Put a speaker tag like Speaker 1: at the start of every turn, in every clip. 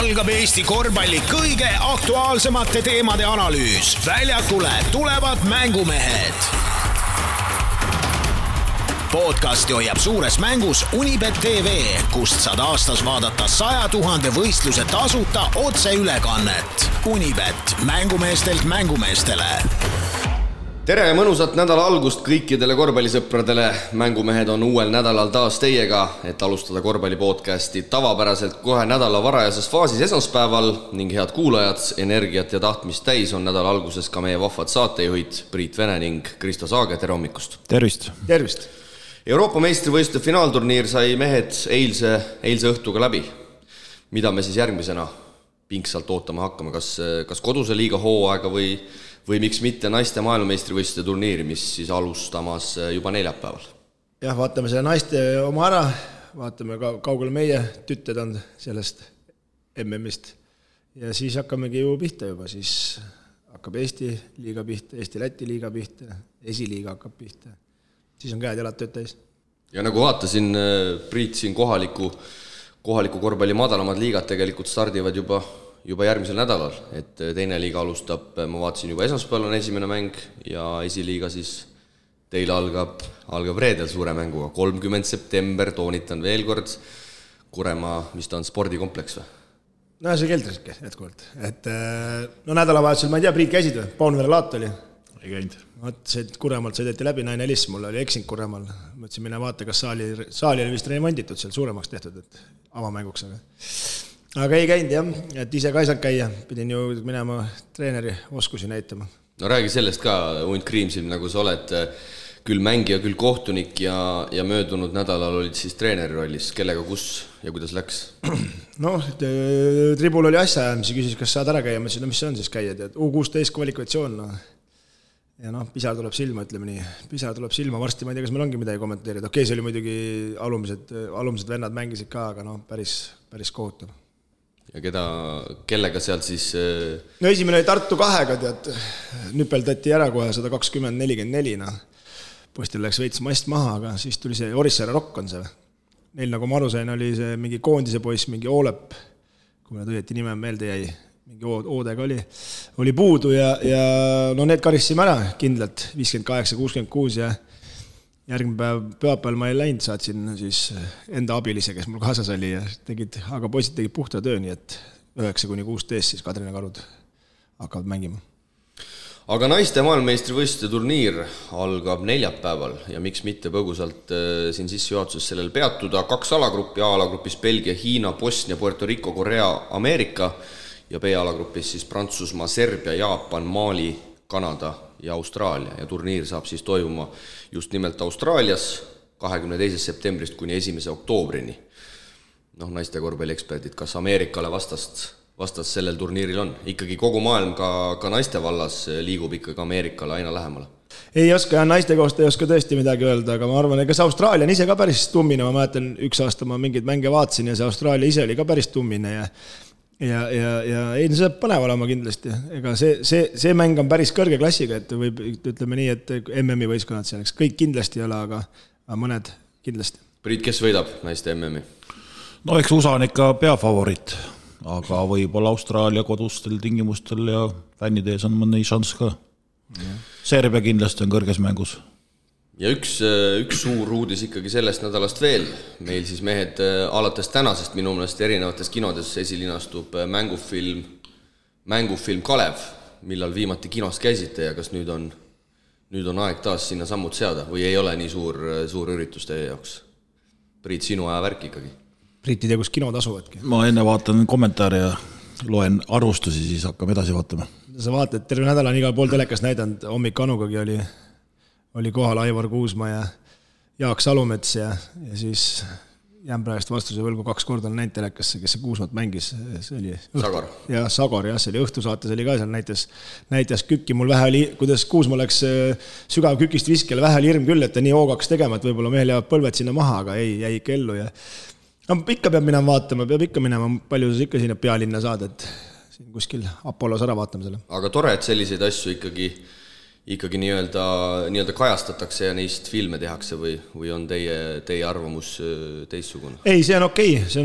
Speaker 1: algab Eesti korvpalli kõige aktuaalsemate teemade analüüs. Väljakule tulevad mängumehed. Podcasti hoiab suures mängus Unibet TV, kust saad aastas vaadata 100 000 võistluse tasuta otseülekannet. Unibet, mängumeestelt mängumeestele.
Speaker 2: Tere ja mõnusat nädala algust kõikidele korvpallisõpradele. Mängumehed on uuel nädalal taas teiega, et alustada korvpallipodcasti tavapäraselt kohe nädala varajases faasis esmaspäeval ning head kuulajad, energiat ja tahtmist täis on nädala alguses ka meie vahvad saatejuhid Priit Vene ning Kristo Saage. Tere hommikust!
Speaker 3: Tervist!
Speaker 4: Tervist!
Speaker 2: Euroopa meistrivõistluste finaalturniir sai mehed eilse õhtuga läbi. Mida me siis järgmisena pingsalt ootama hakkame? Kas koduse liiga hooaega või miks mitte naiste maailmameistrivõistluste turniiri, mis siis alustamas juba neljapäeval?
Speaker 4: Jah, vaatame selle naiste oma ära, vaatame kaugele meie tütted on sellest MM-ist ja siis hakkamegi ju pihta juba, siis hakkab Eesti liiga pihta, Eesti-Läti liiga pihta, esiliiga hakkab pihta, siis on käed jalad tööd täis. Ja
Speaker 2: nagu vaatasin, Priit, siin kohaliku korvpalli madalamad liigad tegelikult stardivad juba järgmisel nädalal, et teine liiga alustab, ma vaatasin juba esmaspäeval on esimene mäng ja esiliiga siis teil algab reedel suure mänguga, 30. september, toonitan veel kord, Kuremaa, mis ta on, spordikompleks või?
Speaker 4: No see keldriske jätkuvalt, et nädalavahetusel, ma ei tea, Priit käisid või? Paunvere laat oli?
Speaker 3: Ei käinud.
Speaker 4: See Kuremaalt sõideti läbi, naine helis, mul oli eksinud Kuremaal, mõtlesin mine vaata, kas saali oli vist remonditud, seal suuremaks tehtud, et avamänguks, aga ei käinud jah, et ise ka ei saanud käia, pidin ju minema treeneri oskusi näitama.
Speaker 2: No räägi sellest ka, Unt Kriimsilm, nagu sa oled küll mängija, küll kohtunik ja möödunud nädalal olid siis treeneri rollis, kellega, kus ja kuidas läks?
Speaker 4: Tribul oli asja ajamisi, küsis, kas saad ära käia, ma ütlesin, mis see on siis käia, et U16 kvalifikatsioon, ja pisar tuleb silma, ütleme nii, pisar tuleb silma, varsti ma ei tea, kas meil ongi midagi kommenteerida, okei, see oli muidugi alumised vennad mängisid ka, aga päris kohutav.
Speaker 2: Ja kellega sealt siis...
Speaker 4: No esimene oli Tartu 2-ga, tead, nüpeldati ära kohe 120-44, postil läks veits mast maha, aga siis tuli see Orissaare Rock on see. Neil, nagu ma aru sain, oli see mingi koondise poiss, mingi Oolep, kui me õieti nime meelde jäi, mingi Oodega oli puudu ja need karissime ära kindlalt, 58-66 ja järgmine päev pühapäeval ma ei läinud, saatsin siis enda abilise, kes mul kaasas oli ja aga poisid tegid puhta töö, nii et 9-16 siis Kadrina Karud hakkavad mängima.
Speaker 2: Aga naiste maailmameistrivõistluste turniir algab neljapäeval ja miks mitte põgusalt siin sissejuhatuses sellel peatuda. 2 alagruppi, A-alagrupis Belgia, Hiina, Bosnia, Puerto Rico, Korea, Ameerika ja B-alagrupis siis Prantsusmaa, Serbia, Jaapan, Mali, Kanada ja Austraalia ja turniir saab siis toimuma just nimelt Austraalias 22. septembrist kuni 1. oktoobrini. Naiste korvpallieksperdid, kas Ameerikale vastast sellel turniiril on? Ikkagi kogu maailm ka naiste vallas liigub ikkagi Ameerikale aina lähemale.
Speaker 4: Ei oska ja naiste kohta ei oska tõesti midagi öelda, aga ma arvan, et kas Austraalia on ise ka päris tummine, ma mäletan, üks aasta ma mingeid mänge vaatasin ja see Austraalia ise oli ka päris tummine ja ei, see põnev olema kindlasti. Ega see mäng on päris kõrge klassiga, et võib, ütleme nii, et MM-i võistkonnad selleks kõik kindlasti ei ole, aga mõned kindlasti.
Speaker 2: Priit, kes võidab naiste MM-i?
Speaker 3: No eks USA on ikka peafavorit, aga võib-olla Austraalia kodustel tingimustel ja fännide ees on mõni šanss ka. Serbia kindlasti on kõrges mängus.
Speaker 2: Ja üks suur uudis ikkagi sellest nädalast veel. Meil siis mehed alates tänasest minu meelest erinevates kinodes esilinastub mängufilm Kalev, millal viimati kinos käisite ja kas nüüd on aeg taas sinna sammud seada või ei ole nii suur üritus teie jaoks? Priit, sinu aja värk ikkagi.
Speaker 4: Priit ei tea, kus kinod asuvadki.
Speaker 3: Ma enne vaatan kommentaare ja loen arvustusi, siis hakkame edasi vaatama.
Speaker 4: Sa vaatad, terve nädal on igal pool telekas näidanud, hommik Anugagi oli kohal Aivar Kuusma ja Jaak Salumets ja siis jään praegust vastuse võlgu 2 korda on näinud telekasse, kes see Kuusmat mängis. See oli
Speaker 2: Sagar.
Speaker 4: Ja Sagar, jah, see oli õhtusaates oli ka seal, näitas kükki, mul vähe oli, kuidas Kuusma läks sügav kükist viskele, vähe oli hirm küll, et ta nii hoogaks tegema, et võib-olla mehel jäävad põlved sinna maha, aga ei, jäi ikka ellu ja ikka peab minema vaatama, palju sa ikka sinna pealinna saad, et siin kuskil Apollos ära vaatame selle.
Speaker 2: Aga tore, et selliseid asju ikkagi nii-öelda kajastatakse ja neist filme tehakse või on teie arvamus teistsugune?
Speaker 4: Ei, see on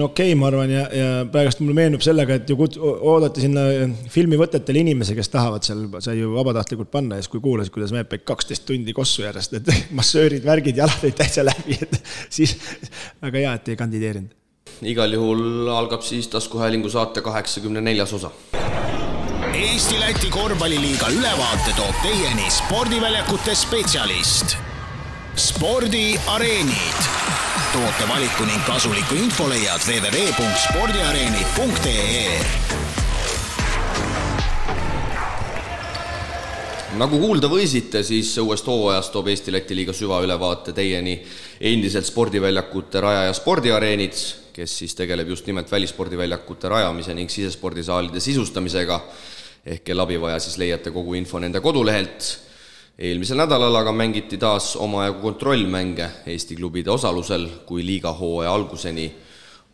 Speaker 4: okei, ma arvan, ja praegust mulle meenub sellega, et ju oodati sinna filmivõtetele inimese, kes tahavad seal, sai ju vabatahtlikult panna, ja siis kui kuulasid, kuidas mehed peid 12 tundi kossu järjest, et massöörid, värgid, jalad olid täitsa läbi, et siis väga hea, et ei kandideerinud.
Speaker 2: Igal juhul algab siis taskuhäälingu saate 84. osa.
Speaker 1: Eesti-Läti korvpalliliiga ülevaate toob teieni spordiväljakute spetsialist. Spordiareenid. Toote valiku ning kasuliku info leiad www.spordiareenid.ee.
Speaker 2: Nagu kuulda võisite, siis uuest hooajast toob Eesti-Läti liiga süvaülevaate teieni endiselt spordiväljakute raja ja spordiareenid, kes siis tegeleb just nimelt välispordiväljakute rajamise ning sisespordisaalide sisustamisega, ehk kelle abivaja siis leiate kogu info nende kodulehelt. Eelmisel nädalal aga mängiti taas omajagu kontrollmänge Eesti klubide osalusel, kui liiga hooaja alguseni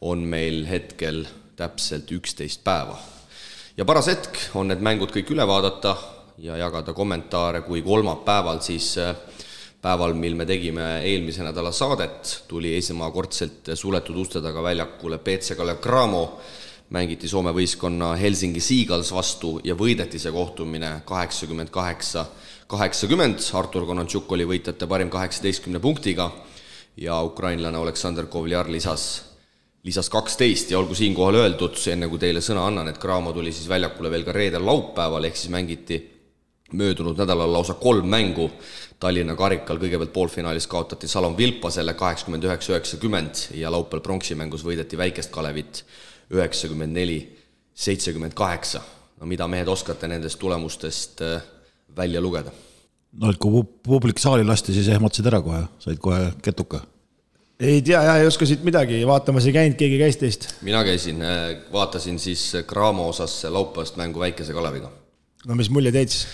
Speaker 2: on meil hetkel täpselt 11 päeva. Ja paras hetk on need mängud kõik üle vaadata ja jagada kommentaare, kui kolmapäeval siis päeval, mil me tegime eelmise nädala saadet, tuli esimekordselt suletud uste taga väljakule PC Kalev Cramo, mängiti Soome võistkonna Helsingi Seagulls vastu ja võideti see kohtumine 88-80. Artur Konantšuk oli võitjate parim 18 punktiga ja ukrainlane Aleksandr Kovliar lisas 12 ja olgu siinkohal öeldud, enne kui teile sõna annan, et Cramo tuli siis väljakule veel ka reedel laupäeval, ehk siis mängiti möödunud nädalal lausa 3 mängu. Tallinna karikal kõigepealt poolfinaalis kaotati Salom Vilpasele 89-90 ja laupäeval pronksi-mängus võideti väikest Kalevit 94-78. No mida mehed oskate nendest tulemustest välja lugeda?
Speaker 3: No, et kui publik saali lasti, siis ehmatasid ära kohe, said kohe ketuka.
Speaker 4: Ei tea, ei oska siit midagi, vaatamas ei käinud, keegi käis teist.
Speaker 2: Mina käisin, vaatasin siis Cramo osas laupäevast mängu väikese Kaleviga.
Speaker 4: No mis mulje teid siis?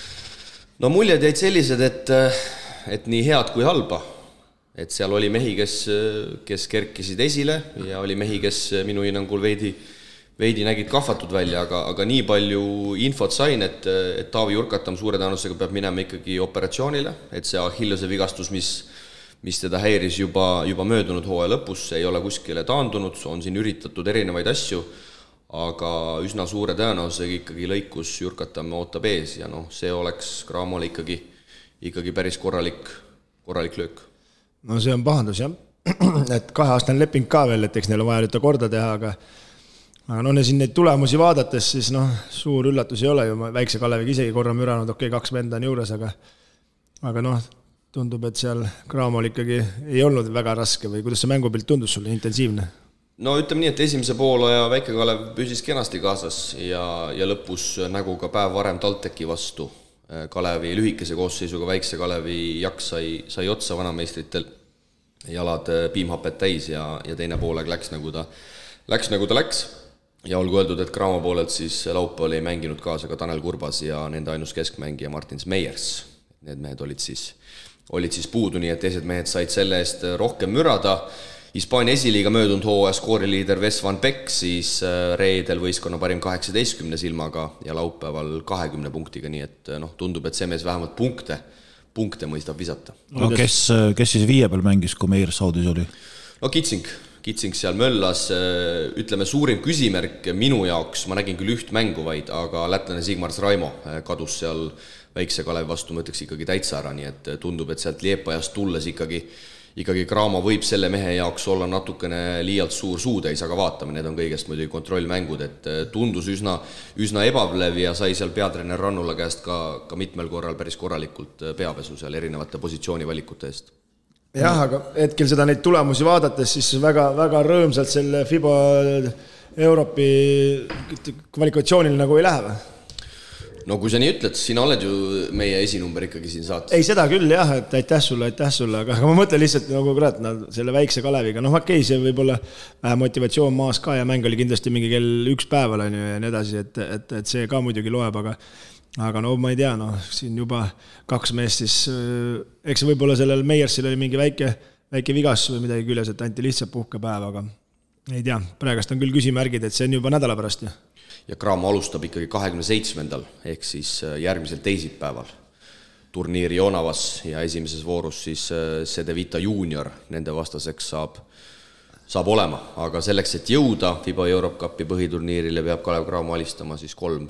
Speaker 2: No muljed jäid sellised, et nii head kui halba. Et seal oli mehi, kes kerkisid esile ja oli mehi, kes minu hinnangul veidi nägid kahvatud välja, aga nii palju infot sain, et Taavi Jurkatam suure tõenäosusega peab minema ikkagi operatsioonile, et see Achillese vigastus, mis teda häiris juba möödunud hooaja lõpus, ei ole kuskile taandunud, on siin üritatud erinevaid asju, aga üsna suure tõenäosusega ikkagi lõikus Jurkatam ootab ees ja see oleks Cramole ikkagi päris korralik löök.
Speaker 4: No see on pahandus, jah. Et 2-aastane leping ka veel, et eks neil on vaja nüüd korda teha, aga siin neid tulemusi vaadates, siis suur üllatus ei ole ju, väikse Kaleviga isegi korra müranud, 2 venda on juures, aga tundub, et seal Cramol ikkagi ei olnud väga raske või kuidas see mängupilt tundus sulle, intensiivne?
Speaker 2: No ütleme nii, et esimese poolaja väike Kalev püsis kenasti kaasas ja lõpus nägu ka päev varem TalTechi vastu. Kalevi lühikese koosseisuga väikse Kalevi jaks sai otsa vanameistritel, jalad piimhapet täis ja teine poolaeg läks nagu ta läks. Ja olgu öeldud, et Cramo poolelt siis laupäeval oli mänginud kaasa ka Tanel Kurbas ja nende ainus keskmängija Martins Meiers. Need mehed olid siis puudu, nii et teised mehed said selle eest rohkem mürada. Hispaania esiliiga möödunud hooaja skooriliider Wes Van Beek siis reedel võistkonna parim 18 silmaga ja laupäeval 20 punktiga, nii et tundub, et see mees vähemalt punkte mõistab visata.
Speaker 3: No, kes siis 5 peal mängis, kui Meier Saudis oli?
Speaker 2: No Kitsing seal möllas, ütleme suurim küsimärk minu jaoks, ma nägin küll üht mängu vaid, aga lätlane Sigmars Raimo kadus seal väikse Kalevi vastu, ma ütleks ikkagi täitsa ära, nii et tundub, et sealt Liepajast tulles ikkagi Cramo võib selle mehe jaoks olla natukene liialt suur suutäis, aga vaatame, need on kõigest muidugi kontrollmängud, et tundus üsna ebavlev ja sai seal peatreener Rannula käest ka mitmel korral päris korralikult peapesu seal erinevate positsioonivalikute eest.
Speaker 4: Jah, aga hetkel seda neid tulemusi vaadates, siis väga, väga rõõmsalt selle FIBA Euroopi kvalifikatsioonil nagu ei lähe või?
Speaker 2: No kui sa nii ütled, sina oled ju meie esinumber ikkagi siin saates.
Speaker 4: Ei, seda küll jah, et aitäh sulle, aga ma mõtlen lihtsalt nagu selle väikse Kaleviga, okei, see võib olla motivatsioon maas ka ja mäng oli kindlasti mingi kell 1 päeval ja nii edasi, et see ka muidugi loeb, aga ma ei tea, siin juba 2 meest siis, eks võib-olla sellel Meiersil oli mingi väike vigas või midagi küljes, et anti lihtsalt puhkepäev, aga ei tea, praegast on küll küsimärgid, et see on juba nädala pärast.
Speaker 2: Ja Cramo alustab ikkagi 27. ehk siis järgmisel teisipäeval. turniiri Jonavas ja esimeses voorus siis Cedevita Junior nende vastaseks saab olema, aga selleks, et jõuda FIBA Europe Cupi põhiturniirile, peab Kalev Cramo alistama siis kolm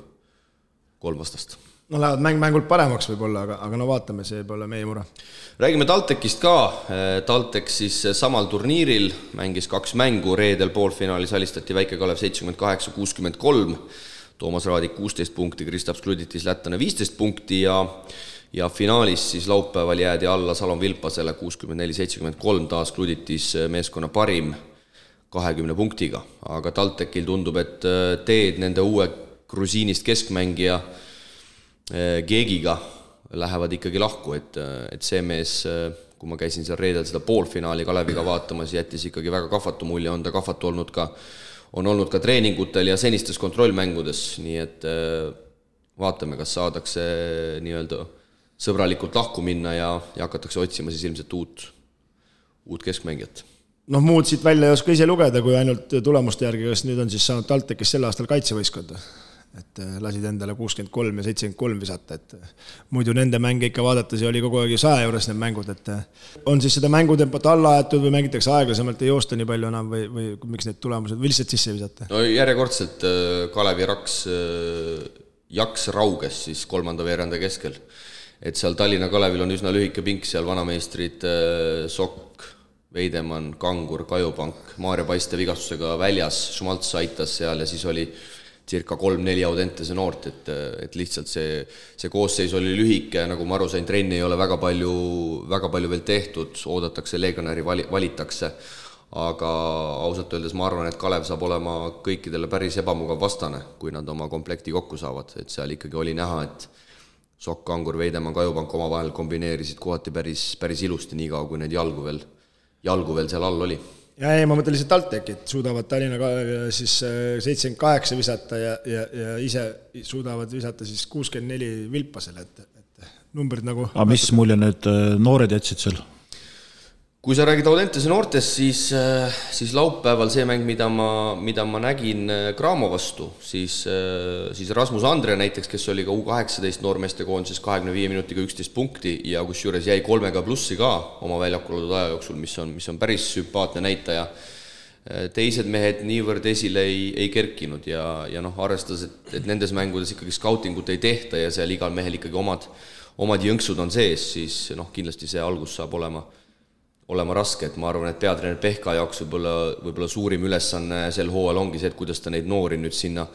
Speaker 2: vastast.
Speaker 4: No lähevad mängult paremaks võib-olla, aga no vaatame, see pole meie mure.
Speaker 2: Räägime TalTechist ka. TalTech siis samal turniiril mängis 2 mängu, reedel poolfinaalis alistati Väike-Kalev 78-63, Toomas Raadik 16 punkti, Kristaps Kluditis lätlane 15 punkti ja finaalis siis laupäeval jäädi alla Salon Vilpasele 64-73, taas Kluditis meeskonna parim 20 punktiga, aga TalTechil tundub, et teed nende uue grusiinist keskmängija Geegiga lähevad ikkagi lahku, et see mees, kui ma käisin seal reedel seda poolfinaali Kaleviga vaatamas, jättis ikkagi väga kahvatu mulje, on ta kahvatu on olnud ka treeningutel ja senistes kontrollmängudes, nii et vaatame, kas saadakse nii-öelda sõbralikult lahku minna ja hakatakse otsima siis ilmselt uut keskmängijat.
Speaker 4: Noh, muud siit välja ei oska ise lugeda, kui ainult tulemuste järgi, kas nüüd on siis saanud TalTechis sel aastal kaitsevõiskonda. Et lasid endale 63 ja 73 visata, et muidu nende mänge ikka vaadates oli kogu aeg 100 juures need mängud, et on siis seda mängutempot alla aetud või mängitakse aeglasemalt, ei joosta nii palju enam või miks need tulemused või lihtsalt sisse visata?
Speaker 2: No järjekordselt Kalevi jaks rauges siis kolmanda veeranda keskel, et seal Tallinna Kalevil on üsna lühike pink, seal vanameistrid Sokk, Veidemann, Kangur, Kajupank, Maarja Paiste vigastusega väljas, Šumalts aitas seal ja siis oli circa 3-4 Audentese noort, et lihtsalt see koosseis oli lühike, nagu ma aru sain, trenni ei ole väga palju veel tehtud, oodatakse, legionäri valitakse, aga ausalt öeldes ma arvan, et Kalev saab olema kõikidele päris ebamugav vastane, kui nad oma komplekti kokku saavad, et seal ikkagi oli näha, et Sokk, Kangur, Veidemann, Kajupank omavahel kombineerisid kohati päris ilusti, nii kaua, kui need jalgu veel seal all oli.
Speaker 4: Ja ei, ma mõtlen lihtsalt TalTechit, suudavad Tallinna siis 78 visata ja ise suudavad visata siis 64 Vilpasele, et numbrid nagu...
Speaker 3: Aga mis mulje need noored jätsid seal?
Speaker 2: Kui sa räägid Audentese noortest, siis laupäeval see mäng, mida ma nägin Cramo vastu, siis Rasmus Andre näiteks, kes oli ka U18 noormeeste koondises 25 minutiga 11 punkti ja kus juures jäi 3 plussi ka oma väljakul oldud aja jooksul, mis on päris sümpaatne näitaja. Teised mehed niivõrd esile ei kerkinud ja arvestades, et nendes mängudes ikkagi skautingut ei tehta ja seal igal mehel ikkagi omad jõnksud on sees, siis kindlasti see algus saab olema raske, et ma arvan, et peatreener Pehka jaoks võib-olla suurim ülesanne sel hooajal ongi see, et kuidas ta neid noori nüüd sinna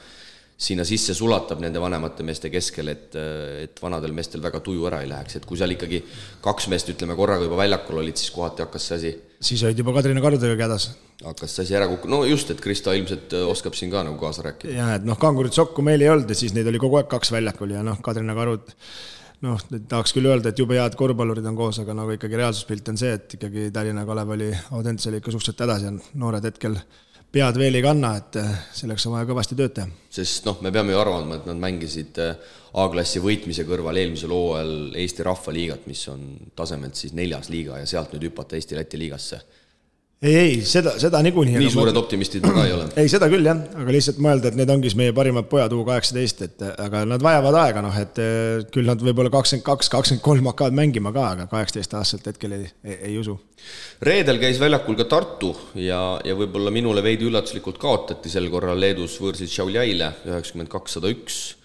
Speaker 2: sisse sulatab nende vanemate meeste keskel, et vanadel meestel väga tuju ära ei läheks, et kui seal ikkagi 2 meest, ütleme, korraga juba väljakul olid, siis kohati hakkas see asi... Siis
Speaker 4: olid juba Kadrina Karudega kädas.
Speaker 2: Hakkas see asi ära kukku, no just, et Krista ilmselt oskab siin ka nagu kaasa rääkida.
Speaker 4: Ja, et Kangurit Sokku meil ei olnud ja siis neid oli kogu aeg 2 väljakul ja Kadrina Karud... tahaks küll öelda, et jube head korvpallurid on koos, aga nagu ikkagi reaalsuspilt on see, et ikkagi Tallinna Kalev oli Audentse ikka suhteliselt hädas ja noored hetkel pead veel ei kanna, et selleks on vaja kõvasti tööd teha. Sest
Speaker 2: me peame ju arvama, et nad mängisid A-klassi võitmise kõrval eelmisel hooajal Eesti Rahvaliigat, mis on tasemelt siis 4. liiga ja sealt nüüd hüpata Eesti-Läti liigasse.
Speaker 4: Ei, seda niikuinii.
Speaker 2: Nii suured optimistid ma ka ei ole.
Speaker 4: Ei, seda küll jah, aga lihtsalt mõelda, et need ongi meie parimad pojad U18, aga nad vajavad aega, et küll nad võib-olla 22-23 hakkavad mängima ka, aga 18 aastaselt hetkel ei usu.
Speaker 2: Reedel käis väljakul ka Tartu ja võib-olla minule veidi üllatuslikult kaotati sel korral Leedus võõrsid Šiauliaile 92-101.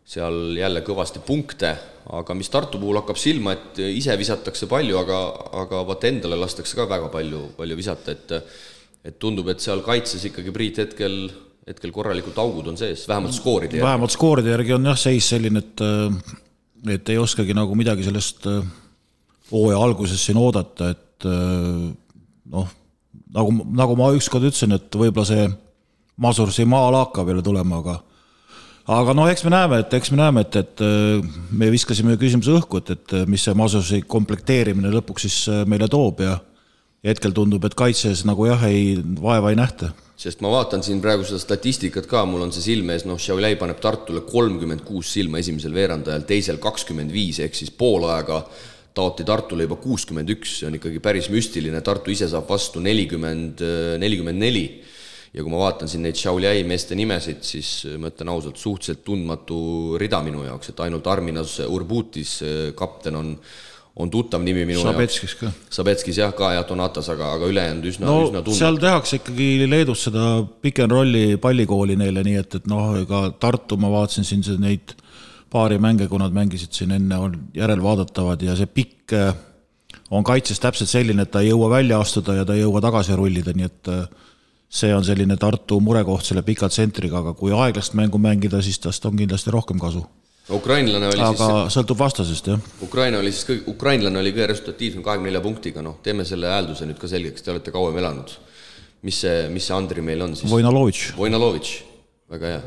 Speaker 2: Seal jälle kõvasti punkte, aga mis Tartu puhul hakkab silma, et ise visatakse palju, aga vaata endale lastakse ka väga palju visata, et tundub, et seal kaitses ikkagi Priit hetkel korralikult augud on sees, vähemalt skooride järgi.
Speaker 3: Vähemalt skooride järgi on jah seis selline, et ei oskagi nagu midagi sellest hooaja alguses siin oodata, et nagu ma ükskord ütlesin, et võib-olla see Masursi maala hakkab jälle tulema, aga eks me näeme, et me viskasime küsimuse õhku, et mis see Masursi komplekteerimine lõpuks siis meile toob ja hetkel tundub, et kaitses nagu vaeva ei nähta.
Speaker 2: Sest ma vaatan siin praegu seda statistikat ka, mul on see silmees, Šiauliai paneb Tartule 36 silma esimesel veerandajal, teisel 25, ehk siis pool aega taoti Tartule juba 61, see on ikkagi päris müstiline, Tartu ise saab vastu 44. ja kui ma vaatan siin neid Šiauliai meeste nimesid, siis ma ütlen ausalt, suhteliselt tundmatu rida minu jaoks, et ainult Arminas Urbutis kapten on tuttav nimi minu
Speaker 3: Sabetskis ka.
Speaker 2: Sabetskis jah ka ja Donatas, aga ülejäänud üsna tundmatu.
Speaker 3: Seal tehakse ikkagi Leedus seda pick and rolli pallikooli neile, nii et ega Tartu ma vaatasin siin neid paari mänge, kui nad mängisid siin enne, on järelvaadatavad ja see pikk on kaitses täpselt selline, et ta ei jõua välja astuda ja ta ei jõua tagasi rullida, nii et see on selline Tartu murekoht selle pika tsentriga, aga kui aeglast mängu mängida, siis tast on kindlasti rohkem kasu.
Speaker 2: Ukrainlane oli
Speaker 3: aga sõltub vastasest, jah.
Speaker 2: Ukrainlane oli kõige resultatiivsem 24 punktiga, teeme selle häälduse nüüd ka selgeks, te olete kauem elanud. Mis see Andri meil on siis? Vojnalovitš, väga hea.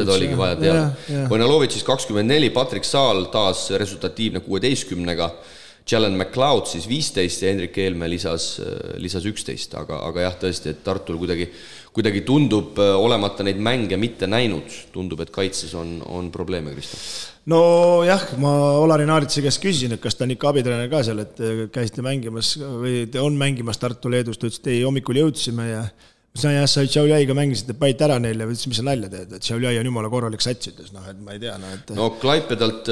Speaker 2: Seda oligi vaja teada. Vojnalovitšis 24, Patrick Saal taas resultatiivne 16-ga, Jalen McLeod siis 15 ja Hendrik Eelme lisas 11, aga jah, tõesti, et Tartul kuidagi tundub olemata neid mänge mitte näinud, tundub, et kaitses on probleeme, Kristo.
Speaker 4: No jah, ma Olari Naaritsi käest küsisin, et kas ta on ikka abitreener ka seal, et käisite mängimas või te on mängimas Tartu Leedus, ta ütles, et ei, hommikul jõudsime ja sa Šiauliaiga mängisite päit ära neile, või ütles, mis sa nalja teed, et Šiauliai on jumala korralik sats, ütles, et ma ei tea.
Speaker 2: No Klaipedalt,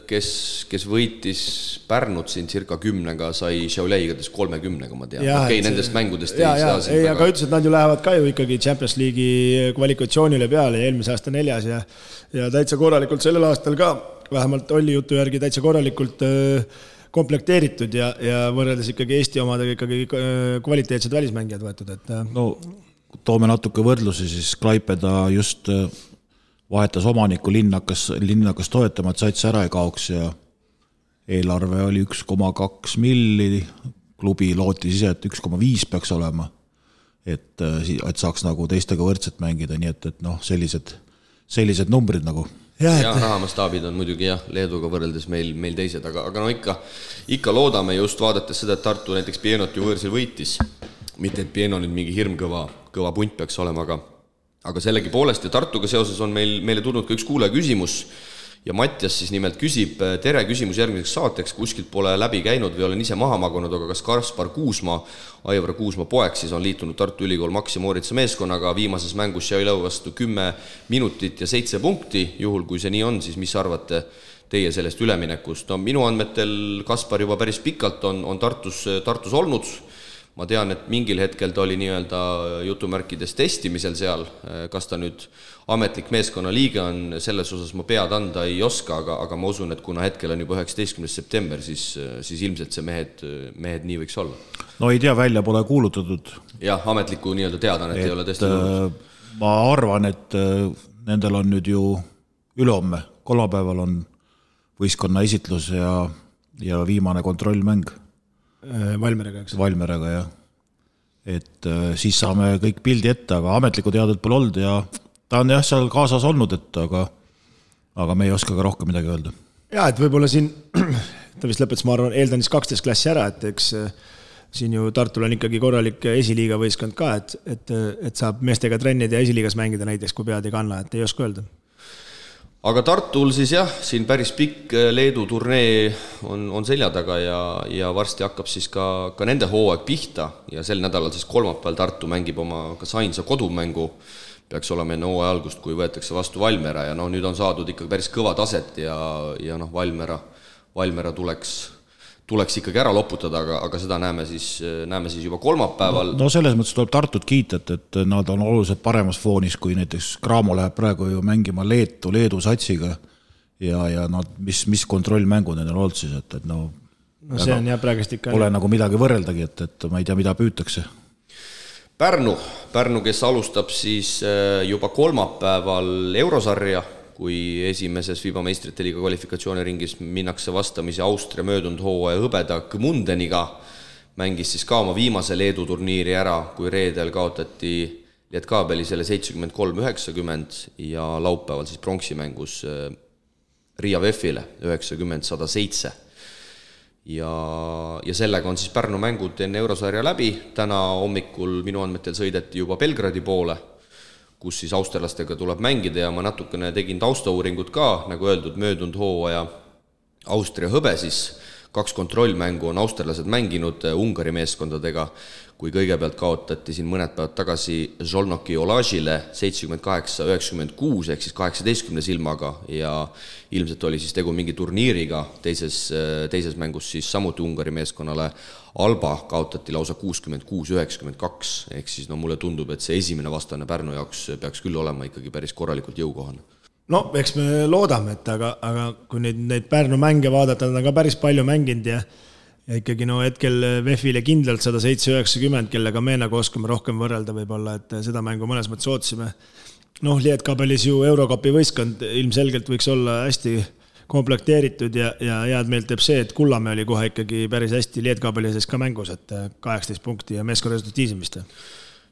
Speaker 2: kes võitis Pärnut siin circa 10-ga, sai Šiauliaigadest 30-ga, ma tean. Okei, nendest mängudest ei saa siin.
Speaker 4: Aga ütles, et nad ju lähevad ka ju ikkagi Champions League'i kvalifikatsioonile peale ja eelmise aasta 4. ja täitsa korralikult sellel aastal ka, vähemalt oli jutu järgi täitsa korralikult komplekteeritud ja võrreldes ikkagi Eesti omadega ikkagi kvaliteetsed välismängijad võetud.
Speaker 3: No toome natuke võrdlusi, siis Klaipeda just vahetas omaniku, linn hakkas toetama, et sats ära ei kaoks ja eelarve oli 1,2 milli, klubi lootis ise, et 1,5 peaks olema, et saaks nagu teistega võrdselt mängida, nii et sellised numbrid nagu.
Speaker 2: Ja rahamastaabid on muidugi jah, Leeduga võrreldes meil teised, aga no ikka loodame just vaadates seda, et Tartu näiteks Pienot ju võõrsil võitis. Mitte, et Pieno nüüd mingi hirmkõva punt peaks olema, aga sellegi poolest ja Tartuga seoses on meile tulnud ka üks kuulaja küsimus ja Mattias siis nimelt küsib, tere, küsimus järgmiseks saateks, kuskilt pole läbi käinud või olen ise maha magunud, aga kas Kaspar Kuusma, Aivar Kuusma poeg siis on liitunud Tartu Ülikool Maxi Mooritsa meeskonnaga viimases mängus Šiauliai vastu 10 minutit ja 7 punkti, juhul kui see nii on, siis mis arvate teie sellest üleminekust? No minu andmetel Kaspar juba päris pikalt on Tartus olnud. Ma tean, et mingil hetkel ta oli nii-öelda jutumärkides testimisel seal, kas ta nüüd ametlik meeskonna liige on, selles osas ma pead anda ei oska, aga ma usun, et kuna hetkel on juba 19. september, siis ilmselt see mehed nii võiks olla.
Speaker 3: No ei tea, välja pole kuulutatud.
Speaker 2: Jah, ametliku nii-öelda teadan, et ei ole tõesti tulnud.
Speaker 3: Ma arvan, et nendel on nüüd ju ülehomme, kolmapäeval on võistkonna esitlus ja viimane kontrollmäng.
Speaker 4: Valmeraga, eks?
Speaker 3: Valmeraga, jah. Et siis saame kõik pildi ette, aga ametlikku teadet pole olnud ja ta on jah seal kaasas olnud, aga me ei oska ka rohkem midagi öelda.
Speaker 4: Ja, et võib-olla siin, ta vist lõpetas, ma arvan, eeldan siis 12 klassi ära, et eks siin ju Tartul on ikkagi korralik esiliiga võistkond ka, et saab meestega trennid ja esiliigas mängida näiteks, kui pead ei kanna, et ei oska öelda.
Speaker 2: Aga Tartul siis jah, siin päris pikk Leedu turnee on selja taga ja varsti hakkab siis ka nende hooaeg pihta ja sel nädalal siis kolmapäeval Tartu mängib oma kas ainsa kodumängu, peaks olema enne hooaja algust, kui võetakse vastu Valmera ja nüüd on saadud ikkagi päris kõva taset ja Valmera tuleks ikkagi ära loputada, aga seda näeme siis juba kolmapäeval.
Speaker 3: No selles mõttes tuleb Tartut kiita, et nad on oluliselt paremas foonis, kui näiteks Cramo läheb praegu ju mängima Leedu satsiga ja mis kontrollmängud need on olnud siis, et
Speaker 4: see on jah praegust ikka.
Speaker 3: Pole nagu midagi võrreldagi, et ma ei tea, mida püütakse.
Speaker 2: Pärnu, kes alustab siis juba kolmapäeval Eurosarja, kui esimeses FIBA meistrite liiga kvalifikatsiooniringis minnakse vastamisi Austria möödunud hooaja hõbeda Gmundeniga, mängis siis ka oma viimase Leedu turniiri ära, kui reedel kaotati Lietkabeli selle 73-90 ja laupäeval siis pronksimängus Riia VEF-ile 90-107. Ja sellega on siis Pärnu mängud enne Eurosarja läbi. Täna hommikul minu andmetel sõideti juba Belgradi poole, kus siis austerlastega tuleb mängida ja ma natukene tegin taustauuringut ka, nagu öeldud, möödunud hooaja Austria hõbe siis 2 kontrollmängu on austerlased mänginud Ungari meeskondadega, kui kõigepealt kaotati siin mõned päevad tagasi Žolnoki Olažile 78-96 ehk siis 18 silmaga ja ilmselt oli siis tegu mingi turniiriga, teises mängus siis samuti Ungari meeskonnale Alba kaotati lausa 66-92 ehk siis mulle tundub, et see esimene vastane Pärnu jaoks peaks küll olema ikkagi päris korralikult jõukohane.
Speaker 4: No, eks me loodame, et aga kui neid Pärnu mänge vaadata, nad on ka päris palju mänginud ja ikkagi hetkel VEF-ile kindlalt 107-90, kellega me nagu oskame rohkem võrrelda võib-olla, et seda mängu mõnes mõttes ootsime. Lietkabelis ju Eurokapi võistkond ilmselgelt võiks olla hästi komplekteeritud ja head meelt teeb see, et Kullamäe oli kohe ikkagi päris hästi Lietkabeli sees ka mängus, et 18 punkti ja meeskonna resultatiivsemist.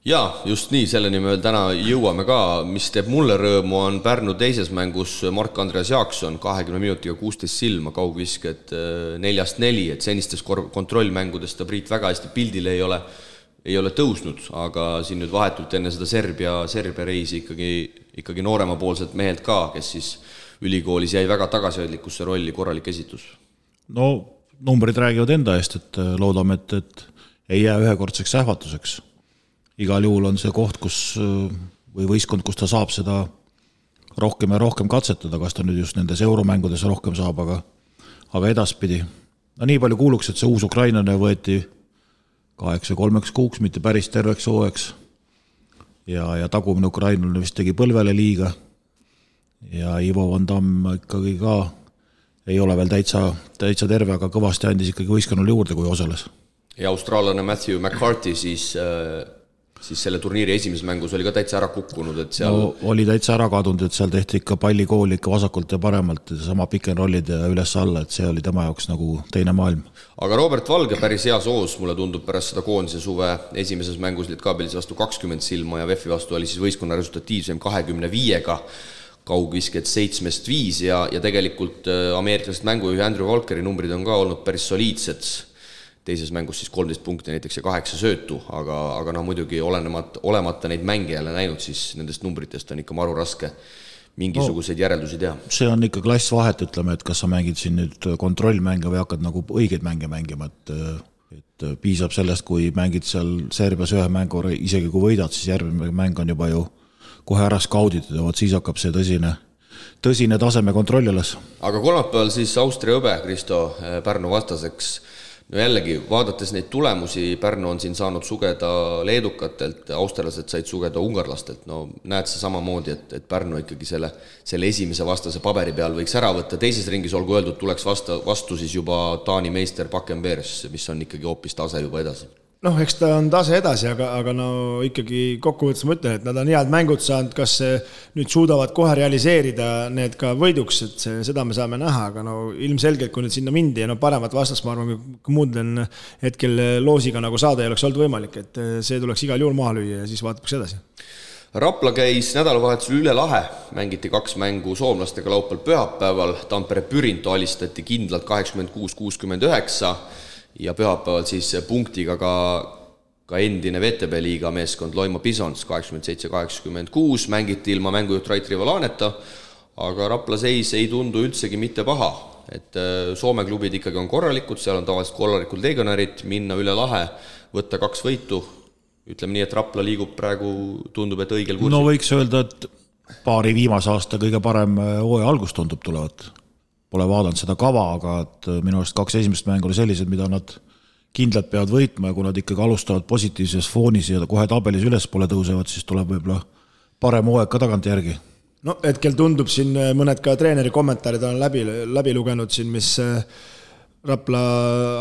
Speaker 2: Jaa, just nii, selleni me veel täna jõuame ka, mis teeb mulle rõõmu on Pärnu teises mängus Mark-Andreas Jaakson 20 minutiga 16 silma, kaugvisked 4-4, et senistes kontrollmängudest ta Priit väga hästi pildile ei ole tõusnud, aga siin nüüd vahetult enne seda Serbia reisi ikkagi nooremapoolselt mehelt ka, kes siis ülikoolis jäi väga tagasihoidlikusse rolli, korralik esitus.
Speaker 3: No, numbrid räägivad enda eest, et loodame, et ei jää ühekordseks ähvatuseks. Igal juhul on see koht, või võistkond, kus ta saab seda rohkem ja rohkem katsetada, kas ta nüüd just nendes euromängudes rohkem saab, aga edaspidi. No nii palju kuuluks, et see uus ukrainlane võeti 8-3 kuuks, mitte päris terveks hooeks. Ja tagumine ukrainlane vist tegi põlvele liiga. Ja Ivo Van Damme ikkagi ka ei ole veel täitsa terve, aga kõvasti andis ikkagi võistkonnale juurde, kui osales.
Speaker 2: Ja austraallane Matthew McCarthy siis selle turniiri esimeses mängus oli ka täitsa ära kukkunud, et seal...
Speaker 3: No, oli täitsa ära kadunud, et seal tehti ikka pallikooli ikka vasakult ja paremalt, sama pick and rollid ja üles alla, et see oli tema jaoks nagu teine maailm.
Speaker 2: Aga Robert Valge päris hea soos, mulle tundub pärast seda koondise suve esimeses mängus Lietkabelis vastu 20 silma ja VEF-i vastu oli siis võistkonna resultatiivsem 25-ga, kaugvisked 7-5 ja tegelikult ameeriklased mängujuhi Andrew Walkeri numbrid on ka olnud päris soliidsed. Teises mängus siis 13 punkti näiteks ja 8 söötu, aga muidugi olemata neid mänge jälle näinud, siis nendest numbritest on ikka maru raske mingisuguseid järeldusi teha.
Speaker 3: See on ikka klass vahet, ütleme, et kas sa mängid siin nüüd kontrollmänge või hakkad nagu õigeid mänge mängima, et piisab sellest, kui mängid seal Serbias ühe mängu, isegi kui võidad, siis järgmine mäng on juba ju kohe ära skauditud ja siis hakkab see tõsine taseme kontrolli üles.
Speaker 2: Aga kolmapäeval siis Austria õbe, Kristo, Pärnu vastaseks. No jällegi, vaadates neid tulemusi, Pärnu on siin saanud sugeda leedukatelt, austerlased said sugeda ungarlastelt. No näed sa samamoodi, et Pärnu ikkagi selle esimese vastase paberi peal võiks ära võtta. Teises ringis olgu öeldud, tuleks vastu siis juba Taani meister Bakken-Beers, mis on ikkagi hoopis tase juba edasi.
Speaker 4: No, eks ta on tase edasi, aga no ikkagi kokkuvõttes ma ütlen, et nad on head mängud saanud, kas nüüd suudavad kohe realiseerida need ka võiduks, et seda me saame näha, aga no ilmselgelt, kui nüüd sinna mindi ja no paremat vastast, ma arvan, kui muudlen hetkel loosiga nagu saada ei oleks olnud võimalik, et see tuleks igal juhul maha lüüa ja siis vaataks edasi.
Speaker 2: Rapla käis nädalavahetusel üle lahe, mängiti 2 mängu soomlastega laupäeval pühapäeval, Tampere Pyrinto alistati kindlalt 86-69 ja pühapäeval siis punktiga ka endine VTB liiga meeskond Loimo Bisons 87-86, mängiti ilma mängujuht Rait Rivalaneta, aga Rapla seis ei tundu üldsegi mitte paha, et Soome klubid ikkagi on korralikud, seal on tavaliselt korralikud legionärid, minna üle lahe, võtta 2 võitu, ütleme nii, et Rapla liigub praegu, tundub, et õigel kursil.
Speaker 3: No võiks öelda, et paari viimase aasta kõige parem hooaja algus tundub tulevat. Pole vaadanud seda kava, aga et minu arust 2 esimest mängu oli sellised, mida nad kindlalt peavad võitma ja kui nad ikkagi alustavad positiivses foonis ja kohe tabelis üles pole tõusevad, siis tuleb võib-olla parem hooaeg ka tagant järgi.
Speaker 4: No hetkel tundub siin mõned ka treeneri kommentaarid on läbi lugenud siin, mis Rapla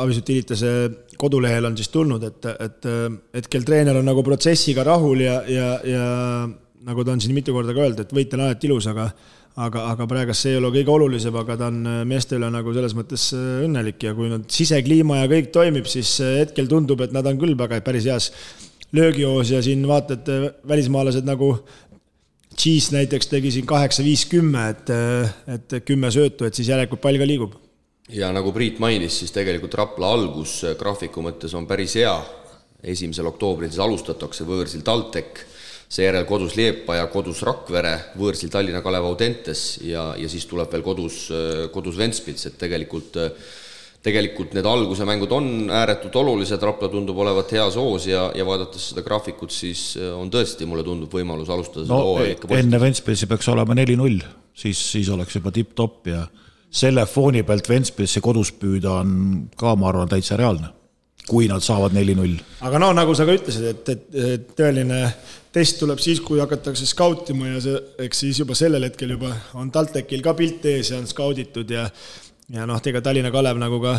Speaker 4: Avisutiilitase kodulehel on siis tulnud, et hetkel treener on nagu protsessiga rahul ja nagu ta on siin mitu korda ka öeldud, et võit on alati ilus, aga praegast see ei ole kõige olulisem, aga ta on meeste üle nagu selles mõttes õnnelik ja kui nad sisekliima ja kõik toimib, siis hetkel tundub, et nad on küll päris heas löögihoos ja siin vaatad välismaalased nagu Cheese näiteks tegi siin 8-5-10, et 10 söötu, et siis järelikult pall ka liigub.
Speaker 2: Ja nagu Priit mainis, siis tegelikult Rapla algus graafiku mõttes on päris hea. 1. oktoobril siis alustatakse võõrsil TalTech, seejärel kodus Liepa ja kodus Rakvere, võõrsil Tallinna Kalev Audentes ja siis tuleb veel kodus Ventspils, et tegelikult tegelikult need alguse mängud on ääretult olulised, Rapla tundub olevat heas hoos ja vaadates seda graafikut, siis on tõesti, mulle tundub võimalus alustada seda hooaja ikka positiivselt.
Speaker 3: Enne Ventspilsi peaks olema 4-0, siis oleks juba tipp-topp ja selle fooni pealt Ventspilsi kodus püüda on ka, ma arvan, täitsa reaalne, kui nad saavad 4-0.
Speaker 4: Aga no nagu sa ka ütlesid, et tõeline test tuleb siis, kui hakatakse skautima ja eks siis juba sellel hetkel juba on TalTechil ka pilt ees ja on skauditud ja tega Tallinna Kalev nagu ka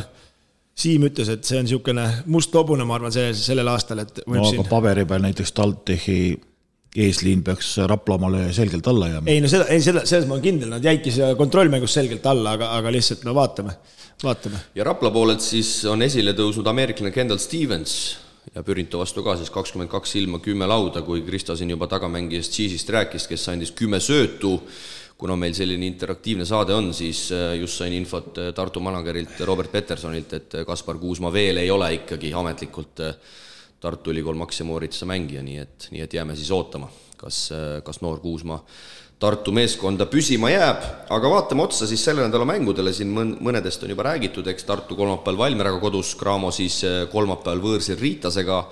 Speaker 4: Siim ütles, et see on niisugune must hobune, ma arvan, sellel aastal, et võib
Speaker 3: aga paberi peal näiteks TalTechi eesliin peaks Raplamale selgelt alla jääma.
Speaker 4: Ei, no selles ma olen kindel, nad jäidki see kontrollmängus selgelt alla, aga lihtsalt no vaatame.
Speaker 2: Ja Rapla poolelt siis on esile tõusnud ameeriklane Kendall Stevens ja Pürinto vastu ka siis 22 ilma 10 lauda, kui Krista siin juba tagamängijast Cheese'ist rääkis, kes andis 10 söötu. Kuna meil selline interaktiivne saade on, siis just sain infot Tartu managerilt Robert Petersonilt, et Kaspar Kuusma veel ei ole ikkagi ametlikult Tartu Ülikool Max ja Mooritsa mängija, nii et jääme siis ootama, kas noor Kuusma Tartu meeskonda püsima jääb, aga vaatame otsa siis selle nädala mängudele, siin mõnedest on juba räägitud, eks Tartu kolmapäeval Valmieraga kodus, Cramo siis kolmapäeval võõrsil Riitasega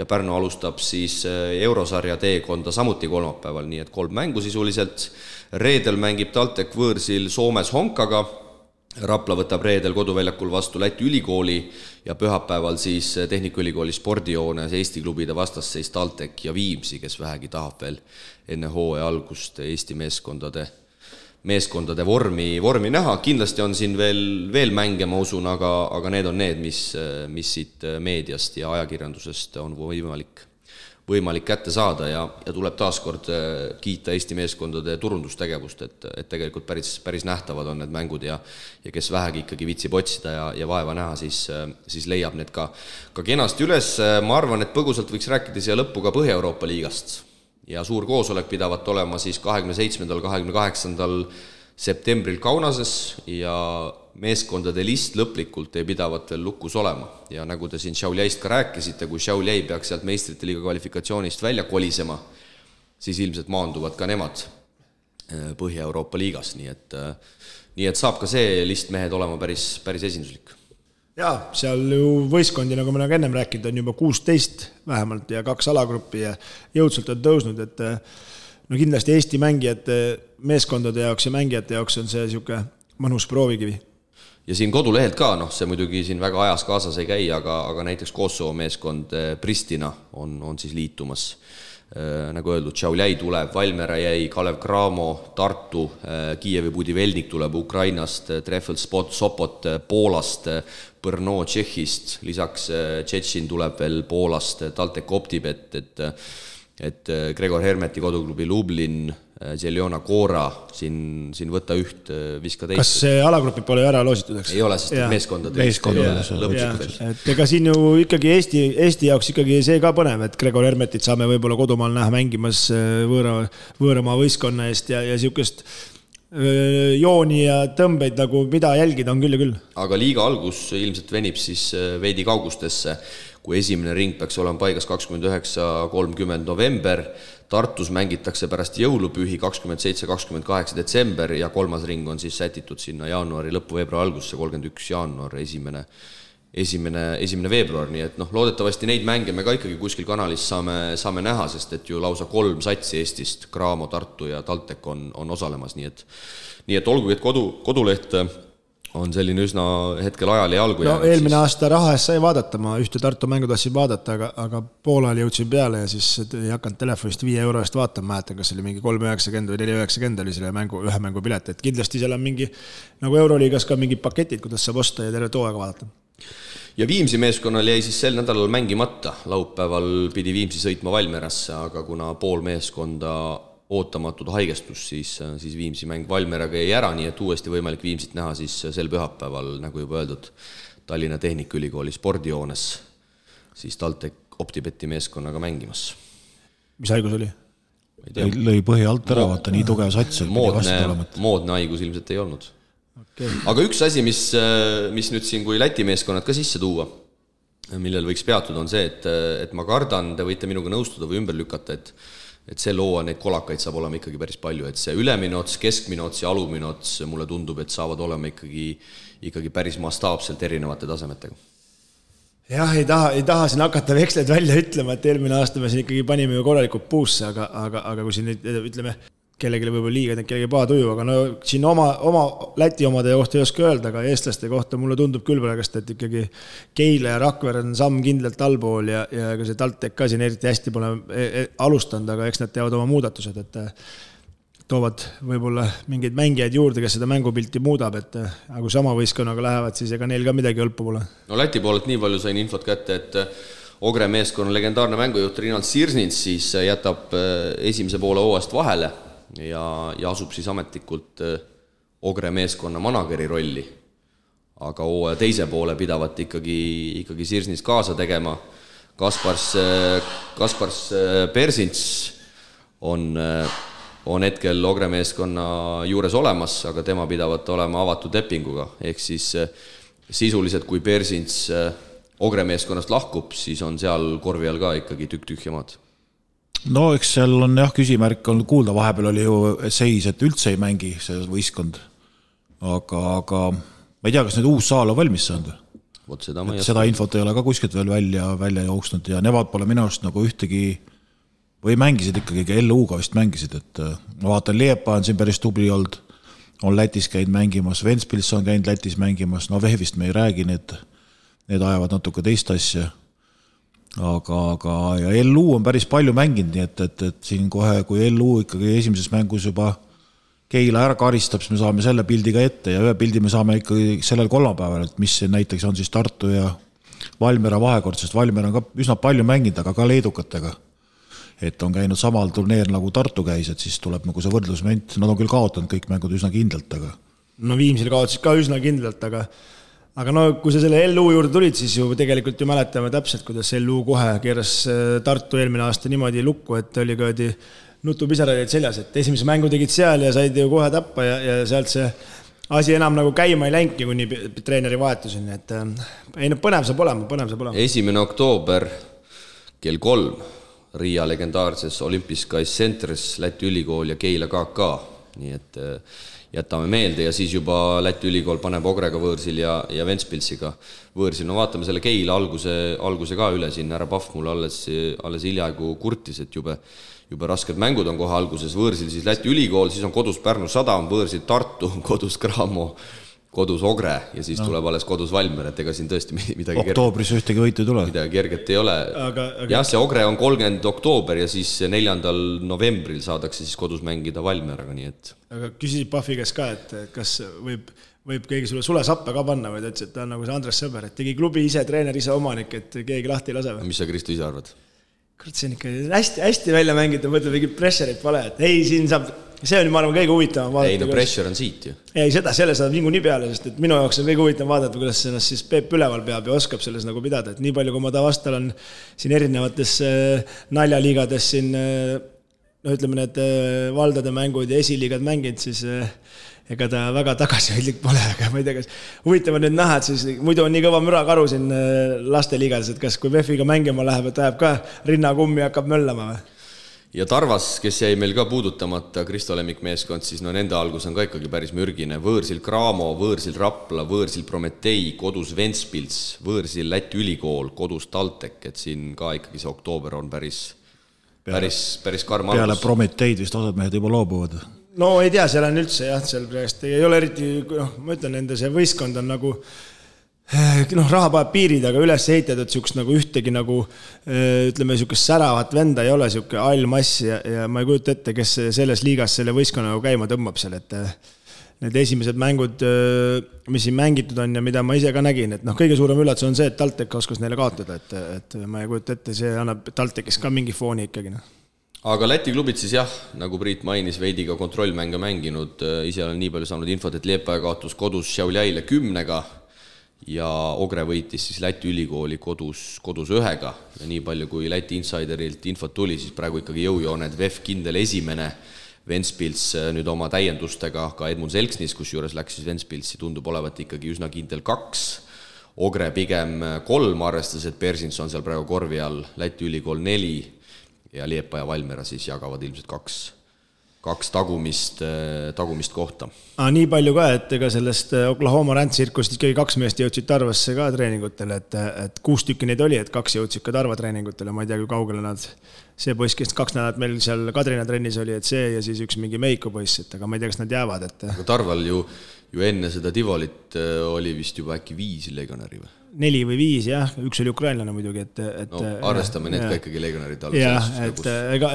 Speaker 2: ja Pärnu alustab siis eurosarja teekonda samuti kolmapäeval, nii et 3 mängu sisuliselt. Reedel mängib TalTech võõrsil Soomes Honkaga, Rapla võtab reedel koduväljakul vastu Läti ülikooli ja pühapäeval siis Tehnikaülikooli spordijoones Eesti klubide vastasseis TalTech ja Viimsi, kes vähegi tahab veel enne hooaja algust Eesti meeskondade vormi näha. Kindlasti on siin veel mänge, ma usun, aga need on need, mis siit meediast ja ajakirjandusest on võimalik kätte saada ja tuleb taaskord kiita Eesti meeskondade turundustegevust, et tegelikult päris nähtavad on need mängud ja kes vähegi ikkagi vitsib otsida ja vaeva näha, siis leiab need ka kenasti üles. Ma arvan, et põgusalt võiks rääkida siia lõppu ka Põhja-Euroopa liigast ja suur koosolek pidavat olema siis 27. 28. septembril Kaunases ja meeskondade list lõplikult ei pidavat veel lukus olema. Ja nagu te siin Šiauliaist ka rääkisite, kui Šiauliai peaks sealt meistrite liiga kvalifikatsioonist välja kolisema, siis ilmselt maanduvad ka nemad Põhja-Euroopa liigas, nii et saab ka see list mehed olema päris esinduslik.
Speaker 4: Jaa, seal ju võistkondi, nagu me ennem rääkinud, on juba 16 vähemalt ja 2 alagruppi ja jõudsult on tõusnud, et no kindlasti Eesti mängijate, meeskondade jaoks ja mängijate jaoks on see niisugune mõnus proovikivi.
Speaker 2: Ja siin kodulehelt ka, see muidugi siin väga ajas kaasas ei käi, aga näiteks Kosovo meeskond Pristina on siis liitumas. Nagu öeldud, Šiauliai tuleb, Valmiera jäi, Kalev Cramo, Tartu, Kiievi Budivelnik tuleb Ukrainast, Treffel Sopot Poolast, Brno Tšehhist, lisaks Tšetšin tuleb veel Poolast, TalTech Optibet, et Gregor Hermeti koduklubi Lublin, Zeljona Kora, siin võtta üht, viska teist.
Speaker 4: Kas see alagrupid pole ära loositud, eks?
Speaker 2: Ei ole, sest meeskondade lõpuks veel.
Speaker 4: Et ega siin ju ikkagi Eesti jaoks ikkagi see ka põnev, et Gregor Hermetit saame võib-olla kodumaal näha mängimas võõramaa võistkonna eest ja niisugust jooni ja tõmbeid nagu mida jälgida on küll ja küll.
Speaker 2: Aga liiga algus ilmselt venib siis veidi kaugustesse, kui esimene ring peaks olema paigas 29-30 november, Tartus mängitakse pärast jõulupühi 27-28 detsember ja 3. ring on siis sätitud sinna jaanuari lõppu, veebruari algusse, 31 jaanuar, esimene veebruar, nii et loodetavasti neid mänge me ka ikkagi kuskil kanalis saame näha, sest et ju lausa 3 satsi Eestist, Cramo, Tartu ja TalTech on osalemas, nii et olgugi, et koduleht on selline üsna hetkel ajal ja algu jäänud.
Speaker 4: Eelmine aasta raha eest sai vaadata, ma ühte Tartu mängu tahtsin vaadata, aga poolal jõudsin peale ja siis ei hakanud telefonist 5 euro eest vaatama, mäletan, kas oli mingi 3,90 või 4,90 oli selle ühe mängu pilet, et kindlasti seal on mingi, nagu Euroliigas ka mingid paketid, kuidas saab osta ja terve hooaega vaadata.
Speaker 2: Ja Viimsi meeskonnal jäi siis sel nädalal mängimata, laupäeval pidi Viimsi sõitma Valmierasse, aga kuna pool meeskonda ootamatud haigestus, siis Viimsi mäng Valmieraga jäi ära, nii et uuesti võimalik Viimsit näha siis sel pühapäeval, nagu juba öeldud, Tallinna Tehnikaülikooli spordijoones, siis TalTech Optibeti meeskonnaga mängimas.
Speaker 4: Mis haigus oli?
Speaker 3: Lõi põhi alt ära, vaata, nii tugev sats.
Speaker 2: Moodne haigus ilmselt ei olnud. Okay. Aga üks asi, mis nüüd siin kui Läti meeskonnad ka sisse tuua, millel võiks peatuda, on see, et ma kardan, te võite minuga nõustuda või ümber lükata, et see loo neid kolakaid saab olema ikkagi päris palju, et see ülemine ots, keskmine ots ja alumine ots, mulle tundub, et saavad olema ikkagi päris mastaapselt erinevate tasemetega.
Speaker 4: Jah, ei taha siin hakata veksleid välja ütlema, et eelmine aasta me siin ikkagi panime ju korralikult puusse, aga kui siin nüüd ütleme, kellelegi võib-olla liiga, kellegi paatuju, aga no siin oma Läti omade kohta ei oska öelda, aga eestlaste kohta mulle tundub küll praegust, et ikkagi Keila ja Rakvere on samm kindlalt allpool ja ka see TalTech ka siin eriti hästi pole alustanud, aga eks nad teavad oma muudatused, et toovad võib-olla mingeid mängijaid juurde, kes seda mängupilti muudab, et aga kui sama võistkonnaga lähevad, siis ega neil ka midagi õlpu pole.
Speaker 2: No Läti poolelt nii palju sain infot kätte, et Ogre meeskonna legendaarne mängujuht Rinald Sirsnits siis jätab esimese poole hooajast vahele ja asub siis ametlikult Ogre meeskonna manageri rolli. Aga hooaja teise poole pidavat ikkagi Sirsnits kaasa tegema. Kaspars Persints on hetkel Ogre meeskonna juures olemas, aga tema pidavat olema avatud lepinguga. Ehk siis sisuliselt, kui Persints Ogre meeskonnast lahkub, siis on seal korvi all ka ikkagi tükk-tühjamaad.
Speaker 3: No eks seal on jah küsimärk on kuulda, vahepeal oli ju seis, et üldse ei mängi see võistkond, aga ma ei tea, kas nüüd uus saal on valmis saanud. Seda infot ei ole ka kuskilt veel välja jooksnud ja nemad pole minu arust nagu ühtegi või mängisid ikkagi LU-ga vist mängisid, et ma vaatan Liepa on siin päris tubli olnud, on Lätis käinud mängimas, Ventspils on käinud Lätis mängimas, no Vehvist me ei räägi, need ajavad natuke teist asja. Aga ja LU on päris palju mänginud, nii et siin kohe, kui LU ikkagi esimeses mängus juba Keila ära karistab, siis me saame selle pildi ka ette ja ühe pildi me saame ikkagi sellel kolmapäeval, et mis näiteks on siis Tartu ja Valmiera vahekord, sest Valmiera on ka üsna palju mänginud, aga ka leedukatega. Et on käinud samal turneer nagu Tartu käis, et siis tuleb nagu see võrdlusment, nad on küll kaotanud kõik mängud üsna kindlalt, aga
Speaker 4: no Viimsil kaotasid ka üsna kindlalt, aga no kui sa selle LU juurde tulid, siis ju tegelikult ju mäletame täpselt, kuidas LU kohe keeras Tartu eelmine aasta niimoodi lukku, et oli ka nutupisaraid seljas, et esimese mängu tegid seal ja said ju kohe tappa ja sealt see asi enam nagu käima ei läinki, kuni treeneri vahetuseni, et ei, põnev saab olema.
Speaker 2: 1. oktoober kell 3 Riia legendaarses Olympiskais Centris Läti ülikool ja Keila KK, nii et jätame meelde ja siis juba Läti ülikool paneb Ogrega võõrsil ja Ventspilsiga võõrsil. No vaatame selle Keila alguse ka üle siin, härra Pahv mulle alles hiljaaegu kurtis, et jube rasked mängud on kohe alguses, võõrsil siis Läti ülikool, siis on kodus Pärnu Sadam, võõrsil Tartu, kodus Cramo, kodus Ogre ja siis tuleb alles kodus Valmiera, et ega siin tõesti midagi
Speaker 3: oktoobris ühtegi võitu ei tule.
Speaker 2: Midagi kerget ei ole. Jah, see Ogre on 30. oktoober ja siis 4. novembril saadakse siis kodus mängida Valmieraga, nii et
Speaker 4: aga küsisid Pahvi käes ka, et kas võib keegi sulle sappe ka panna või ta ütles, et ta on nagu see Andres Sõber, et tegi klubi ise, treener ise omanik, et keegi lahti ei lase või?
Speaker 2: Mis sa, Kristo, ise arvad?
Speaker 4: Kurat, see on ikka hästi välja mängida, mõtleb mingi pressure'it pale, et ei, siin saab, see on ma arvan kõige huvitavam vaadata.
Speaker 2: Ei, no pressure on siit ju.
Speaker 4: Ei, selle saab vingu nii peale, sest et minu jaoks on kõige huvitavam vaadata, kuidas ennast siis Peep üleval peab ja oskab selles nagu pidada, et nii palju, kui ma ta vastal on siin erinevates naljaliigades siin, no ütleme need valdade mängud ja esiliigad mänginud, siis ega ta väga tagasihoidlik pole, aga ma ei tea, kas huvitav on nüüd näha, et siis muidu on nii kõva mürakaru siin lasteliigades, et kas kui Vefiga mängima läheb, et ajab ka rinnakummi hakkab möllama või?
Speaker 2: Ja Tarvas, kes jäi meil ka puudutamata, Kristo Lemmik meeskond, siis no nende algus on ka ikkagi päris mürgine. Võõrsil Cramo, võõrsil Rapla, võõrsil Prometei, kodus Ventspils, võõrsil Läti ülikool, kodus TalTech, et siin ka ikkagi see oktoober on päris karm algus.
Speaker 3: Peale Prometeid vist osad mehed juba loobuvad.
Speaker 4: No ei tea, seal on üldse jah, seal praegust ei ole eriti, ma ütlen, nende see võistkond on nagu raha paneb piirid, aga üles ehitatud siukest nagu ühtegi nagu ütleme siukest säravat venda ei ole, siuke allmass ja ma ei kujuta ette, kes selles liigas selle võistkonna nagu käima tõmbab seal, et need esimesed mängud, mis siin mängitud on ja mida ma ise ka nägin, et kõige suurem üllatus on see, et TalTech oskas neile kaotada, et ma ei kujuta ette, see annab TalTechis ka mingi fooni ikkagi.
Speaker 2: Aga Läti klubid siis jah, nagu Priit mainis, veidi ka kontrollmänge mänginud, ise olen nii palju saanud infot, et Liepaja kaotus kodus Šiauliaile 10-ga ja Ogre võitis siis Läti ülikooli kodus 1-ga ja nii palju kui Läti insiderilt infot tuli, siis praegu ikkagi jõujooned VEF kindel esimene, Ventspils nüüd oma täiendustega ka Edmund Selksnis, kus juures läks siis Ventspilsi, tundub olevat ikkagi üsna kindel 2, Ogre pigem 3, arvestas, et Persins on seal praegu korvi all, Läti ülikool 4, ja Liepa ja Valmiera siis jagavad ilmselt kaks tagumist kohta.
Speaker 4: Nii palju ka, et ega sellest Oklahoma Rand-tsirkust ikkagi 2 meest jõudsid Tarvasse ka treeningutele, et 6 tükki neid oli, et 2 jõudsid ka Tarva treeningutele, ma ei tea, kui kaugele nad, see poiss, kes 2 nädalat meil seal Kadrina trennis oli, et see ja siis üks mingi Meiko poiss, et aga ma ei tea, kas nad jäävad, et
Speaker 2: aga Tarval ju enne seda Tivolit oli vist juba äkki 5 legionäri või?
Speaker 4: 4 või 5, jah, üks oli ukrainlane muidugi, et
Speaker 2: no, arvestame need ka ikkagi legionärid all.
Speaker 4: Jah, et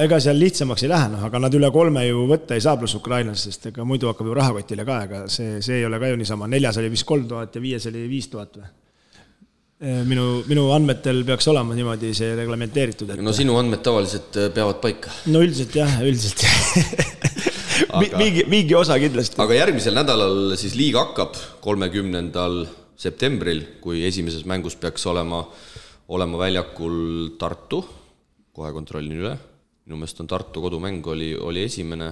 Speaker 4: ega seal lihtsamaks ei lähe, aga nad üle 3 ju võtta ei saa pluss ukrainlasest, sest ega muidu hakkab ju rahakotile ka, aga see ei ole ka ju niisama. 4 oli vist 3000 ja 5 oli 5000 või? Minu andmetel peaks olema niimoodi see reglementeeritud. Et...
Speaker 2: No sinu andmed tavaliselt peavad paika.
Speaker 4: No üldiselt jah. Mingi osa kindlasti.
Speaker 2: Aga järgmisel nädalal siis liiga hakkab 30. septembril, kui esimeses mängus peaks olema väljakul Tartu, kohe kontrollin üle, minu meelest on Tartu kodumäng oli esimene,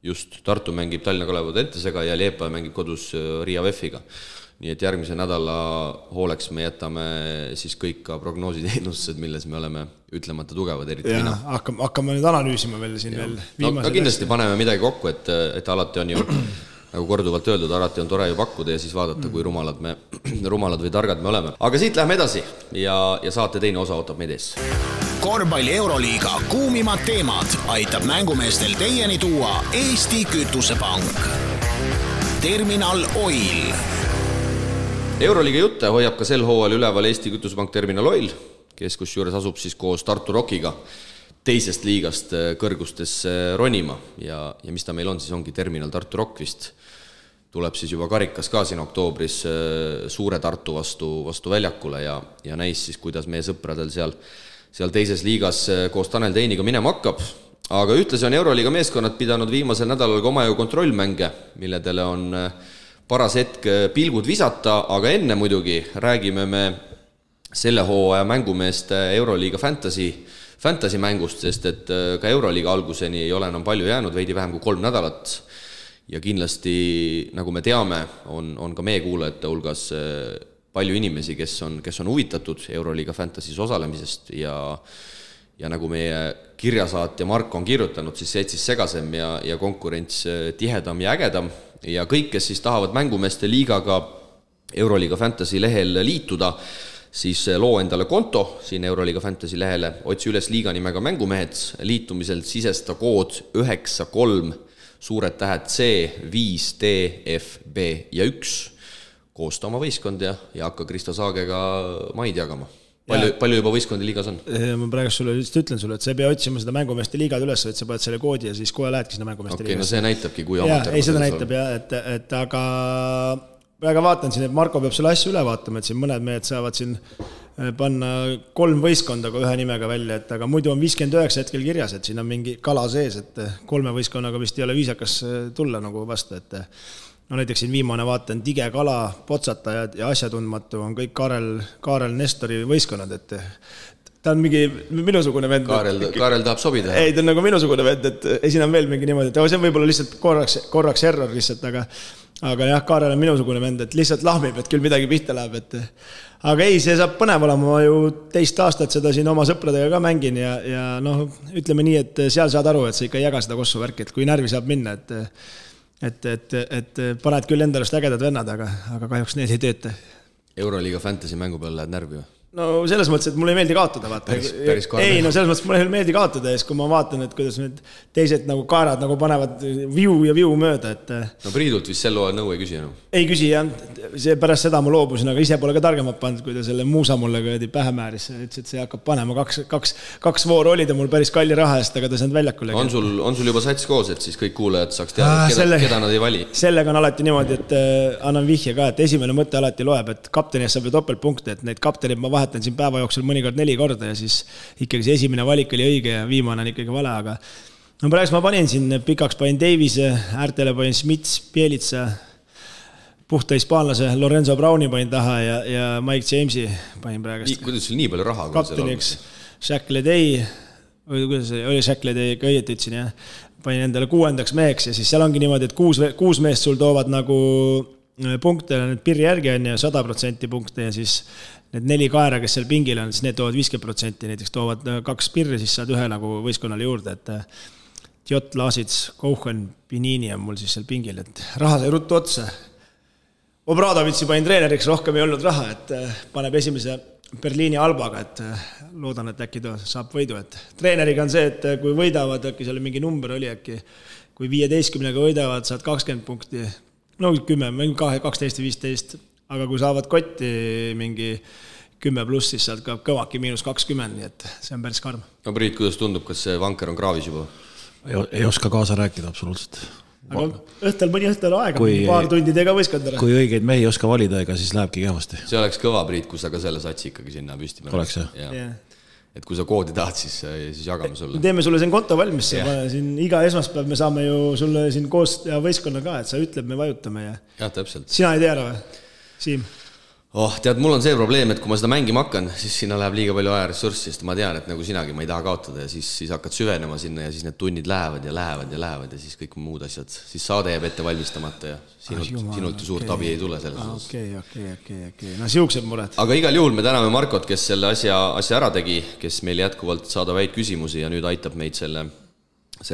Speaker 2: just Tartu mängib Tallinna Kalev Audentesega ja Liepa mängib kodus Riia VEF-iga. Nii et järgmise nädala hooleks me jätame siis kõik ka prognoositeenustused, milles me oleme ütlemata tugevad, eriti mina.
Speaker 4: Hakkame nüüd analüüsima veel siin veel
Speaker 2: viimased. No, kindlasti paneme midagi kokku, et alati on ju nagu korduvalt öeldud, alati on tore ju pakkuda ja siis vaadata, kui rumalad või targad me oleme. Aga siit läheme edasi ja saate teine osa ootab meid ees.
Speaker 1: Korvpalli Euroliiga kuumimad teemad aitab mängumeestel teieni tuua Eesti Kütusepank. Terminal Oil.
Speaker 2: Euroliiga jutte hoiab ka sel hooajal üleval Eesti Kütusepank Terminal Oil, kes kusjuures asub siis koos Tartu Rockiga teisest liigast kõrgustesse ronima ja mis ta meil on, siis ongi Terminal Tartu Rock vist. Tuleb siis juba karikas ka siin oktoobris suure Tartu vastu väljakule ja näis siis, kuidas meie sõpradel seal teises liigas koos Tanel Teiniga minema hakkab. Aga ühtlasi on Euroliiga meeskonnad pidanud viimasel nädalal ka omajõu kontrollmänge, milledele on paras hetk pilgud visata, aga enne muidugi räägime me selle hooaja mängumeeste Euroliiga fantasy mängust, sest et ka Euroliiga alguseni ei ole enam palju jäänud, veidi vähem kui 3 nädalat. Ja kindlasti, nagu me teame, on ka meie kuulajate hulgas palju inimesi, kes on huvitatud Euroliiga fantasys osalemisest ja nagu meie kirjasaatja Mark on kirjutanud, siis seetsis segasem ja konkurents tihedam ja ägedam. Ja kõik, kes siis tahavad mängumeeste liigaga Euroliiga Fantasy lehel liituda, siis loo endale konto siin Euroliiga Fantasy lehele, otsi üles liiga nimega mängumehed, liitumisel sisesta kood 93 suured tähed C, 5, D, F, B ja 1. Koosta oma võistkond ja hakka Kristo Saagega maid jagama. Palju juba võistkondi liigas on?
Speaker 4: Ma praegu sulle just ütlen sulle, et sa ei pea otsima seda mängumeeste liigad üles, et sa paned selle koodi ja siis kohe lähedki seda mängumeeste liigas.
Speaker 2: No see näitabki, kui amateur.
Speaker 4: Ei, seda näitab jah, et aga praegu vaatan siin, et Marko peab selle asju üle vaatama, et siin mõned mehed saavad siin panna 3 võistkonda ühe nimega välja, et aga muidu on 59 hetkel kirjas, et siin on mingi kala sees, et 3 võistkonnaga vist ei ole viisakas tulla nagu vastu, et no näiteks siin viimane vaatan Tige Kala, Potsatajad ja asjatundmatu on kõik Kaarel Nestori võistkonnad, et ta on mingi minusugune vend.
Speaker 2: Kaarel tahab sobida.
Speaker 4: Ei, ta on nagu minusugune vend, et esin on veel mingi niimoodi, et see on võib-olla lihtsalt korraks error lihtsalt, aga jah, Kaarel on minusugune vend, et lihtsalt lahmib, et küll midagi pihta läheb, et aga ei, see saab põnev olema, ma ju 2 aastat seda siin oma sõpradega ka mängin ja noh, ütleme nii, et seal saad aru, et sa ikka ei jaga seda kossu värki, et kui närvi saab minna, et paned küll endalust ägedad vennad, aga kahjuks need ei tööta.
Speaker 2: Euroliiga fantasy mängu peal lähed närvi või?
Speaker 4: No selles mõttes, et mulle ei meeldi kaotada, vaata. Ei, no selles mõttes, mulle ei meeldi kaotada, ja kui ma vaatan, et kuidas need teised nagu kaarad nagu panevad viu mööda, et...
Speaker 2: No Priidult vist sel nõu ei küsi enam?
Speaker 4: Ei küsi, jah. See pärast seda ma loobusin, aga ise pole ka targemad pannud, kui ta selle muusa mulle pähe määris. Ütles, et see hakkab panema 2 vooru olid ja mul päris kalli raha eest, aga ta saanud väljakule.
Speaker 2: On sul juba sats koos, et siis kõik kuulajad saaks teada, keda nad ei vali?
Speaker 4: Sellega on alati niimoodi, et annan vihje ka, et esimene mõte alati loeb, et kapteni saab topeltpunkte, et neid kaptenid ma vahetan siin päeva jooksul mõnikord 4 korda ja siis ikkagi see esimene valik oli õige ja viimane on ikkagi vale, aga no praegu ma panin siin pikaks panin Davise, äärtele panin Smits, Pielitsa, puhta hispaanlase Lorenzo Browni panin taha ja Mike Jamesi panin praegust.
Speaker 2: Kuidas sul nii palju raha?
Speaker 4: Kapteniks Shaq Ledey, kuidas oli Shaq Ledey, ka õieti ütlesin, jah. Panin endale 6. meheks ja siis seal ongi niimoodi, et 6 meest sul toovad nagu punkte, nüüd pirri järgi on ja 100% punkte ja siis need 4 kaera, kes seal pingil on, siis need toovad 50%, näiteks toovad 2 pirri, siis saad 1 nagu võistkonnale juurde, et Jott, Laasits, Kouchen, Pinini on mul siis seal pingil, et raha sai ruttu otsa. Obradovitsi panin treeneriks, rohkem ei olnud raha, et paneb esimese Berliini Albaga, et loodan, et äkki saab võidu, et treeneriga on see, et kui võidavad, äkki seal mingi number oli äkki, kui 15-ga võidavad, saad 20 punkti, no 10, 12 või 15, aga kui saavad kotti mingi 10 pluss, siis saad ka kõvaki -20, nii et see on päris karm.
Speaker 2: No Priit, kuidas tundub, kas see vanker on kraavis juba?
Speaker 3: Ei oska kaasa rääkida absoluutselt.
Speaker 4: Aga mõni õhtul aega, paar tundi tega võistkondara.
Speaker 3: Kui õigeid mehi ei oska valida, ega siis lähebki kehvasti.
Speaker 2: See oleks kõva, Priit, kui sa ka selle satsi ikkagi sinna püsti paned.
Speaker 3: Oleks jah?
Speaker 2: Ja. Et kui sa koodi tahad, siis jagame sulle.
Speaker 4: Teeme sulle siin konto valmis, siin iga esmaspäev me saame ju sulle siin koos ja võistkonna ka, et sa ütleb, me vajutame ja...
Speaker 2: Jah, täpselt.
Speaker 4: Sina ei tea ära või, Siim?
Speaker 2: Tead, mul on see probleem, et kui ma seda mängima hakkan, siis sinna läheb liiga palju ajaressurssi, sest ma tean, et nagu sinagi ma ei taha kaotada ja siis hakkad süvenema sinna ja siis need tunnid lähevad ja siis kõik muud asjad, siis saade jääb ette valmistamata ja sinult ju suurt abi ei tule selles osas.
Speaker 4: Okei. No siuksed mured.
Speaker 2: Aga igal juhul me täname Markot, kes selle asja ära tegi, kes meil jätkuvalt saadab häid küsimusi ja nüüd aitab meid selle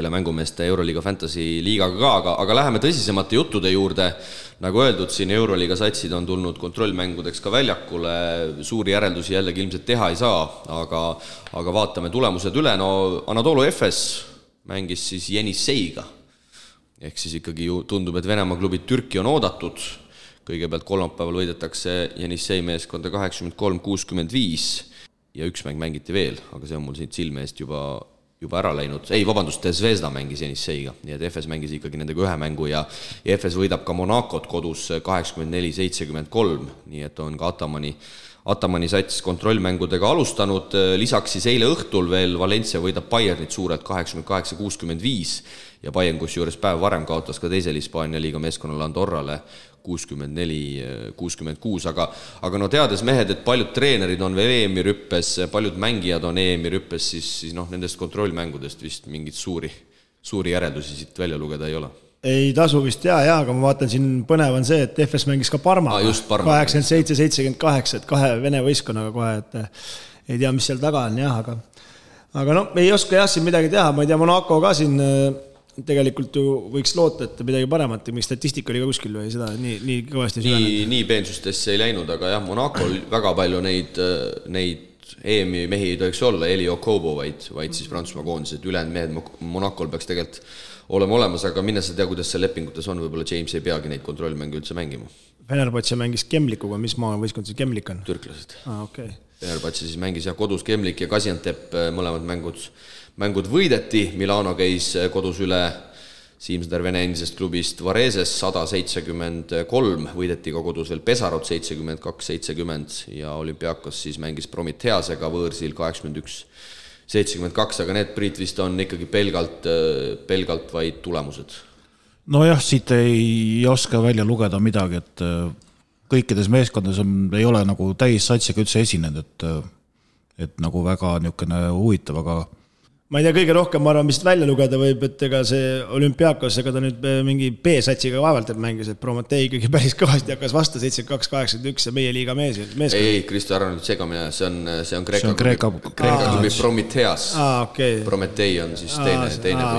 Speaker 2: mängumeeste Euroliiga Fantasy liigaga ka, aga läheme tõsisemate juttude juurde. Nagu öeldud, siin Euroliiga satsid on tulnud kontrollmängudeks ka väljakule, suuri järeldusi jällegi ilmselt teha ei saa, aga vaatame tulemused üle. No Anadolu Efes mängis siis Jenisseiga, ehk siis ikkagi ju tundub, et Venemaa klubid Türki on oodatud. Kõigepealt kolmapäeval võidetakse Jenissei meeskonda 83-65 ja üks mäng mängiti veel, aga see on mul siit silme eest juba ära läinud. Ei, vabandust, Zvezda mängis Jenisseiga, nii et Efes mängis ikkagi nendega 1 mängu ja Efes võidab ka Monacot kodus 84-73, nii et on ka Atamani sats kontrollmängudega alustanud. Lisaks siis eile õhtul veel Valencia võidab Bayernit suurelt 88-65 ja Bayern kusjuures päev varem kaotas ka teisel Hispaania liiga meeskonnale Andorrale 64-66, aga no teades mehed, et paljud treenerid on veel EM-i rüppes, paljud mängijad on EM-i rüppes, siis nendest kontrollmängudest vist mingit suuri järeldusi siit välja lugeda ei ole.
Speaker 4: Ei tasu vist aga ma vaatan siin põnev on see, et Efes mängis ka Parma 87-78, et 2 Vene võistkonnaga kohe, et ei tea, mis seal taga on aga no ei oska siin midagi teha, ma ei tea, Monaco ka siin tegelikult ju võiks loota, et midagi paremat, miks statistika oli ka kuskil või seda nii kõvasti süvenenud. Nii
Speaker 2: peensustesse ei läinud, aga jah, Monaco väga palju neid EM-i mehi ei tohiks olla, Eli Okobo, vaid siis Prantsusmaa koondis, et ülejäänud mehed Monacol peaks tegelikult olema olemas, aga minna sa tea, kuidas see lepingutes on, võib-olla James ei peagi neid kontrollmänge üldse mängima.
Speaker 4: Fenerbahce mängis Kemlikuga, mis maa võistkond see Kemlik on?
Speaker 2: Türklased.
Speaker 4: Okay.
Speaker 2: Fenerbahce siis mängis kodus Kemlik ja Gaziantep, mõlemad mängud võideti, Milano käis kodus üle Siimsder Vene endisest klubist Vareses 173, võideti ka kodus veel Pesarot 72-70 ja Olümpiakos siis mängis Prometheasega võõrsil 81-72, aga need Priit vist on ikkagi pelgalt vaid tulemused.
Speaker 3: Nojah, siit ei oska välja lugeda midagi, et kõikides meeskondades ei ole nagu täis satsiga üldse esinenud, et nagu väga niisugune huvitav, aga
Speaker 4: ma ei tea, kõige rohkem ma arvan, mis välja lugeda võib, et ega see Olümpiakos, ega ta nüüd mingi B-satsiga vaevalt meengis, et Prometee ikkagi päris kõvasti hakkas vastu 72-81 ja meie liiga mees.
Speaker 2: Ei, Kristo, ära nüüd segamine, see on Kreeka klubi Prometheas.
Speaker 4: Okay.
Speaker 2: Prometee on siis teine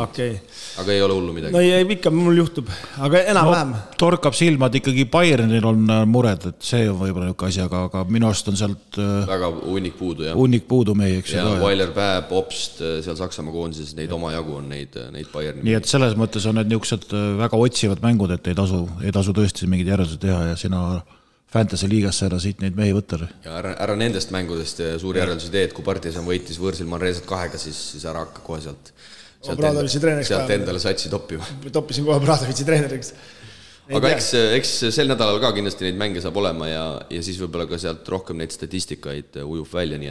Speaker 4: okay.
Speaker 2: Aga ei ole hullu midagi.
Speaker 4: No ei, ikka mul juhtub, aga enam-vähem.
Speaker 3: Torkab silmad ikkagi Bayernil on mured, et see on võib-olla niisugune asi, aga minu arust on sealt
Speaker 2: väga hunnik puudu, jah.
Speaker 3: Hunnik puudu meie, eks.
Speaker 2: Ja Weiler Päev, Obst, seal Saksamaa koondises neid omajagu on neid Bayerni.
Speaker 3: Nii et selles mõttes on need niisugused väga otsivad mängud, et ei tasu tõesti mingid järeldused teha ja sina Fantasy liigasse ära siit neid mehi võtta.
Speaker 2: Ja ära nendest mängudest suuri järeldusi teed, kui Partisan võitis võõrsil Manresat 2, siis ära hakka kohe sealt endale satsi toppima.
Speaker 4: Toppisin kohe Bradovitsi treeneriks.
Speaker 2: Aga eks sel nädalal ka kindlasti neid mänge saab olema ja siis võib-olla ka sealt rohkem neid statistikaid ujub välja, nii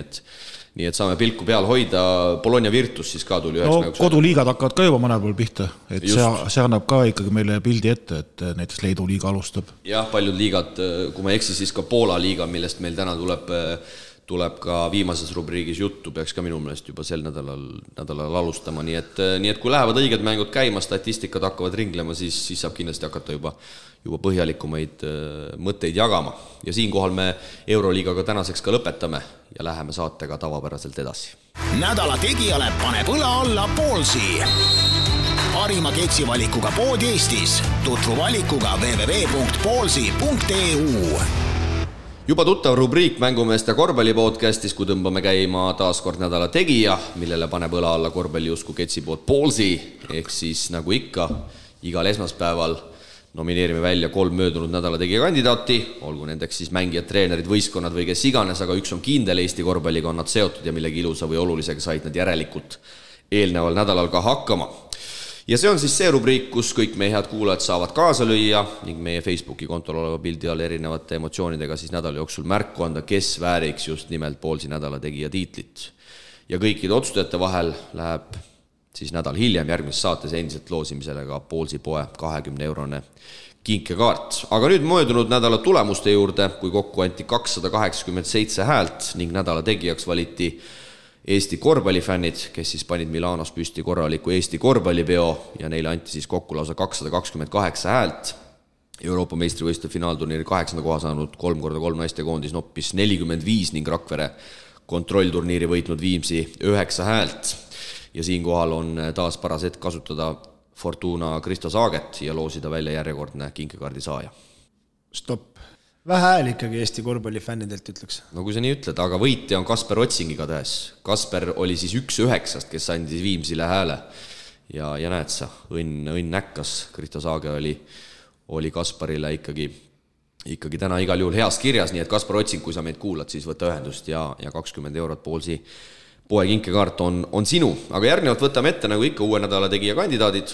Speaker 2: et saame pilku peal hoida. Bologna Virtus siis ka tuli üheks mänguks.
Speaker 3: Koduliigad hakkavad ka juba mõnel pool pihta, et see annab ka ikkagi meile pildi ette, et näiteks Leedu liiga alustab.
Speaker 2: Jah, paljud liigad, kui ma eksi, siis ka Poola liiga, millest meil täna tuleb ka viimases rubriigis juttu, peaks ka minu meelest juba sel nädalal alustama, nii et kui lähevad õiged mängud käima, statistikad hakkavad ringlema, siis saab kindlasti hakata juba põhjalikumaid mõtteid jagama. Ja siinkohal me Euroliigaga tänaseks ka lõpetame ja läheme saatega tavapäraselt edasi.
Speaker 1: Nädala tegijale paneb õla alla Ballsi. Parima keksivalikuga pood Eestis. Tutvu valikuga www.ballsi.eu.
Speaker 2: Juba tuttav rubriik Mängumeeste korvpallipodcastis, kui tõmbame käima taaskord nädala tegija, millele paneb õla alla korvpalliusku ketsipood Ballsi, ehk siis nagu ikka, igal esmaspäeval nomineerime välja 3 möödunud nädala tegija kandidaati, olgu nendeks siis mängijad, treenerid, võistkonnad või kes iganes, aga üks on kindel Eesti korvpalliga on nad seotud ja millegi ilusa või olulisega said nad järelikult eelneval nädalal ka hakkama. Ja see on siis see rubriik, kus kõik meie head kuulajad saavad kaasa lüüa ning meie Facebooki kontol oleva pildi all erinevate emotsioonidega siis nädala jooksul märku anda, kes vääriks just nimelt Ballsi nädala tegija tiitlit. Ja kõikide otsustajate vahel läheb siis nädal hiljem järgmises saates endiselt loosimisele ka Ballsi poe 20-eurone kinkekaart. Aga nüüd möödunud nädala tulemuste juurde, kui kokku anti 287 häält ning nädala tegijaks valiti Eesti korvpallifännid, kes siis panid Milanos püsti korraliku Eesti korvpallipeo ja neile anti siis kokku lausa 228 häält. Euroopa meistrivõistluste finaalturniiri 8. koha saanud 3x3 naistekoondis noppis 45 ning Rakvere kontrollturniiri võitnud Viimsi 9 häält. Ja siinkohal on taas paras hetk kasutada Fortuna Kristo Saaget ja loosida välja järjekordne kinkekaardi saaja.
Speaker 4: Stopp. Vähe hääl ikkagi Eesti korvpallifännidelt ütleks.
Speaker 2: No kui sa nii ütled, aga võitja on Kasper Otsingiga tähes. Kasper oli siis 1-9, kes andis Viimsile hääle ja näed sa, õnn näkkas. Kristo Saage oli Kasparile ikkagi täna igal juhul heas kirjas, nii et Kasper Otsing, kui sa meid kuulad, siis võta ühendust ja 20 eurot Ballsi poe kinkekaart on sinu. Aga järgnevalt võtame ette nagu ikka uue nädala tegija kandidaadid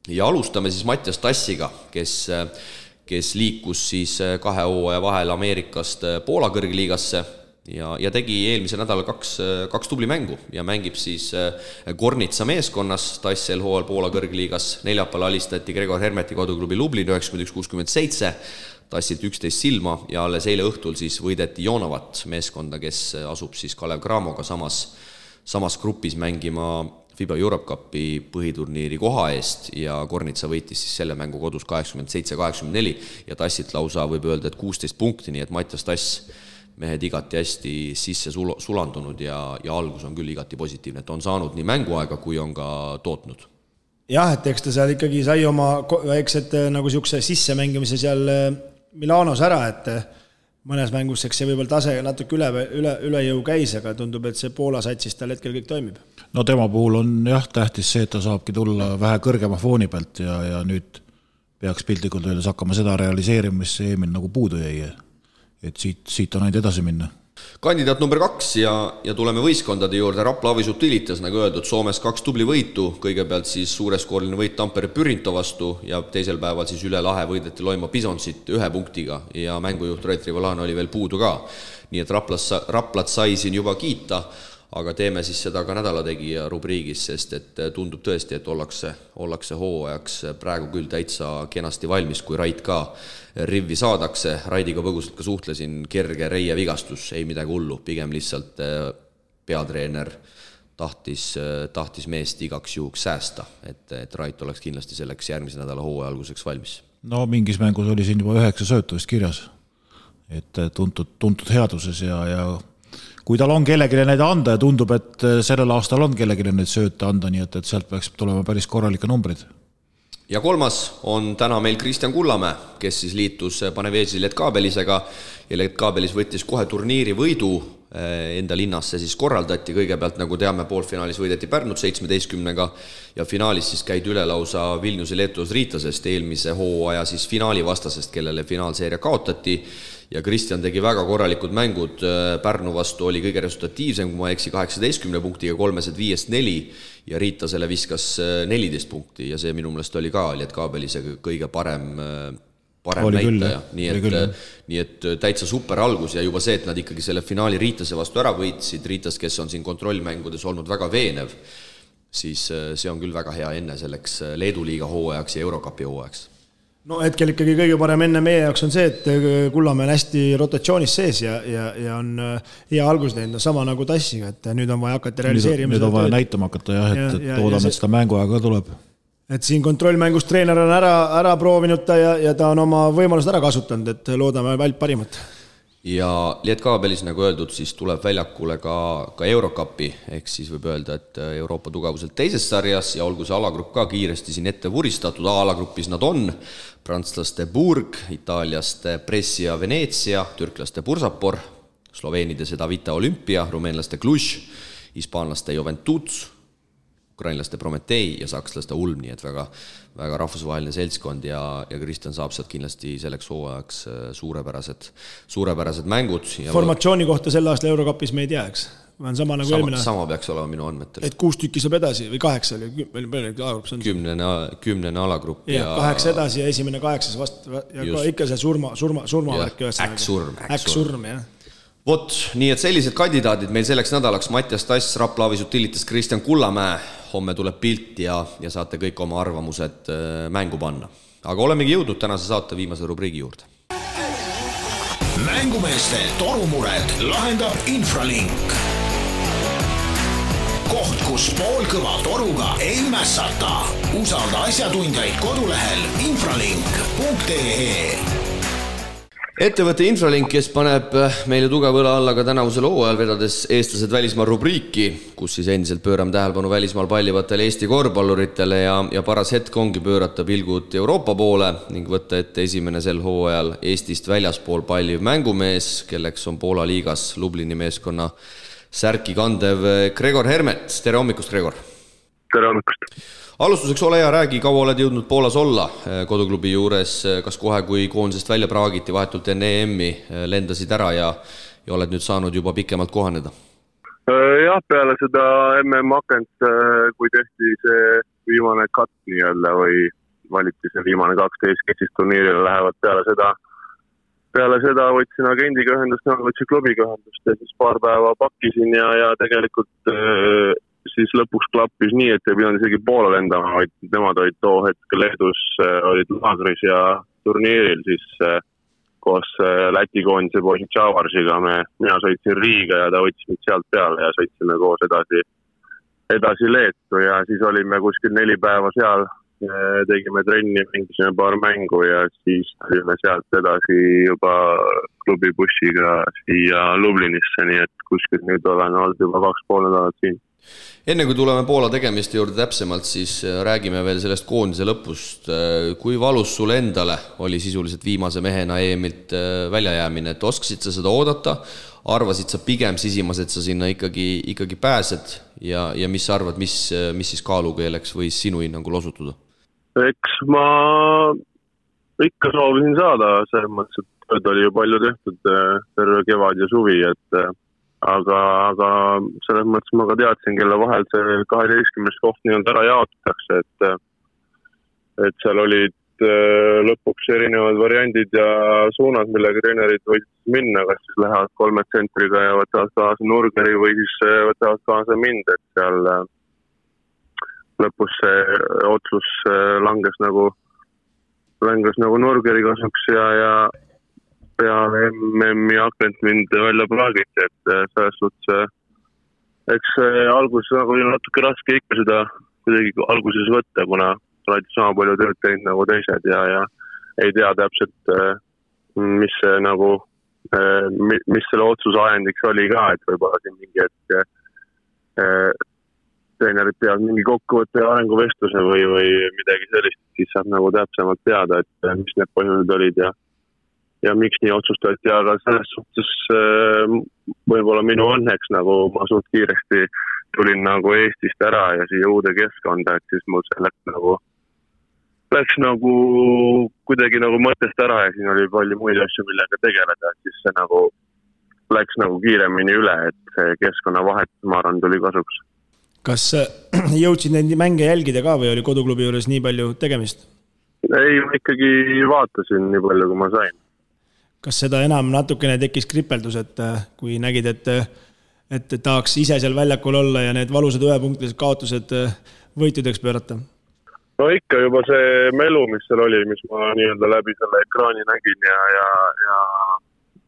Speaker 2: ja alustame siis Mattias Tassiga, kes liikus siis 2 hooaja vahel Ameerikast Poola kõrgliigasse ja tegi eelmise nädala 2 tubli mängu ja mängib siis Gornitsa meeskonnas Tass hooajal Poola kõrgliigas. Neljapäeval alistati Gregor Hermeti koduklubi Lublin 91-67, Tassilt 11 silma ja alles eile õhtul siis võideti Jonovat meeskonda, kes asub siis Kalev Cramoga samas grupis mängima FIBA Europe Cupi põhiturniiri koha eest ja Gornitsa võitis siis selle mängu kodus 87-84 ja Tassilt lausa võib öelda, et 16 punkti, nii et Mattias Tass mehed igati hästi sisse sulandunud ja algus on küll igati positiivne, et on saanud nii mänguaega kui on ka tootnud.
Speaker 4: Jah, et eks ta seal ikkagi sai oma väiksed nagu siukse sissemängimise seal Milanos ära, et mõnes mängus eks see võib-olla tase natuke üle jõu käis, aga tundub, et see Poola satsis tal hetkel kõik toimib.
Speaker 3: No tema puhul on jah tähtis see, et ta saabki tulla vähe kõrgema fooni pealt ja nüüd peaks piltlikult öeldes hakkama seda realiseerima, mis eelmine nagu puudu jäi. Et siit on ainult edasi minna.
Speaker 2: Kandidaat number 2 ja tuleme võistkondade juurde. Rapla Avisut Tilitas, nagu öeldud, Soomes 2 tubli võitu, kõigepealt siis suureskooriline võit Tampere Pyrinto vastu ja teisel päeval siis üle lahe võideti Loima Bisonsit 1 punktiga ja mängujuht Rait Rivolano oli veel puudu ka. Nii et Raplat sai siin juba kiita, aga teeme siis seda ka nädalategija rubriigis, sest et tundub tõesti, et ollakse hooajaks praegu küll täitsa kenasti valmis, kui Rait ka rivvi saadakse. Raidiga põgusalt ka suhtlesin, kerge reie vigastus, ei midagi hullu, pigem lihtsalt peatreener tahtis meest igaks juhuks säästa, et Rait oleks kindlasti selleks järgmise nädala hooaja alguseks valmis.
Speaker 3: No mingis mängus oli siin juba 9 söötu vist kirjas, et tuntud headuses ja kui tal on kellegile neid anda ja tundub, et sellel aastal on kellegile neid sööte anda, nii et sealt peaks tulema päris korralike numbrid.
Speaker 2: Ja 3. on täna meil Kristjan Kullamäe, kes siis liitus Paneveži Letkabelisega ja Letkabelis võttis kohe turniiri võidu enda linnas see siis korraldati. Kõigepealt, nagu teame, poolfinaalis võideti Pärnut 17-ga ja finaalis siis käid üle lausa Vilniuse Leetus Riitasest, eelmise hooaja siis finaali vastasest, kellele finaalseeria kaotati. Ja Kristjan tegi väga korralikud mängud. Pärnu vastu oli kõige resultatiivsem, kui ma eksi 18 punktiga 3-5-4 ja Riitasele viskas 14 punkti ja see minu meelest oli ka Lietkabelise kõige parem näitaja. Nii et täitsa super algus ja juba see, et nad ikkagi selle finaali Riitase vastu ära võitsid, Riitas, kes on siin kontrollmängudes olnud väga veenev, siis see on küll väga hea enne selleks Leedu liiga hooajaks ja Eurocupi hooajaks.
Speaker 4: No hetkel ikkagi kõige parem enne meie jaoks on see, et Kullamäe on hästi rotatsioonis sees ja on hea algus teinud, sama nagu Tassiga, et nüüd on vaja hakata realiseerima.
Speaker 3: Nüüd on vaja näitama hakata jah, et toodame, et seda mänguaega tuleb.
Speaker 4: Et siin kontrollmängus treener on ära proovinud ta ja ta on oma võimalused ära kasutanud, et loodame vält parimat.
Speaker 2: Ja Lietkabelis, nagu öeldud, siis tuleb väljakule ka Eurocupi, ehk siis võib öelda, et Euroopa tugevuselt teises sarjas ja olgu see alagrupp ka kiiresti siin ette vuristatud, A-alagrupis nad on prantslaste Burg, itaaliaste Brescia Venezia, türklaste Bursapor, sloveenide Sedavita Olympia, rumeenlaste Cluj, hispaanlaste Juventus, ukrainlaste Prometei ja sakslaste Ulm, nii et väga rahvusvaheline seltskond ja Kristjan saab sealt kindlasti selleks hooajaks suurepärased mängud.
Speaker 4: Formatsiooni kohta selle aasta Eurocupis me ei tea, eks? Sama nagu eelmine aasta.
Speaker 2: Sama peaks olema minu andmetel.
Speaker 4: Et 6 tükki saab edasi või 8 oli, alagrupp on
Speaker 2: 10 alagrupp.
Speaker 4: Ja 8 edasi ja esimene 8 vastu ja just. Ikka see surmavärk. Äksurm, jah.
Speaker 2: Vot, nii et sellised kandidaadid meil selleks nädalaks Mattias Tass, Raplavi Sutilitas, Kristjan Kullamäe. Homme tuleb pilt ja saate kõik oma arvamused mängu panna. Aga olemegi jõudnud tänase saate viimase rubriigi juurde.
Speaker 1: Mängumeeste torumured lahendab Infralink. Koht, kus poolkõva toruga ei mässata. Usalda asjatundjaid kodulehel infralink.ee.
Speaker 2: Ettevõtte Infralink, kes paneb meile tugevõla alla ka tänavusel hooajal vedades eestlased välismaal rubriiki, kus siis endiselt pöörame tähelepanu välismaal pallivatele Eesti korvpalluritele ja paras hetk ongi pöörata pilgud Euroopa poole ning võtta ette esimene sel hooajal Eestist väljaspool palliv mängumees, kelleks on Poola liigas Lublini meeskonna särki kandev Gregor Hermet. Tere hommikust, Gregor!
Speaker 5: Tere hommikust!
Speaker 2: Alustuseks ole hea, räägi, kaua oled jõudnud Poolas olla koduklubi juures, kas kohe kui koondisest välja praagiti vahetult enne EM-i lendasid ära ja oled nüüd saanud juba pikemalt kohaneda?
Speaker 5: Jah, peale seda MM-akent, kui tehti see viimane cut nii-öelda või valiti see viimane 12, kes siis turniirile lähevad peale seda võtsin agendiga ühendust, võtsin klubiga ühendust ja siis paar päeva pakkisin ja tegelikult siis lõpuks klappis nii, et ei pidanud isegi Poola lendama, vaid nemad olid too hetkel Leedus, olid laagris ja turniiril siis koos Läti koondise poisi Tšavarsiga. Mina sõitsin Riiga ja ta võttis mind sealt peale ja sõitsime koos edasi Leetu ja siis olime kuskil 4 päeva seal, tegime trenni, mängisime paar mängu ja siis tulime sealt edasi juba klubibussiga siia Lublinisse, nii et kuskil nüüd olen olnud juba 2,5 nädalat siin.
Speaker 2: Enne kui tuleme Poola tegemiste juurde täpsemalt, siis räägime veel sellest koondise lõpust. Kui valus sul endale oli sisuliselt viimase mehena EM-ilt väljajäämine, et oskasid sa seda oodata, arvasid sa pigem sisimas, et sa sinna ikkagi pääsed ja mis sa arvad, mis siis kaalukeeleks võis sinu hinnangul osutuda?
Speaker 5: Eks ma ikka soovisin saada, selles mõttes, et tööd oli ju palju tehtud terve kevad ja suvi, et aga selles mõttes ma ka teadsin, kelle vahel see 12 koht nii-öelda ära jaotatakse, et seal olid lõpuks erinevad variandid ja suunad, millega treenerid võid minna, kas siis lähevad 3 tsentriga ja võtavad kaasa Nurgeri või siis võtavad kaasa mind, et seal lõpus see otsus langes nagu Nurgeri kasuks ja peale MM-i akent mind välja praagiti, et selles suhtes eks alguses nagu oli natuke raske ikka seda kuidagi alguses võtta, kuna oled sama palju tööd teinud nagu teised ja ei tea täpselt, mis see nagu, mis selle otsuse ajendiks oli ka, et võib-olla siin mingi hetk treenerid peavad mingi kokkuvõtte ja arenguvestluse või midagi sellist, siis saab nagu täpsemalt teada, et mis need põhjused olid ja miks nii otsustati, aga selles suhtes võib-olla minu õnneks nagu ma suht kiiresti tulin nagu Eestist ära ja siia uude keskkonda, et siis mul see läks nagu kuidagi nagu mõttest ära ja siin oli palju muid asju, millega tegeleda, et siis see nagu läks nagu kiiremini üle, et see keskkonna vahetus, ma arvan, tuli kasuks.
Speaker 4: Kas jõudsid neid mänge jälgida ka või oli koduklubi juures nii palju tegemist?
Speaker 5: Ei, ma ikkagi vaatasin nii palju, kui ma sain.
Speaker 4: Kas seda enam natukene tekkis kripeldus, et kui nägid, et tahaks ise seal väljakul olla ja need valusad 1-punktilised kaotused võitudeks pöörata?
Speaker 5: No ikka juba see melu, mis seal oli, mis ma nii-öelda läbi selle ekraani nägin ja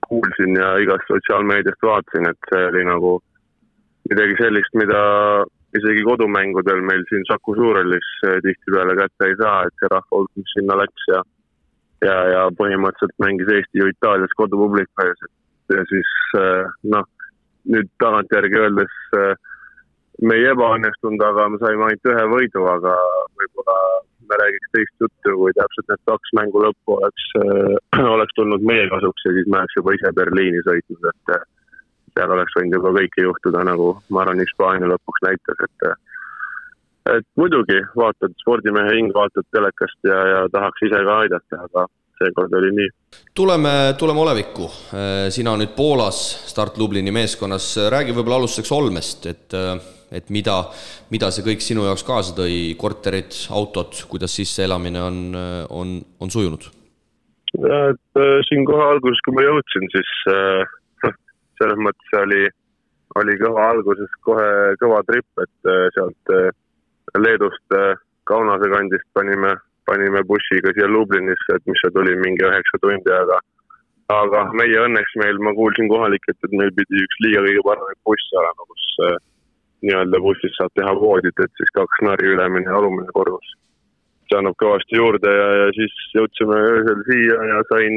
Speaker 5: kuulsin ja igast sotsiaalmeediast vaatasin, et see oli nagu midagi sellist, mida isegi kodumängudel meil siin Saku Suurhallis tihtipeale kätte ei saa, et see rahvahulk, mis sinna läks ja põhimõtteliselt mängis Eesti ju Itaalias kodupubliku ees. Ja siis nüüd tagantjärgi öeldes me ei ebaõnnestunud, aga me saime ainult ühe võidu, aga võib-olla me räägiks teist juttu, kui täpselt need 2 mängu lõppu oleks tulnud meie kasuks ja siis me oleks juba ise Berliini sõitnud, et seal oleks võinud juba kõike juhtuda, nagu ma arvan, Hispaania lõpuks näitas, et muidugi vaatad spordimehe hing, vaatad telekast ja tahaks ise ka aidata, aga seekord oli nii.
Speaker 2: Tuleme olevikku. Sina nüüd Poolas Start Lublini meeskonnas. Räägi võib-olla alustuseks Olmest, et mida see kõik sinu jaoks kaasa tõi, korterid, autod, kuidas sisse elamine on sujunud?
Speaker 5: Et siin kohe alguses, kui ma jõudsin, siis selles mõttes oli kõva alguses kohe kõva trip, et sealt Leedust Kaunase kandist panime bussiga siia Lublinisse, et mis see tuli mingi 9 tundi, aga meie õnneks ma kuulsin kohalikult, et meil pidi üks liiga kõige parem buss olema, kus nii-öelda bussis saab teha voodit, et siis 2 nari ülemine ja alumine korrus. See annab kõvasti juurde ja siis jõudsime öösel siia ja sain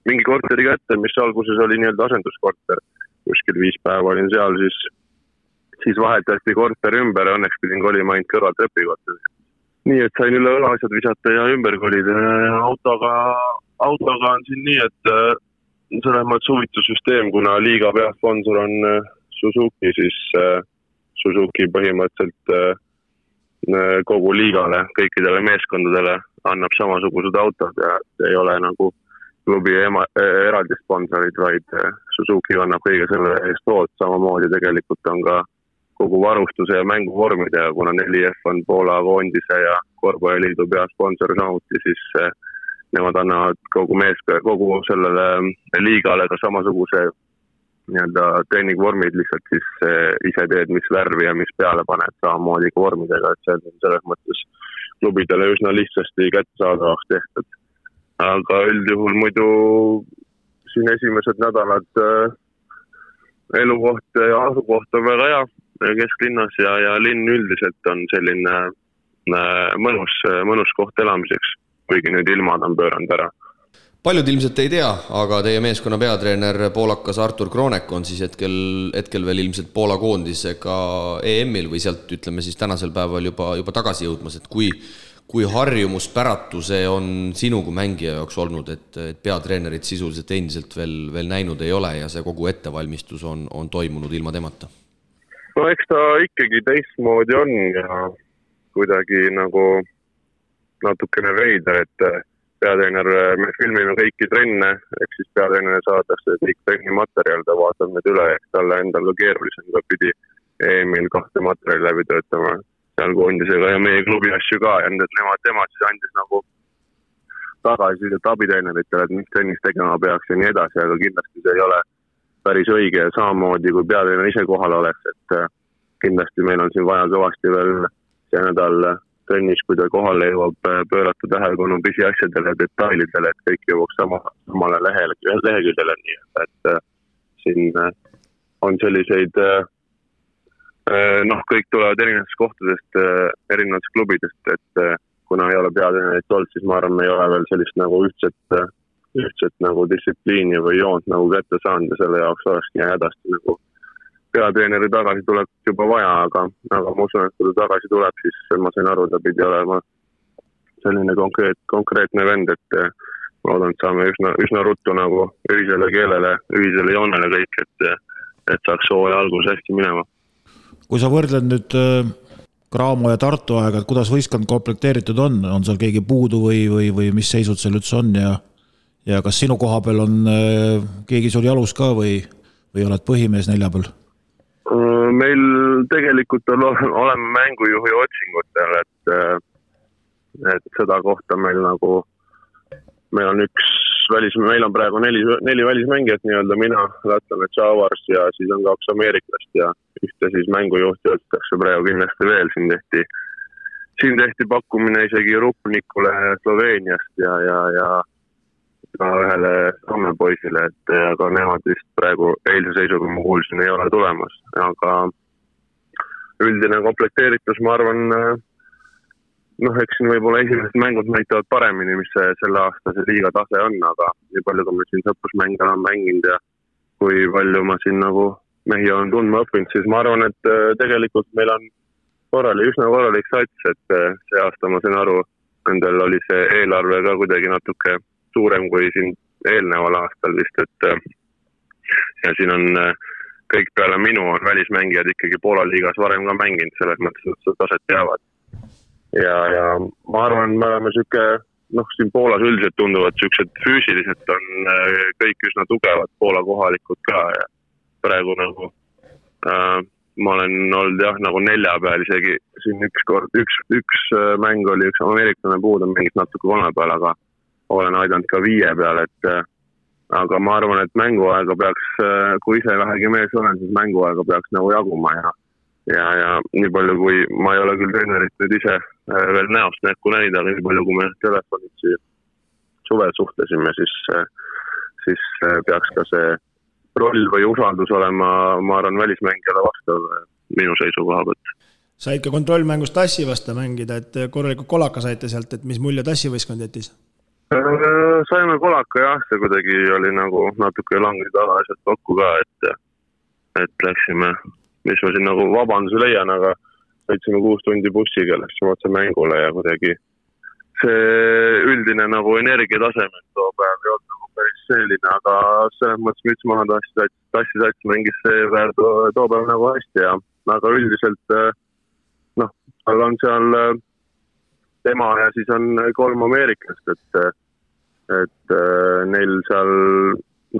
Speaker 5: mingi korteri kätte, mis alguses oli nii-öelda asenduskorter. Kuskil 5 päeva olin seal, siis vahetati korter ümber ja õnneks pidin kolima ainult kõrval trepikorteri. Nii, et sain üle õlasjad visata ja ümber kolida ja autoga on siin nii, et selles mõttes huvitussüsteem, kuna liiga peasponsor on Suzuki, siis Suzuki põhimõtteliselt kogu liigale, kõikidele meeskondadele annab samasugused autod ja ei ole nagu klubi eraldi sponsorid, vaid Suzuki annab kõige selle eest hood, samamoodi tegelikult on ka kogu varustuse ja mänguvormide ja kuna 4F on Poola koondise ja korvpalliliidu peasponsor samuti, siis nemad annavad kogu sellele liigale ka samasuguse nii-öelda treeningvormid, lihtsalt siis ise teed, mis värvi ja mis peale paned samamoodi ka vormidega, et see on selles mõttes klubidele üsna lihtsasti kättesaadavaks tehtud. Aga üldjuhul muidu siin esimesed nädalad elukoht ja asukoht on väga hea kesklinnas ja linn üldiselt on selline mõnus koht elamiseks, kuigi nüüd ilmad on pööranud ära.
Speaker 2: Paljud ilmselt ei tea, aga teie meeskonna peatreener poolakas Artur Kronek on siis hetkel veel ilmselt Poola koondisega EM-il või sealt ütleme siis tänasel päeval juba tagasi jõudmas, et kui harjumuspäratu see on sinu kui mängija jaoks olnud, et peatreenerit sisuliselt endiselt veel näinud ei ole ja see kogu ettevalmistus on toimunud ilma temata?
Speaker 5: No eks ta ikkagi teistmoodi on ja kuidagi nagu natukene veider, et peatreener, me filmime kõiki trenne, eks siis peatreener saadakse kõik trennimaterjal, ta vaatab need üle, eks talle endal ka keerulisem, ta pidi EM-il 2 materjali läbi töötama seal koondisega ja meie klubi asju ka ja tema siis andis nagu tagasi abitreeneritele, et mis trennis tegema peaks ja nii edasi, aga kindlasti see ei ole päris õige ja samamoodi, kui peatreener ise kohal oleks, et kindlasti meil on siin vaja kõvasti veel see nädal trennis, kui ta kohale jõuab pöörata tähelepanu pisiasjadele ja detailidele, et kõik jõuaks samale leheküljele, nii et siin on selliseid kõik tulevad erinevatest kohtadest, erinevatest klubidest, et kuna ei ole peatreenerit olnud, siis ma arvan, me ei ole veel sellist nagu ühtset nagu distsipliini või joont nagu kätte saanud ja selle jaoks olekski hädasti nagu peatreeneri tagasi tuleb juba vaja, aga ma usun, et kui ta tagasi tuleb, siis ma sain aru, ta pidi olema selline konkreetne vend, et ma loodan, et saame üsna ruttu nagu ühisele keelele, ühisele joonele kõik, et saaks hooaja algus hästi minema.
Speaker 3: Kui sa võrdled nüüd Graamo ja Tartu aega, et kuidas võistkond komplekteeritud on seal keegi puudu või mis seisud seal üldse on ja kas sinu koha peal on keegi sul jalus ka või oled põhimees 4 peal?
Speaker 5: Meil tegelikult oleme mängujuhi otsingutel, et seda kohta meil on praegu 4 välismängijat nii-öelda, mina, lätlane Chavars ja siis on 2 ameeriklast ja ühte siis mängujuhti otsitakse praegu kindlasti veel, siin tehti siin tehti pakkumine isegi Rupnikule Sloveeniast ja ka ühele Soome poisile, et aga nemad vist praegu eilse seisuga ma kuulsin ei ole tulemas, aga üldine komplekteeritus, ma arvan, eks siin võib-olla esimesed mängud näitavad paremini, mis selle aasta see liiga tase on, aga nii palju, kui me siin sõprusmänge olen mänginud ja kui palju ma siin nagu mehi olen tundma õppinud, siis ma arvan, et tegelikult meil on üsna korralik sats, et see aasta ma sain aru, nendel oli see eelarve ka kuidagi natuke suurem kui siin eelneval aastal vist, et ja siin on kõik peale minu on välismängijad ikkagi Poola liigas varem ka mänginud, selles mõttes, et seda taset teavad. Ja ma arvan, me oleme siin Poolas üldiselt tunduvad sellised füüsiliselt on kõik üsna tugevad Poola kohalikud ka ja praegu nagu ma olen olnud nagu 4 peal isegi siin üks mäng oli üks ameeriklane puudu, mängis natuke 3 peal, aga olen aidanud ka 5 peal, et aga ma arvan, et mänguaega peaks, kui ise vähegi mees olen, siis mänguaega peaks nagu jaguma ja nii palju, kui ma ei ole küll treenerit nüüd ise veel näost näkku näida, aga nii palju, kui me telefonid suvel suhtlesime, siis peaks ka see roll või usaldus olema, ma arvan, välismängijale vastav minu seisukoha võtt.
Speaker 4: Said ka kontrollmängus Tassi vasta mängida, et korralikult kolaka saite sealt, et mis mulje Tassi võistkond jättis?
Speaker 5: Saime kolaka jah, see kuidagi oli nagu natuke langid asjad kokku ka, et läksime, mis ma siin nagu vabanduse leian, aga sõitsime 6 tundi bussiga, läksime otse mängule ja kuidagi see üldine nagu energiataseme too päev ei olnud nagu päris selline, aga selles mõttes müts maha Tassi sats mängis see päev too päev nagu hästi ja aga üldiselt tal on seal tema ja siis on 3 ameeriklast, et neil seal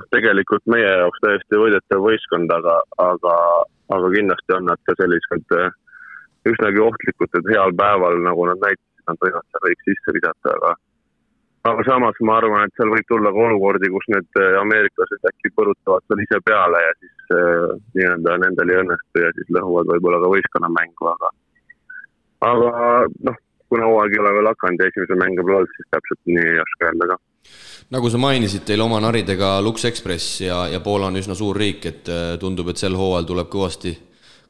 Speaker 5: tegelikult meie jaoks täiesti võidetav võistkond, aga kindlasti on nad ka sellised üsnagi ohtlikud, et heal päeval, nagu nad näitasid, nad võivad seal kõik sisse visata, aga samas ma arvan, et seal võib tulla ka olukordi, kus need ameeriklased äkki põrutavad seal ise peale ja siis nii-öelda nendel ei õnnestu ja siis lõhuvad võib-olla ka võistkonna mängu, aga kuna hooaeg ei ole veel hakanud ja esimese mänge pole olnud, siis täpselt nii ei oska öelda ka.
Speaker 2: Nagu sa mainisid, teil oma naridega Lux Express ja Poola on üsna suur riik, et tundub, et sel hooajal tuleb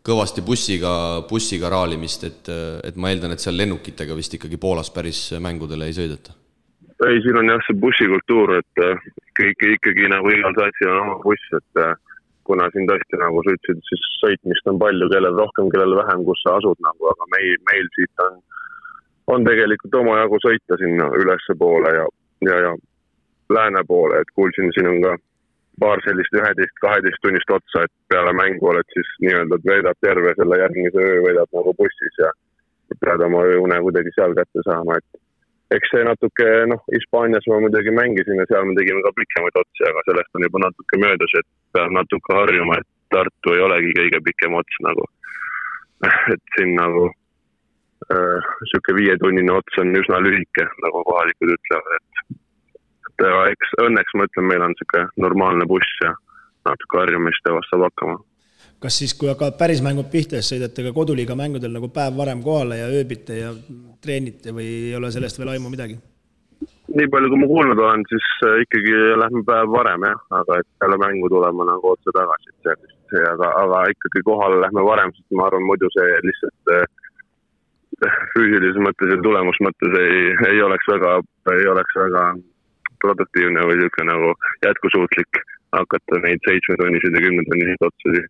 Speaker 2: kõvasti bussiga raalimist, et ma eeldan, et seal lennukitega vist ikkagi Poolas päris mängudele ei sõideta.
Speaker 5: Ei, siin on jah see bussikultuur, et ikkagi nagu igal satsil on oma buss, et kuna siin tõesti nagu sa ütlesid, siis sõitmist on palju, kellel rohkem, kellel vähem, kus sa asud nagu, aga meil siit on tegelikult oma jagu sõita sinna ülesse poole ja lääne poole, et kuulsin, siin on ka paar sellist 11-12 tunnist otsa, et peale mängu oled siis nii-öelda veedab terve selle järgmise öö, veedab nagu bussis ja pead oma ööune kuidagi seal kätte saama, et eks see natuke, Hispaanias ma muidugi mängisin ja seal me tegime ka pikemaid otsi, aga sellest on juba natuke möödas, et peab natuke harjuma, et Tartu ei olegi kõige pikem ots nagu, et siin nagu siuke 5-tunnine ots on üsna lühike, nagu kohalikud ütlevad, et eks õnneks ma ütlen, meil on siuke normaalne buss ja natuke harjumist ja vast saab hakkama.
Speaker 4: Kas siis, kui hakkavad päris mängud pihta, sõidate ka koduliiga mängudel nagu päev varem kohale ja ööbite ja treenite või ei ole sellest veel aimu midagi?
Speaker 5: Nii palju, kui ma kuulnud olen, siis ikkagi lähme päev varem, jah, aga et peale mängu tulema nagu otse tagasi, aga ikkagi kohale lähme varem, sest ma arvan, muidu see lihtsalt füüsilises mõttes ja tulemus mõttes ei oleks väga produktiivne või siuke nagu jätkusuutlik hakata neid 7-tunniseid ja 10-tunniseid otsusi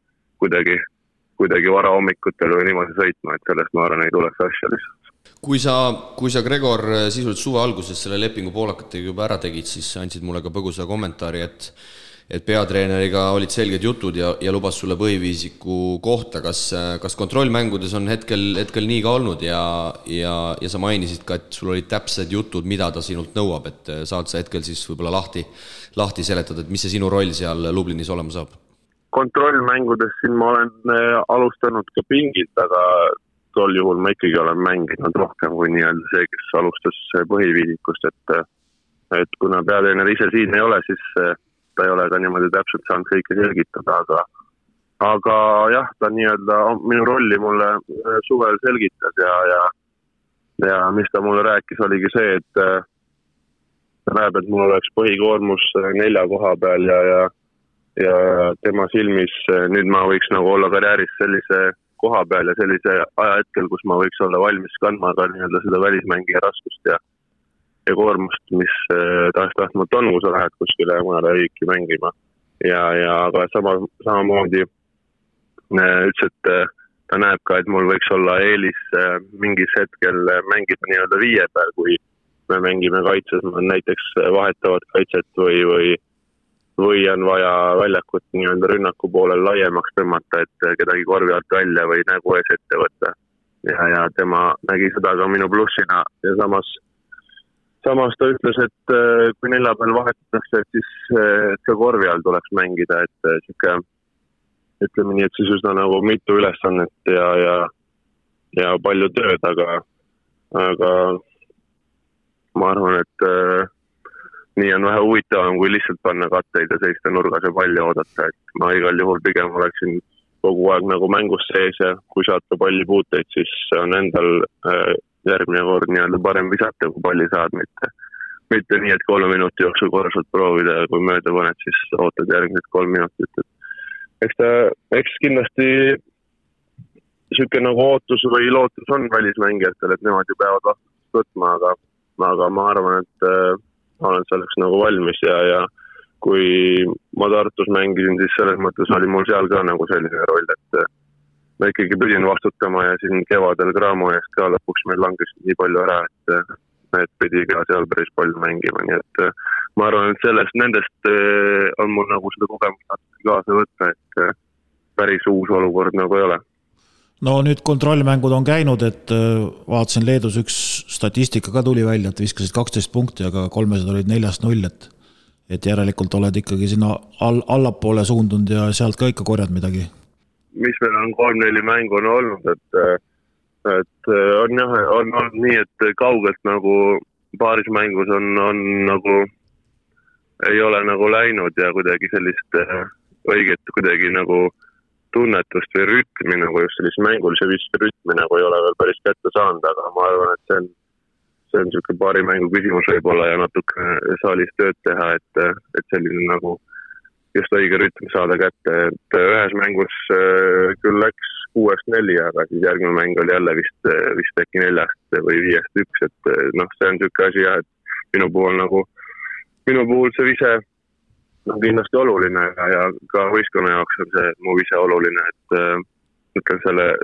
Speaker 5: kuidagi vara hommikutel või niimoodi sõitma, et sellest ma arvan ei tuleks asja lihtsalt.
Speaker 2: Kui sa Gregor sisuliselt suve alguses selle lepingu poolakatega juba ära tegid, siis andsid mulle ka põgusa kommentaari, et peatreeneriga olid selged jutud ja lubas sulle põhiviisiku kohta. Kas kontrollmängudes on hetkel nii ka olnud ja sa mainisid ka, et sul olid täpsed jutud, mida ta sinult nõuab, et saad sa hetkel siis võib-olla lahti seletada, et mis see sinu roll seal Lublinis olema saab?
Speaker 5: Kontrollmängudes siin ma olen alustanud ka pingilt, aga tol juhul ma ikkagi olen mänginud rohkem kui nii-öelda see, kes alustas põhiviisikust, et kuna peatreener ise siin ei ole, siis ta ei ole ka niimoodi täpselt saanud kõike selgitada, aga jah, ta nii-öelda minu rolli mulle suvel selgitas ja ja mis ta mulle rääkis, oligi see, et ta näeb, et mul oleks põhikoormus 4 koha peal ja tema silmis nüüd ma võiks nagu olla karjääris sellise koha peal ja sellise ajahetkel, kus ma võiks olla valmis kandma ka nii-öelda seda välismängija raskust ja koormust, mis tahtmata on, kui sa lähed kuskile mõnele riiki mängima. Aga samamoodi ütles, et ta näeb ka, et mul võiks olla eelis mingis hetkel mängida nii-öelda 5 peal, kui me mängime kaitses, näiteks vahetavad kaitset või on vaja väljakut nii-öelda rünnaku poolel laiemaks tõmmata, et kedagi korvi alt välja või nägu ees ette võtta. Ja tema nägi seda ka minu plussina ja samas ta ütles, et kui 4 peal vahetatakse, et siis ka korvi all tuleks mängida, et siuke, ütleme nii, et siis üsna nagu mitu ülesannet ja palju tööd, aga ma arvan, et nii on vähe huvitavam, kui lihtsalt panna katteid ja seista nurgas ja palli oodata, et ma igal juhul pigem oleksin kogu aeg nagu mängus sees ja kui saata palli puuteid, siis on endal järgmine kord nii-öelda parem visata, kui palli saad, mitte nii, et 3 minuti jooksul korraliselt proovida ja kui mööda paned, siis ootad järgmised 3 minutit. Eks kindlasti siuke nagu ootus või lootus on välismängijatel, et nemad ju peavad vastutust võtma, aga ma arvan, et ma olen selleks nagu valmis ja kui ma Tartus mängisin, siis selles mõttes oli mul seal ka nagu selline roll, et ma ikkagi pidin vastutama ja siin kevadel Graamo eest ka lõpuks meil langes nii palju ära, et pidi ka seal päris palju mängima, nii et ma arvan, et nendest on mul nagu seda kogemust kaasa võtta, et päris uus olukord nagu ei ole.
Speaker 3: No nüüd kontrollmängud on käinud, et vaatasin Leedus üks statistika ka tuli välja, et viskasid 12 punkti, aga 300 olid 4-0, et järelikult oled ikkagi sinna allapoole suundunud ja sealt ka ikka korjad midagi.
Speaker 5: Mis meil on 3-4 mängu on olnud, et on olnud nii, et kaugelt nagu paaris mängus on nagu ei ole nagu läinud ja kuidagi sellist õiget kuidagi nagu tunnetust või rütmi, nagu just sellist mängulise viske rütmi nagu ei ole veel päris kätte saanud, aga ma arvan, et see on siuke paari mängu küsimus võib-olla ja natuke saalis tööd teha, et selline nagu just õige rütm saada kätte, et ühes mängus küll läks 6-4, aga siis järgmine mäng oli jälle vist äkki 4 või 5-1, et see on siuke asi jah, et minu puhul see vise on kindlasti oluline ja ka võistkonna jaoks on see mu vise oluline, et ütlen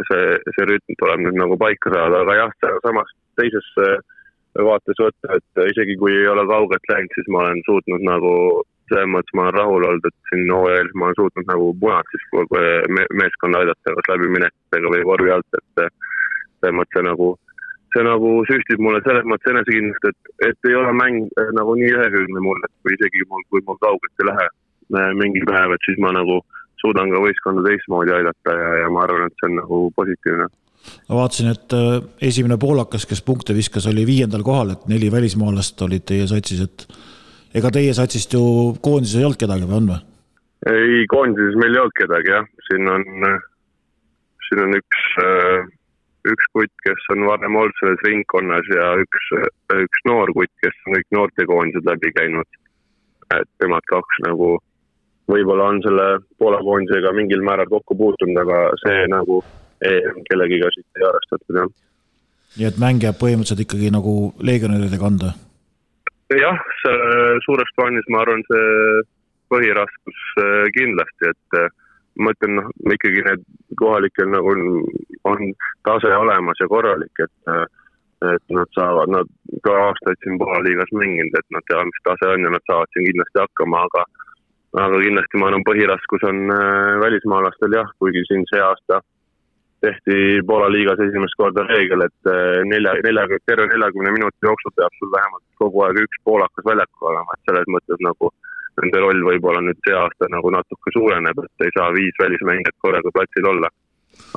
Speaker 5: see rütm tuleb nüüd nagu paika saada, aga jah, samas teises vaates võtta, et isegi kui ei ole kaugelt läinud, siis ma olen suutnud nagu selles mõttes ma olen rahul olnud, et siin OEL ma olen suutnud nagu punad siis meeskonna aidata kas läbi minekutega või vorvi alt, et selles mõttes see nagu süstib mulle selles mõttes enesekindlust, et ei ole mäng nagu nii ühekülgne mul, et kui isegi kui mul kaugelt ei lähe mingi päev, et siis ma nagu suudan ka võistkonda teistmoodi aidata ja ma arvan, et see on nagu positiivne.
Speaker 3: Ma vaatasin, et esimene poolakas, kes punkte viskas, oli 5. kohal, et 4 välismaalast olid teie satsis, et ega teie satsist ju koondises ei olnud kedagi või on või?
Speaker 5: Ei, koondises meil ei olnud kedagi, jah. Siin on üks kutt, kes on varem olnud selles ringkonnas ja üks noor kutt, kes on kõik noortekoondised läbi käinud. Et temad 2 nagu võib-olla on selle Poola koondisega mingil määral kokku puutunud, aga see nagu kellegiga siit ei arvestatud. Ja.
Speaker 3: Nii et mäng jääb põhimõtteliselt ikkagi nagu legionäride kanda?
Speaker 5: Jah, suures plaanis ma arvan see põhiraskus kindlasti, et ma ütlen, ikkagi need kohalikel nagu on tase olemas ja korralik, et nad ka aastaid siin Poola liigas mänginud, et nad teavad, mis tase on ja nad saavad siin kindlasti hakkama, aga kindlasti ma arvan, põhiraskus on välismaalastel jah, kuigi siin see aasta tehti Poola liigas esimest korda reegel, et terve 40 minuti jooksul peab sul vähemalt kogu aeg üks poolakas väljakul olema, et selles mõttes nagu nende roll võib-olla nüüd see aasta nagu natuke suureneb, et ei saa 5 välismängijat korraga platsil olla.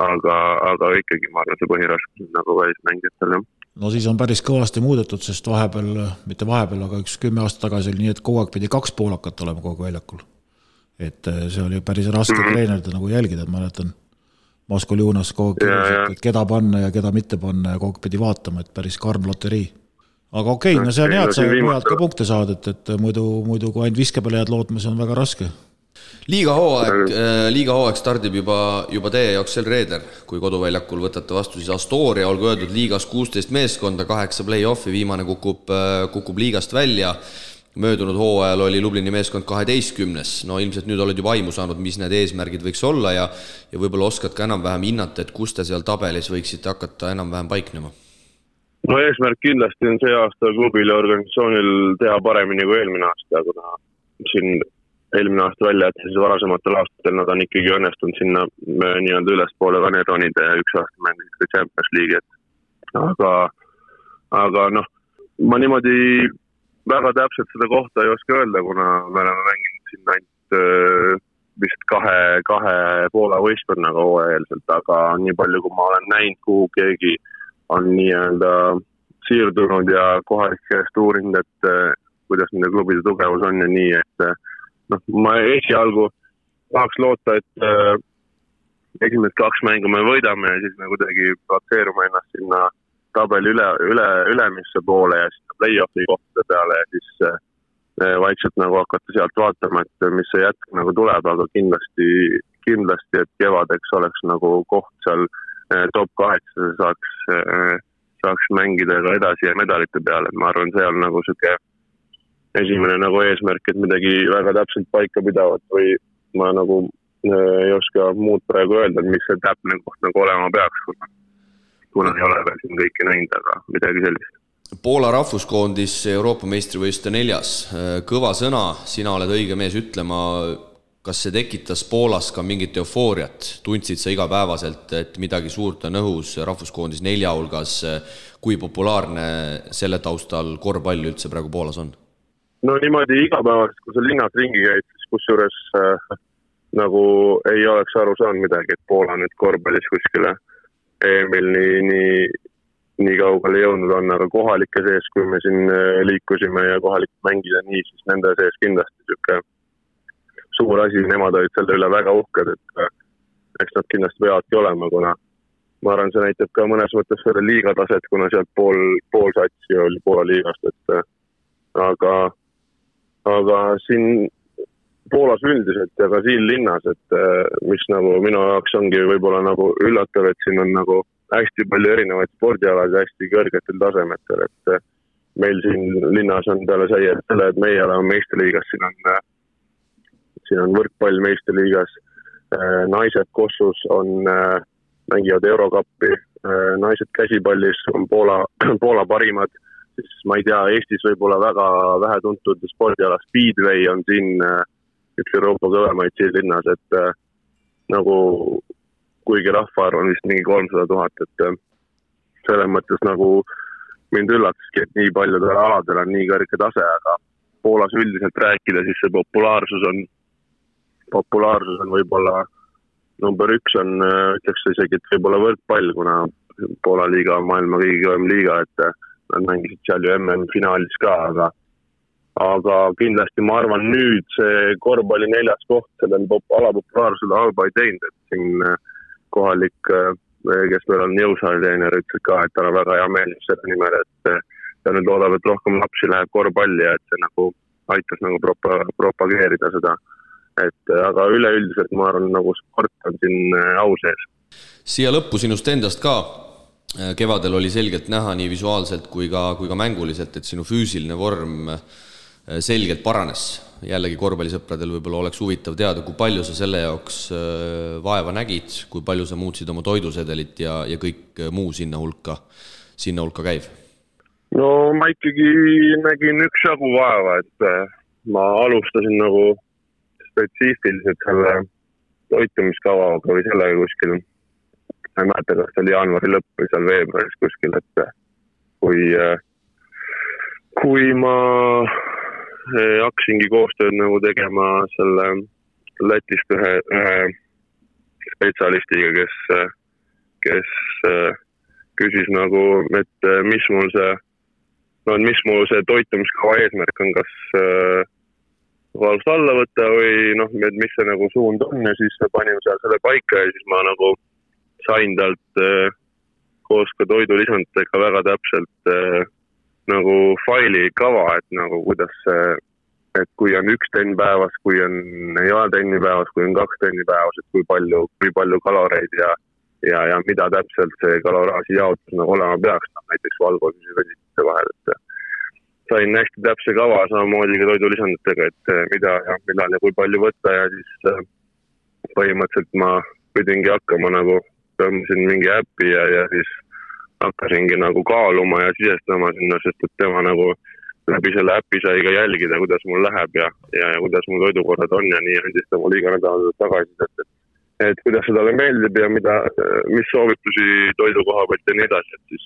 Speaker 5: Aga ikkagi ma arvan, see põhiraskus on nagu välismängijatel.
Speaker 3: No siis on päris kõvasti muudetud, sest mitte vahepeal, aga 10 aastat tagasi oli nii, et kogu aeg pidi 2 poolakat olema kogu väljakul. Et see oli päris raske treenerida nagu jälgida, et ma mäletan. Maskoljunas kogu aeg, et keda panna ja keda mitte panna ja kogu pidi vaatama, et päris karm loterii. Aga okei, no see on hea, et sa mujalt ka punkte saad, et muidu kui ainult viske peale jääd lootma, see on väga raske.
Speaker 2: Liiga hooaeg stardib juba teie jaoks sel reeder, kui koduväljakul võtate vastu siis Astoria, olgu öeldud liigas 16 meeskonda, 8 play-offi, viimane kukub liigast välja. Möödunud hooajal oli Lublini meeskond 12. No ilmselt nüüd oled juba aimu saanud, mis need eesmärgid võiks olla ja võib-olla oskad ka enam-vähem hinnata, et kus te seal tabelis võiksite hakata enam-vähem paiknema?
Speaker 5: No eesmärk kindlasti on see aasta klubil ja organisatsioonil teha paremini kui eelmine aasta, kuna siin eelmine aasta välja, et siis varasematel aastatel nad on ikkagi õnnestunud sinna nii-öelda ülespoole kaneronide ja üks aasta mängida Champions League. Aga noh, ma niimoodi väga täpselt seda kohta ei oska öelda, kuna me oleme mänginud siin ainult vist kahe Poola võistkonnaga hooajalselt, aga nii palju, kui ma olen näinud, kuhu keegi on nii-öelda siirdunud ja kohalikest uurinud, et kuidas nende klubide tugevus on ja nii, et noh, ma esialgu tahaks loota, et esimesed 2 mängu me võidame ja siis me kuidagi platseerume ennast sinna tabeli ülemisse poole ja sinna play-offi kohtade peale ja siis vaikselt nagu hakata sealt vaatama, et mis see jätk nagu tuleb, aga kindlasti, et kevadeks oleks nagu koht seal top 8 saaks mängida ka edasi ja medalite peale. Ma arvan, see on nagu süke esimene nagu eesmärk, et midagi väga täpselt paika pidavat või ma nagu ei oska muud praegu öelda, mis see täpne koht nagu olema peaks, kuna ei ole veel siin kõiki näinud, aga midagi sellist.
Speaker 2: Poola rahvuskoondis Euroopa meistrivõistluste 4. Kõva sõna, sina oled õige mees ütlema, kas see tekitas Poolas ka mingit eufooriat? Tundsid sa igapäevaselt, et midagi suurt on õhus rahvuskoondis 4 hulgas, kui populaarne selle taustal korvpall üldse praegu Poolas on?
Speaker 5: No niimoodi igapäevast, kui sa linnas ringi käid, siis kusjuures nagu ei oleks aru saanud midagi, et Poola nüüd korvpallis kuskile EM-il nii kaugele jõudnud on, aga kohalike sees, kui me siin liikusime ja kohalikud mängida nii, siis nende sees kindlasti selline suur asi, nemad olid selle üle väga uhked, et eks nad kindlasti peavadki olema, kuna ma arvan, see näitab ka mõnes mõttes selle liigataset, kuna sealt pool satsi oli Poola liigast, et aga siin Poolas üldiselt ja ka siin linnas, et mis nagu minu jaoks ongi võib-olla nagu üllatav, et siin on nagu hästi palju erinevaid spordialad ja hästi kõrgetel tasemetel, et meil siin linnas on peale selle, et meie oleme meistriliigas, siin on võrkpall meistriliigas, naised Kossus mängivad Eurokappi, naised käsipallis on Poola parimad, siis ma ei tea, Eestis võib-olla väga vähe tuntud spordiala Speedway on siin üks Euroopa kõvemaid siin linnas, et nagu kuigi rahvaarv on vist mingi 300 000, et selles mõttes nagu mind üllataski, et nii paljudel aladel on nii kõrge tase, aga Poolas üldiselt rääkida, siis see populaarsus on võib-olla number 1 on, ütleks isegi, et võib-olla võrkpall, kuna Poola liiga on maailma kõige kõvem liiga, et nad mängisid seal ju MM-finaalis ka, aga kindlasti ma arvan nüüd see korvpalli 4. koht sellel alapopulaarsele halba ei teinud, et siin kohalik, kes meil on jõusaaliteener, ütles ka, et ta on väga hea meel selle nimel, et ta nüüd loodab, et rohkem lapsi läheb korvpalli ja et see nagu aitas nagu propageerida seda. Aga üleüldiselt ma arvan, nagu sport on siin au sees.
Speaker 2: Siia lõppu sinust endast ka. Kevadel oli selgelt näha nii visuaalselt kui ka mänguliselt, et sinu füüsiline vorm selgelt paranes. Jällegi korvpallisõpradel võib-olla oleks huvitav teada, kui palju sa selle jaoks vaeva nägid, kui palju sa muutsid oma toidusedelit ja kõik muu sinna hulka käiv?
Speaker 5: No ma ikkagi nägin üksjagu vaeva, et ma alustasin nagu spetsiifiliselt selle toitumiskavaga või sellega kuskil. Ma ei mäleta, kas see oli jaanuari lõpp või seal veebruaris kuskil, et kui ma hakkasingi koostööd nagu tegema selle Lätist ühe spetsialistiga, kes küsis nagu, et mis mul see toitumiskava eesmärk on, kas valust alla võtta või noh, mis see nagu suund on ja siis panime seal selle paika ja siis ma nagu sain talt koos ka toidulisanditega väga täpselt nagu faili kava, et nagu kuidas et kui on 1 trenn päevas, kui ei ole trenni päevas, kui on 2 trenni päevas, et kui palju kaloreid ja mida täpselt see kaloraaži jaotus nagu olema peaks, näiteks valgosuse ja vesituse vahel, et sain hästi täpse kava samamoodi ka toidulisanditega, et mida ja millal ja kui palju võtta ja siis põhimõtteliselt ma pidingi hakkama nagu, tõmbasin mingi äppi ja siis hakkasingi nagu kaaluma ja sisestama sinna, sest et tema nagu läbi selle äppi sai ka jälgida, kuidas mul läheb ja kuidas mul toidukorrad on ja nii andis ta mul iga nädal tagasi, et kuidas see talle meeldib ja mis soovitusi toidukoha pealt ja nii edasi, et siis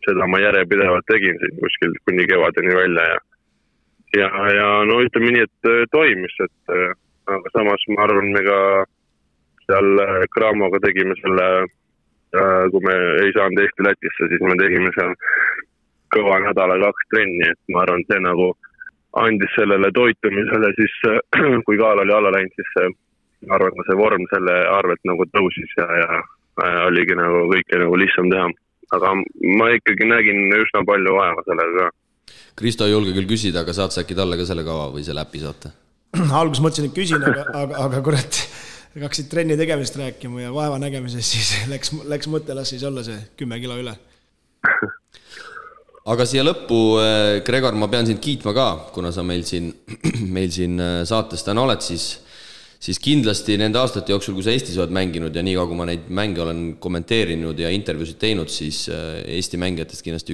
Speaker 5: seda ma järjepidevalt tegin siin kuskil kuni kevadeni välja ja no ütleme nii, et toimis, et aga samas ma arvan, me ka seal Craamoga tegime selle, kui me ei saanud Eesti-Lätisse, siis me tegime seal kõva nädala 2 trenni, et ma arvan, see nagu andis sellele toitumisele siis, kui kaal oli alla läinud, siis ma arvan, see vorm selle arvelt nagu tõusis ja oligi nagu kõike nagu lihtsam teha. Aga ma ikkagi nägin üsna palju vaeva sellega.
Speaker 2: Kristo ei julge küll küsida, aga saad sa äkki talle ka selle kava või selle äpi saata?
Speaker 4: Alguses mõtlesin, et küsin, aga kurat, hakkasid trenni tegemisest rääkima ja vaeva nägemises, siis läks mõte, las siis olla see 10 kilo üle.
Speaker 2: Aga siia lõppu, Gregor, ma pean sind kiitma ka, kuna sa meil siin saates täna oled, siis kindlasti nende aastate jooksul, kui sa Eestis oled mänginud ja nii kui ma neid mänge olen kommenteerinud ja intervjuusid teinud, siis Eesti mängijatest kindlasti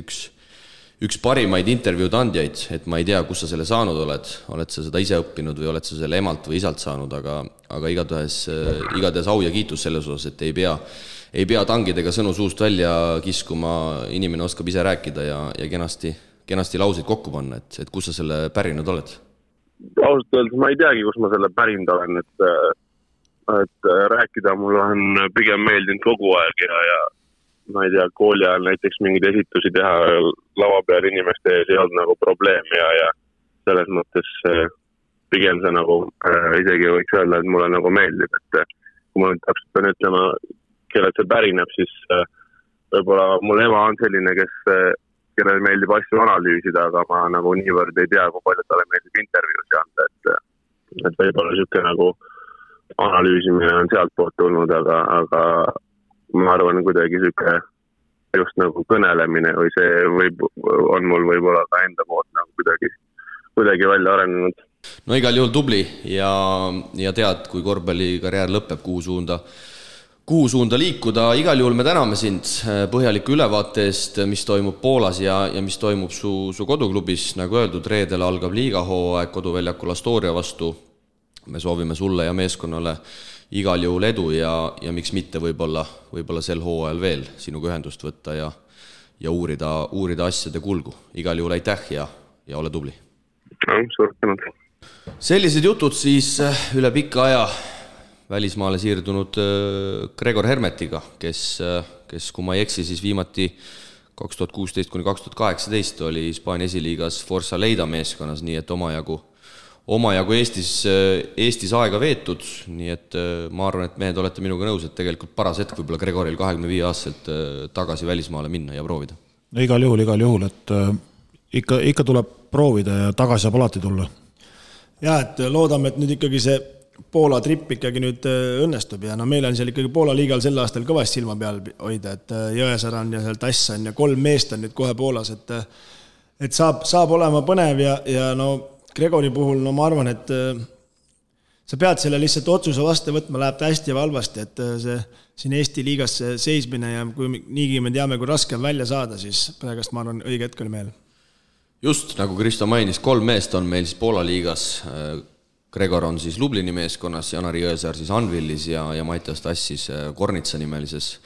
Speaker 2: üks parimaid intervjuud andjaid, et ma ei tea, kus sa selle saanud oled sa seda ise õppinud või oled sa selle emalt või isalt saanud, aga igatahes au ja kiitus selles osas, et ei pea tangidega sõnu suust välja kiskuma, inimene oskab ise rääkida ja kenasti lauseid kokku panna, et kus sa selle pärinud oled?
Speaker 5: Ausalt öeldes ma ei teagi, kus ma selle pärinud olen, et rääkida mul on pigem meeldinud kogu aeg ja ma ei tea, kooli ajal näiteks mingeid esitusi teha lava peal inimeste ees ei olnud nagu probleem ja selles mõttes pigem see nagu isegi võiks öelda, et mulle nagu meeldib, et kui ma nüüd täpselt pean ütlema, kellelt see pärineb, siis võib-olla mul ema on selline, kellel meeldib asju analüüsida, aga ma nagu niivõrd ei tea, kui palju talle meeldib intervjuusi anda, et võib-olla niisugune nagu analüüsimine on sealt poolt tulnud, aga ma arvan kuidagi niisugune just nagu kõnelemine või see on mul võib-olla ka enda poolt nagu kuidagi välja arenenud.
Speaker 2: No igal juhul tubli ja tead, kui korvpallikarjäär lõpeb, kuhu suunda liikuda. Igal juhul me täname sind põhjaliku ülevaate eest, mis toimub Poolas ja mis toimub su koduklubis. Nagu öeldud, reedel algab liigahooaeg koduväljakul Astoria vastu. Me soovime sulle ja meeskonnale igal juhul edu ja miks mitte võib-olla sel hooajal veel sinuga ühendust võtta ja uurida asjade kulgu. Igal juhul aitäh ja ole tubli.
Speaker 5: Suur tänu.
Speaker 2: Sellised jutud siis üle pika aja välismaale siirdunud Gregor Hermetiga, kes kui ma ei eksi, siis viimati 2016–2018 oli Hispaania esiliigas Forza Leida meeskonnas, nii et omajagu Eestis aega veetud, nii et ma arvan, et mehed olete minuga nõus, et tegelikult paras hetk võib-olla Gregoril 25-aastaselt tagasi välismaale minna ja proovida.
Speaker 3: No, igal juhul, et ikka tuleb proovida ja tagasi saab alati tulla.
Speaker 4: Ja, et loodame, et nüüd ikkagi see Poola trip ikkagi nüüd õnnestub ja no meil on seal ikkagi Poola liigal sel aastal kõvasti silma peal hoida, et Jõesaar on ja seal Tass on ja 3 meest on nüüd kohe Poolas, et saab olema põnev ja no Gregori puhul, no ma arvan, et sa pead selle lihtsalt otsuse vastu võtma, läheb ta hästi ja valvasti, et see siin Eesti liigas seismine ja kui niigi me teame, kui raske on välja saada, siis praegust ma arvan õige hetk oli meil.
Speaker 2: Just, nagu Kristo mainis, 3 meest on meil siis Poola liigas. Gregor on siis Lublini meeskonnas, Janari Jõesaar siis Anvilis ja Mattias Tass siis Kornitsa nimelises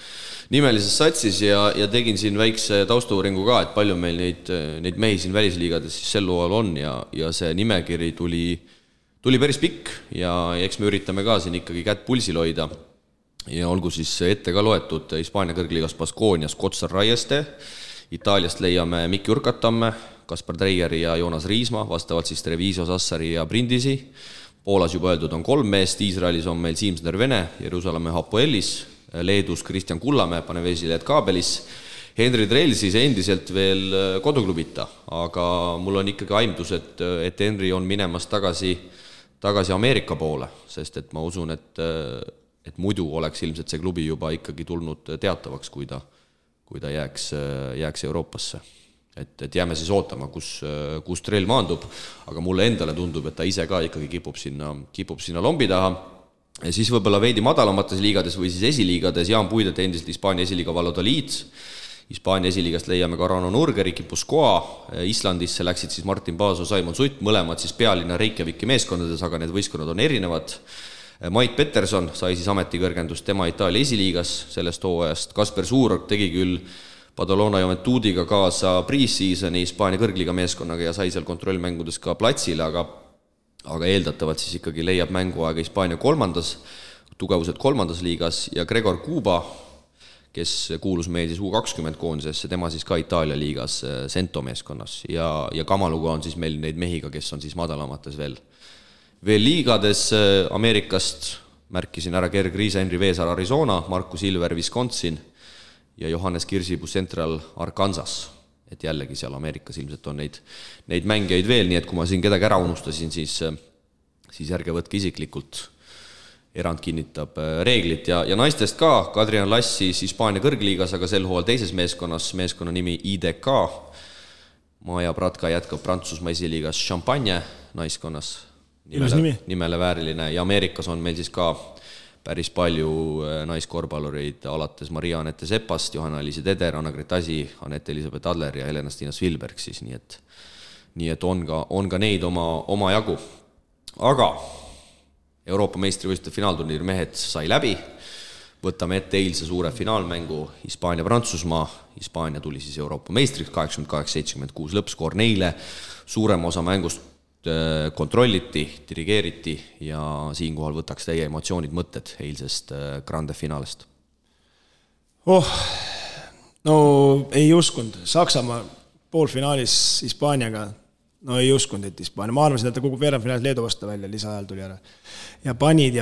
Speaker 2: satsis ja tegin siin väikse taustauuringu ka, et palju meil neid mehi siin välisliigades siis sel hooajal on ja see nimekiri tuli päris pikk ja eks me üritame ka siin ikkagi kätt pulsil hoida ja olgu siis ette ka loetud Hispaania kõrgliigas Baskonias Kotsar Raieste, Itaaliast leiame Mikki Urkatamme, Kaspar Treieri ja Joonas Riisma, vastavalt siis Treviso, Sassari ja Brindisi. Poolas juba öeldud on 3 meest, Iisraelis on meil Siimsner Vene, Jeruusalemma Hapoelis, Leedus Kristjan Kullamäe, Panevėžile Lietkaabelis. Henri Drell siis endiselt veel koduklubita, aga mul on ikkagi aimdus, et Henri on minemas tagasi Ameerika poole, sest et ma usun, et muidu oleks ilmselt see klubi juba ikkagi tulnud teatavaks, kui ta jääks Euroopasse. Et jääme siis ootama, kus Drell maandub, aga mulle endale tundub, et ta ise ka ikkagi kipub sinna lombi taha. Ja siis võibolla veidi madalamates liigades või siis esiliigades Jaan Puidet endiselt Hispaania esiliiga Valladolid. Hispaania esiliigast leiame ka Rano Nurger, Ikipuskoa, Islandisse läksid siis Martin Paaso, Saimon Sutt, mõlemad siis pealinna Reykjaviki meeskondades, aga need võistkonnad on erinevad. Mait Peterson sai siis ametikõrgendust tema Itaalia esiliigas sellest hooajast. Kasper Suurorg tegi küll Badalona Juventudiga kaasa pre-seasoni Hispaania kõrgliga meeskonnaga ja sai seal kontrollmängudes ka platsile, aga eeldatavalt siis ikkagi leiab mänguaega Hispaania tugevused kolmandas liigas ja Gregor Kuba, kes kuulus meil siis U20 koondisesse, tema siis ka Itaalia liigas Sento meeskonnas ja Kamaluga on siis meil neid mehiga, kes on siis madalamates veel liigades. Ameerikast märkisin ära Gerg Riisa, Henri Veesaar Arizona, Markus Ilver Wisconsin ja Johannes Kirsipuu Central Arkansas, et jällegi seal Ameerikas ilmselt on neid mängijaid veel, nii et kui ma siin kedagi ära unustasin, siis ärge võtke isiklikult, erand kinnitab reeglit ja naistest ka, Kadrian Lass siis Hispaania kõrgliigas, aga sel hooajal teises meeskonna nimi IDK, Maja Pratka jätkab Prantsusmaa esiliigas Champagne naiskonnas, nimele vääriline ja Ameerikas on meil siis ka päris palju naiskorvpallureid alates Maria-Anette Sepast, Johanna-Liisi Teder, Anna-Gret Asi, Anette-Elisabeth Adler ja Helena-Stina Svilberg siis, nii et on ka neid oma jagu. Aga Euroopa meistrivõistluste finaalturniir mehed sai läbi, võtame ette eilse suure finaalmängu Hispaania-Prantsusmaa, Hispaania tuli siis Euroopa meistriks 88-76 lõppskoor neile, suurem osa mängust kontrolliti, dirigeeriti ja siinkohal võtaks teie emotsioonid mõtted eilsest grande finaalist.
Speaker 4: No ei uskunud. Saksamaa poolfinaalis Hispaaniaga, no ei uskunud, et Hispaania. Ma arvasin, et ta kukub veerandfinaalis Leedu vastu välja, lisaajal tuli ära. Ja panid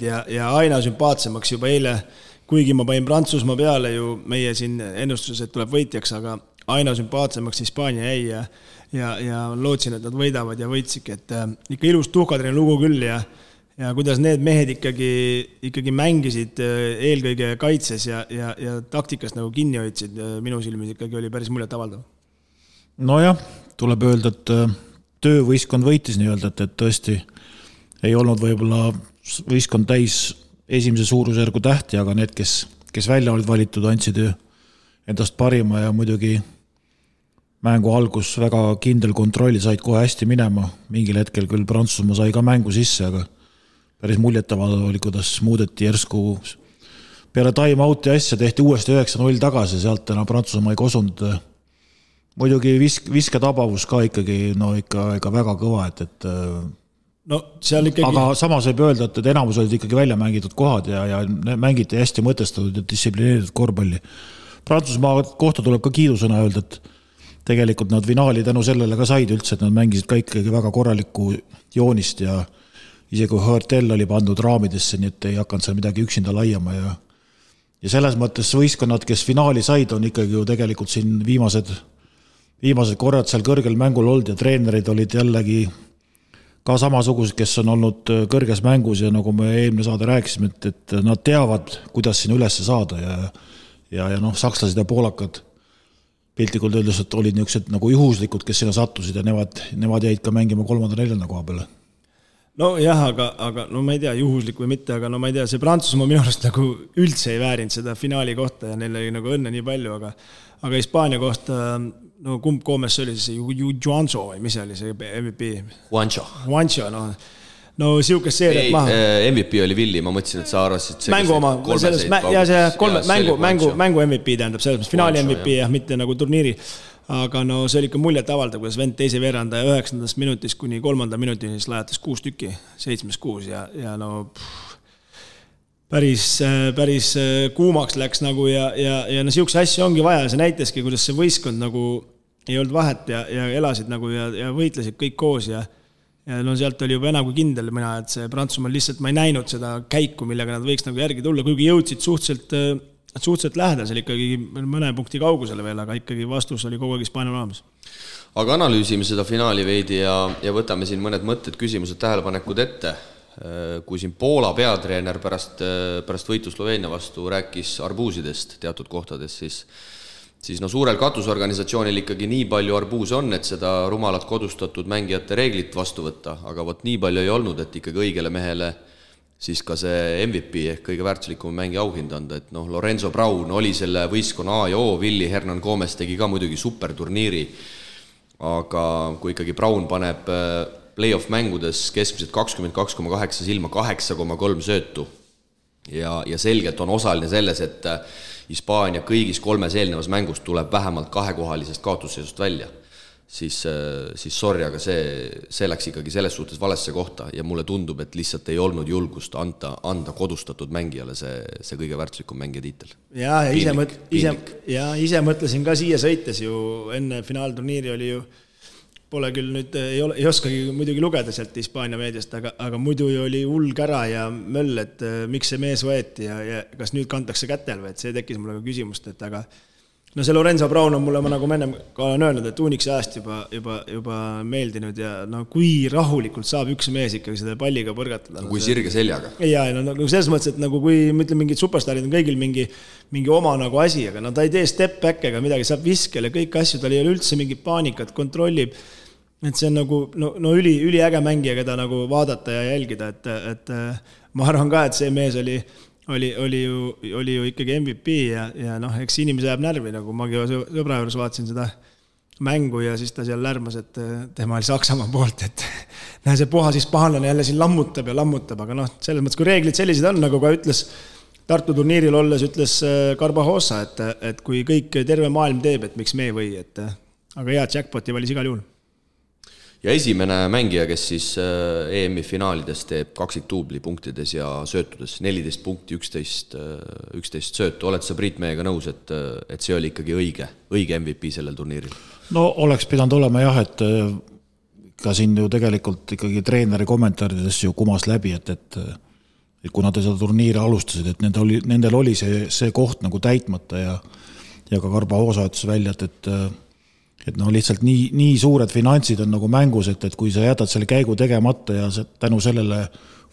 Speaker 4: ja aina sümpaatsemaks juba eile, kuigi ma panin Prantsusmaa peale ju meie siin ennustuses, et tuleb võitjaks, aga aina sümpaatsemaks Hispaania jäi ja lootsin, et nad võidavad ja võitsidki, et ikka ilus tuhkatrine lugu küll ja kuidas need mehed ikkagi mängisid eelkõige kaitses ja taktikas nagu kinni hoidsid, minu silmis ikkagi oli päris muljet avaldav.
Speaker 3: Nojah, tuleb öelda, et töövõistkond võitis nii öelda, et tõesti ei olnud võib-olla võistkond täis esimese suurusjärgu tähti, aga need, kes välja olid valitud, andsid endast parima ja muidugi mängu algus väga kindel kontrolli, said kohe hästi minema. Mingil hetkel küll Prantsusmaa sai ka mängu sisse, aga päris muljetavaldav oli, kuidas muudeti järsku peale time-outi asja, tehti uuesti 9-0 tagasi, sealt enam Prantsusmaa ei kosunud. Muidugi visketabavus ka ikkagi, no ikka väga kõva, et
Speaker 4: no seal ikkagi...
Speaker 3: Aga samas võib öelda, et enamus olid ikkagi välja mängitud kohad ja mängiti hästi mõtestatud ja distsiplineeritud korvpalli. Prantsusmaa kohta tuleb ka kiidusõna öelda, et tegelikult nad finaali tänu sellele ka said üldse, et nad mängisid ka ikkagi väga korralikku joonist ja isegi kui Hörtel oli pandud raamidesse, nii et ei hakanud seal midagi üksinda laiama ja selles mõttes võistkonnad, kes finaali said, on ikkagi ju tegelikult siin viimased korrad seal kõrgel mängul olnud ja treenerid olid jällegi ka samasugused, kes on olnud kõrges mängus ja nagu me eelmine saade rääkisime, et nad teavad, kuidas siin üles saada ja sakslased ja poolakad piltlikult öeldes, et olid niisugused nagu juhuslikud, kes sinna sattusid ja nemad jäid ka mängima 3.-4. koha peale.
Speaker 4: No jah, aga no ma ei tea, juhuslik või mitte, aga no ma ei tea, see Prantsusmaa minu arust nagu üldse ei väärinud seda finaali kohta ja neil oli nagu õnne nii palju, aga Hispaania kohta, no kumb Koomes oli see Juancho või mis oli see MVP? Juancho, no siukest seeriat maha.
Speaker 2: MVP oli Villi, ma mõtlesin, et sa arvasid
Speaker 4: mängu oma, mängu MVP tähendab, selles finaali MVP jah, mitte nagu turniiri, aga no see oli ikka muljet avaldav, kuidas vend teise veeranda 9. minutis kuni 3. minutini siis lajatas 6 tükki, 7-6 ja no päris kuumaks läks nagu ja no siukse asju ongi vaja, see näitaski, kuidas see võistkond nagu ei olnud vahet ja elasid nagu ja võitlesid kõik koos ja ja no sealt oli juba enam kui kindel mina, et see Prantsusmaal lihtsalt ma ei näinud seda käiku, millega nad võiks nagu järgi tulla, kuigi jõudsid suhteliselt lähedasel ikkagi mõne punkti kaugusele veel, aga ikkagi vastus oli kogu aeg Hispaanial olemas.
Speaker 2: Aga analüüsime seda finaali veidi ja võtame siin mõned mõtted, küsimused, tähelepanekud ette. Kui siin Poola peatreener pärast võitu Sloveenia vastu rääkis arbuusidest teatud kohtades, siis no suurel katusorganisatsioonil ikkagi nii palju arbuuse on, et seda rumalat kodustatud mängijate reeglit vastu võtta, aga võt nii palju ei olnud, et ikkagi õigele mehele siis ka see MVP ehk kõige väärtuslikum mängi auhind anda, et noh, Lorenzo Brown oli selle võistkonna A ja O, Willi Hernan Gomez tegi ka muidugi superturniiri, aga kui ikkagi Brown paneb play-off mängudes keskmiselt 22,8 silma 8,3 söötu ja selgelt on osaline selles, et Hispaania kõigis 3 eelnevas mängus tuleb vähemalt 2-kohalisest kaotusseisust välja, siis sorry, aga see läks ikkagi selles suhtes valesse kohta ja mulle tundub, et lihtsalt ei olnud julgust anda kodustatud mängijale see kõige väärtuslikum mängija tiitel.
Speaker 4: Ja ise mõtlesin ka siia sõites ju enne finaalturniiri oli ju pole küll nüüd, ei oskagi muidugi lugeda sealt Hispaania meediast, aga muidu oli hull kära ja möll, et miks see mees võeti ja kas nüüd kantakse kätel või, et see tekkis mulle ka küsimust, et aga no see Lorenzo Brown on mulle, ma nagu ennem ka olen öelnud, et Uniksi ajast juba meeldinud ja no kui rahulikult saab üks mees ikkagi seda palliga põrgatada.
Speaker 2: No, kui sirge seljaga.
Speaker 4: Ja no selles mõttes, et nagu kui ma ütlen, mingid superstarid on kõigil mingi oma nagu asi, aga no ta ei tee step back ega midagi, saab viskele kõik asju, tal ei ole üldse mingit paanikat, kontrollib, et see on nagu no üliäge mängija, keda nagu vaadata ja jälgida, et ma arvan ka, et see mees oli ju ikkagi MVP ja noh, eks inimese jääb närvi, nagu magi sõbra juures vaatasin seda mängu ja siis ta seal lärmas, et tema oli Saksamaa poolt, et näe, see puhas hispaanlane jälle siin lammutab, aga noh, selles mõttes, kui reeglid sellised on, nagu ka ütles Tartu turniiril olles, ütles Carbajosa, et kui kõik terve maailm teeb, et miks me ei või, aga hea jackpoti valis igal juhul.
Speaker 2: Ja esimene mängija, kes siis EM-i finaalides teeb kaksiktuubli punktides ja söötudes 14 punkti, 11 söötu. Oled sa Priit meiega nõus, et see oli ikkagi õige MVP sellel turniiril?
Speaker 3: No oleks pidanud olema jah, et ka siin ju tegelikult ikkagi treeneri kommentaarides ju kumas läbi, et kuna te seda turniiri alustasid, et nendel oli see koht nagu täitmata ja ka Carbajosa ütles välja, et no lihtsalt nii suured finantsid on nagu mängus, et kui sa jätad selle käigu tegemata ja tänu sellele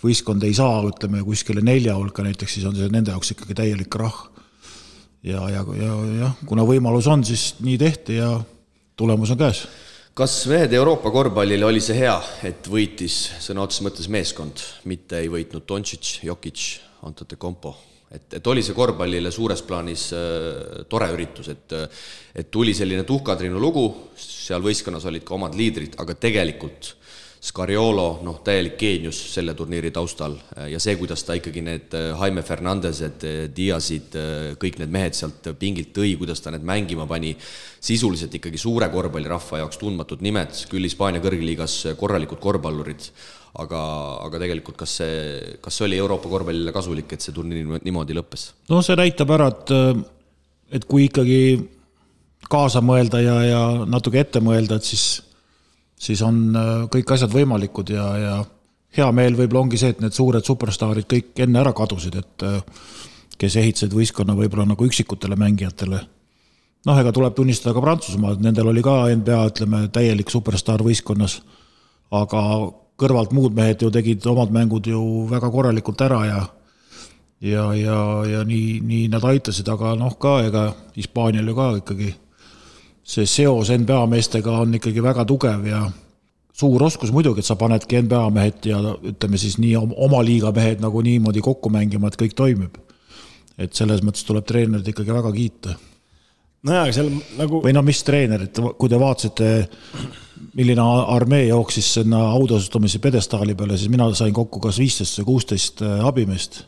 Speaker 3: võistkond ei saa, ütleme, kuskile 4 hulka näiteks, siis on see nende jaoks ikkagi täielik rah. Ja kuna võimalus on, siis nii tehti ja tulemus on käes.
Speaker 2: Kas mehed Euroopa korvpallile oli see hea, et võitis sõna otses mõttes meeskond, mitte ei võitnud Doncic, Jokic, Antetokounmpo? Et oli see korvpallile suures plaanis tore üritus, et tuli selline tuhkatriinu lugu, seal võistkonnas olid ka omad liidrid, aga tegelikult Scariolo, täielik geenius selle turniiri taustal ja see, kuidas ta ikkagi need Jaime Fernandesed, Diazid, kõik need mehed sealt pingilt tõi, kuidas ta need mängima pani, sisuliselt ikkagi suure korvpallirahva jaoks tundmatud nimed, küll Hispaania kõrgliigas korralikud korvpallurid, aga tegelikult kas see oli Euroopa korvpallile kasulik, et see turniir niimoodi lõppes? No
Speaker 3: see näitab ära, et kui ikkagi kaasa mõelda ja natuke ette mõelda, et siis on kõik asjad võimalikud ja hea meel võib-olla ongi see, et need suured superstaarid kõik enne ära kadusid, et kes ehitasid võistkonna võib-olla nagu üksikutele mängijatele. Ega tuleb tunnistada ka Prantsusmaa, et nendel oli ka NBA, ütleme, täielik superstaar võistkonnas, aga kõrvalt muud mehed ju tegid omad mängud ju väga korralikult ära ja nii nad aitasid, aga ka ega Hispaanial ju ka ikkagi see seos NBA meestega on ikkagi väga tugev ja suur oskus muidugi, et sa panedki NBA mehed ja ütleme siis nii oma liiga mehed nagu niimoodi kokku mängima, et kõik toimib. Et selles mõttes tuleb treenerid ikkagi väga kiita.
Speaker 4: Seal nagu...
Speaker 3: Või mis treenerid, kui te vaatasite, milline armee jooksis sinna autosustumise pedestaali peale, siis mina sain kokku kas 15 või 16 abimeest.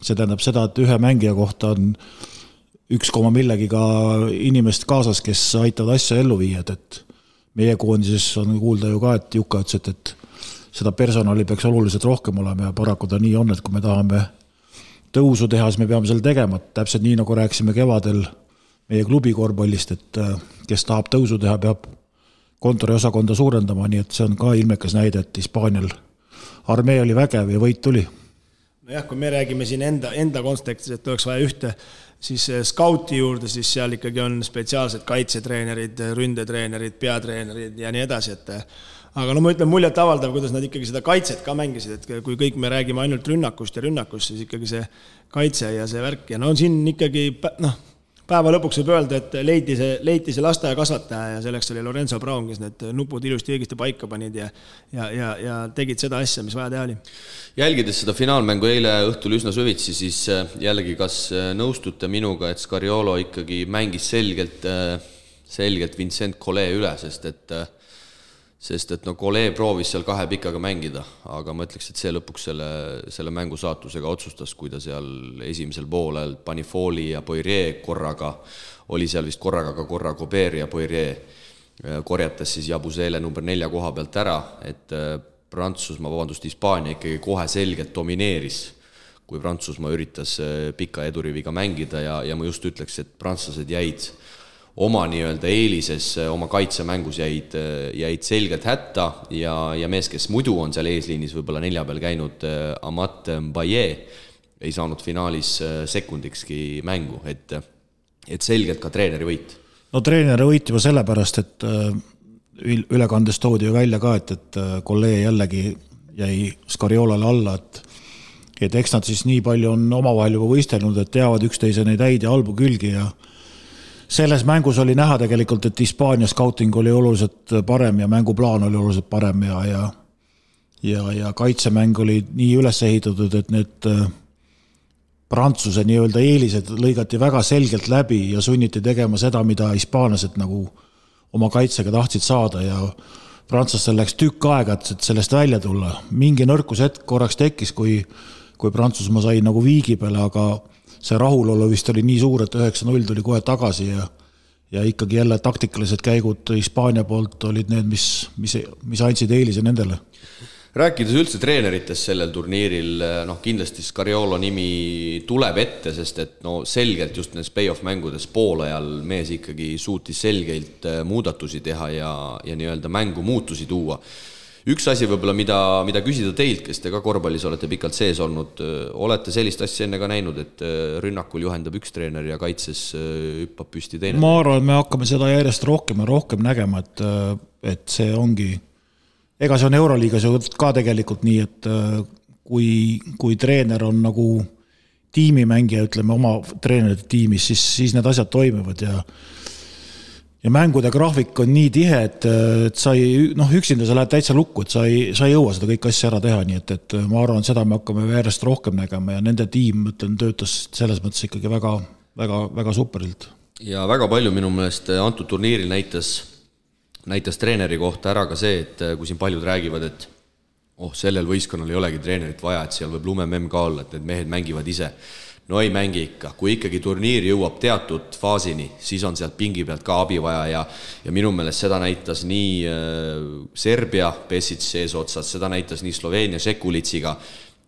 Speaker 3: See tähendab seda, et ühe mängija kohta on 1, millegiga inimest kaasas, kes aitavad asja ellu viia, et meie koondises on kuulda ju ka, et Juka ütles, et seda personali peaks oluliselt rohkem olema ja paraku ta nii on, et kui me tahame tõusu teha, siis me peame selle tegema, täpselt nii nagu rääksime kevadel meie klubi korvpallist, et kes tahab tõusu teha, peab kontoriosakonda suurendama, nii et see on ka ilmekas näide, et Hispaanial armee oli vägev ja võit tuli.
Speaker 4: Nojah, kui me räägime siin enda kontekstis, et oleks vaja ühte, siis skauti juurde, siis seal ikkagi on spetsiaalsed kaitsetreenerid, ründetreenerid, peatreenerid ja nii edasi, et aga no ma ütlen muljet avaldav, kuidas nad ikkagi seda kaitset ka mängisid, et kui kõik me räägime ainult rünnakust, siis ikkagi see kaitse ja see värk ja no siin ikkagi, päeva lõpuks võib öelda, et leiti see lasteaia kasvataja ja selleks oli Lorenzo Brown, kes need nupud ilusti õigesti paika panid ja tegid seda asja, mis vaja teha oli.
Speaker 2: Jälgides seda finaalmängu eile õhtul üsna süvitsi, siis jällegi kas nõustute minuga, et Scariolo ikkagi mängis selgelt Vincent Collet üle, sest et Collet proovis seal kahe pikaga mängida, aga ma ütleks, et see lõpuks selle mängu saatusega otsustas, kui ta seal esimesel poolel pani Folli ja Poirier korraga, oli seal vist korraga ka korra Gobert ja Poirier korjatas siis Jabusele number 4 koha pealt ära, et Hispaania ikkagi kohe selgelt domineeris, kui Prantsusmaa üritas pika eduriviga mängida ja ma just ütleks, et prantslased jäid oma nii-öelda eelises, oma kaitsemängus jäid selgelt hätta ja mees, kes muidu on seal eesliinis võib-olla 4 peal käinud, Amat Mbaye, ei saanud finaalis sekundikski mängu, et selgelt ka treeneri võit.
Speaker 3: No treeneri võit juba sellepärast, et ülekandes toodi ju välja ka, et Collet jällegi jäi Scariolale alla, et eks nad siis nii palju on omavahel juba võistelnud, et teavad üksteise neid häid ja halbu külgi ja selles mängus oli näha tegelikult, et Hispaania scouting oli oluliselt parem ja mänguplaan oli oluliselt parem ja kaitsemäng oli nii üles ehitatud, et need Prantsuse nii-öelda eelised lõigati väga selgelt läbi ja sunniti tegema seda, mida hispaanlased nagu oma kaitsega tahtsid saada ja prantslastel läks tükk aega, et sellest välja tulla. Mingi nõrkus hetk korraks tekkis, kui Prantsusmaa sai nagu viigi peale, aga see rahulolu vist oli nii suur, et 9-0 tuli kohe tagasi ja ikkagi jälle taktikalised käigud Hispaania poolt olid need, mis andsid eelise nendele.
Speaker 2: Rääkides üldse treeneritest sellel turniiril, kindlasti Scariolo nimi tuleb ette, sest et selgelt just nendes play-off mängudes poolajal mees ikkagi suutis selgelt muudatusi teha ja nii-öelda mängu muutusi tuua. Üks asi võib-olla, mida küsida teilt, kes te ka korvpallis olete pikalt sees olnud, olete sellist asja enne ka näinud, et rünnakul juhendab üks treener ja kaitses hüppab püsti teine?
Speaker 3: Ma arvan, et me hakkame seda järjest rohkem ja rohkem nägema, et see ongi, ega see on Euroliigas ju ka tegelikult nii, et kui treener on nagu tiimimängija, ütleme oma treenerite tiimis, siis need asjad toimivad ja mängude graafik on nii tihe, et sa üksinda sa lähed täitsa lukku, et sa ei jõua seda kõik asja ära teha, nii et ma arvan, et seda me hakkame järjest rohkem nägema ja nende tiim, töötas selles mõttes ikkagi väga, väga, väga superilt.
Speaker 2: Ja väga palju minu meelest antud turniiril näitas treeneri kohta ära ka see, et kui siin paljud räägivad, et sellel võistkonnal ei olegi treenerit vaja, et seal võib lumememm ka olla, et need mehed mängivad ise. No ei mängi ikka, kui ikkagi turniir jõuab teatud faasini, siis on sealt pingi pealt ka abi vaja ja minu meelest seda näitas nii Serbia Pesic eesotsas, seda näitas nii Sloveenia Šekulitsiga,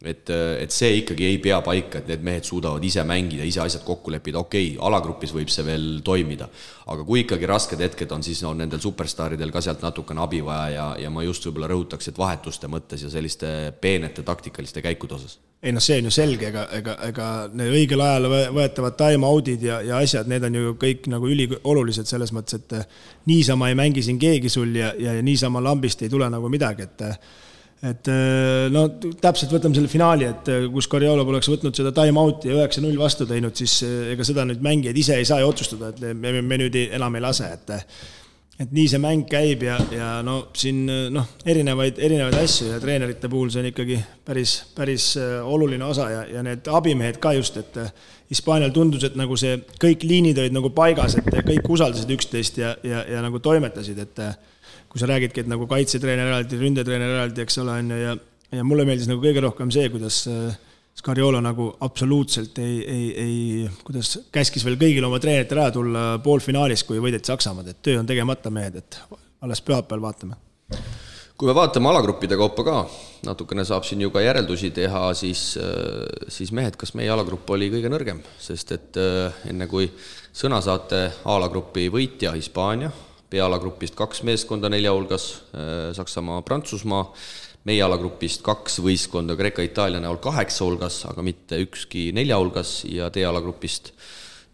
Speaker 2: et see ikkagi ei pea paika, et need mehed suudavad ise mängida, ise asjad kokku leppida, okei, alagrupis võib see veel toimida, aga kui ikkagi rasked hetked on, siis on nendel superstaaridel ka sealt natukene abi vaja ja ma just võib-olla rõhutaks, et vahetuste mõttes ja selliste peenete taktikaliste käikude osas.
Speaker 4: Ei see on ju selge, ega need õigel ajal võetavad time-outid ja asjad, need on ju kõik nagu üliolulised selles mõttes, et niisama ei mängi siin keegi sul ja niisama lambist ei tule nagu midagi, et täpselt võtame selle finaali, et kus Scariolo poleks võtnud seda time-outi ja 9-0 vastu teinud, siis ega seda nüüd mängijad ise ei saa ju otsustada, et me nüüd enam ei lase, et nii see mäng käib ja siin erinevaid asju ja treenerite puhul see on ikkagi päris oluline osa ja need abimehed ka just, et Hispaanial tundus, et nagu see kõik liinid olid nagu paigas, et kõik usaldasid üksteist ja nagu toimetasid, et kui sa räägidki, et nagu kaitsetreener eraldi, ründetreener eraldi, eks ole, ja mulle meeldis nagu kõige rohkem see, kuidas Scariolo nagu absoluutselt kuidas käskis veel kõigil oma treenerite ära tulla poolfinaalis, kui võideti Saksamaad, et töö on tegemata mehed, et alles pühapäeval vaatame.
Speaker 2: Kui me vaatame alagruppide kaupa ka, natukene saab siin ju ka järeldusi teha, siis mehed, kas meie alagrupp oli kõige nõrgem, sest et enne kui sõna saate alagrupi võitja Hispaania, B-alagrupist 2 meeskonda 4 hulgas, Saksamaa, Prantsusmaa, meie alagrupist 2 võistkonda Kreeka-Itaalia näol 8 hulgas, aga mitte ükski 4 hulgas ja D-alagrupist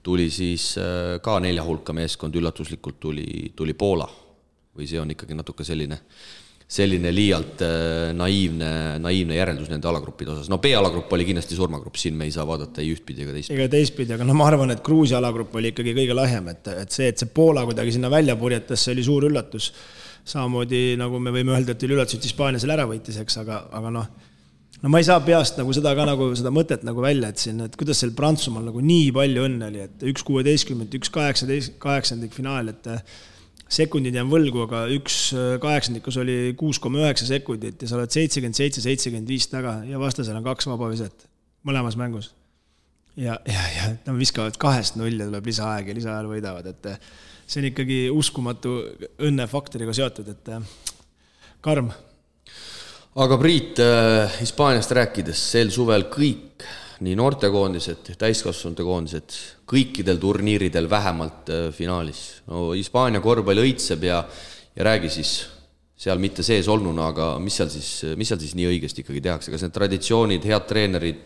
Speaker 2: tuli siis ka 4 hulka meeskond, üllatuslikult tuli Poola. Või see on ikkagi natuke selline liialt naiivne järeldus nende alagruppide osas. No B-alagrupp oli kindlasti surmagrupp, siin me ei saa vaadata ei ühtpidi ega teistpidi.
Speaker 4: Ega teistpidi, aga ma arvan, et Gruusia alagrupp oli ikkagi kõige lahjem, et see Poola kuidagi sinna välja purjetas, see oli suur üllatus. Samamoodi, nagu me võime öelda, et oli üllatus, et Hispaania selle ära võitis, eks, aga no ma ei saa peast nagu seda ka nagu seda mõtet nagu välja, et kuidas seal Prantsusmaal nagu nii palju õnne oli, et 1.16, 1.18 finaal, et sekundid jään võlgu, aga 1.8 oli 6,9 sekundit ja sa oled 77-75 taga ja vastasel on 2 vabaviset mõlemas mängus. Ja nad viskavad 2-0 ja tuleb lisaaeg ja lisaajal võidavad, et see on ikkagi uskumatu õnnefaktoriga seotud, et karm.
Speaker 2: Aga Priit, Hispaaniast rääkides, sel suvel kõik, nii noortekoondised, täiskasvanute koondised, kõikidel turniiridel vähemalt finaalis. No Hispaania korvpalli õitseb ja räägi siis seal mitte sees olnuna, aga mis seal siis nii õigesti ikkagi tehakse? Kas need traditsioonid, head treenerid,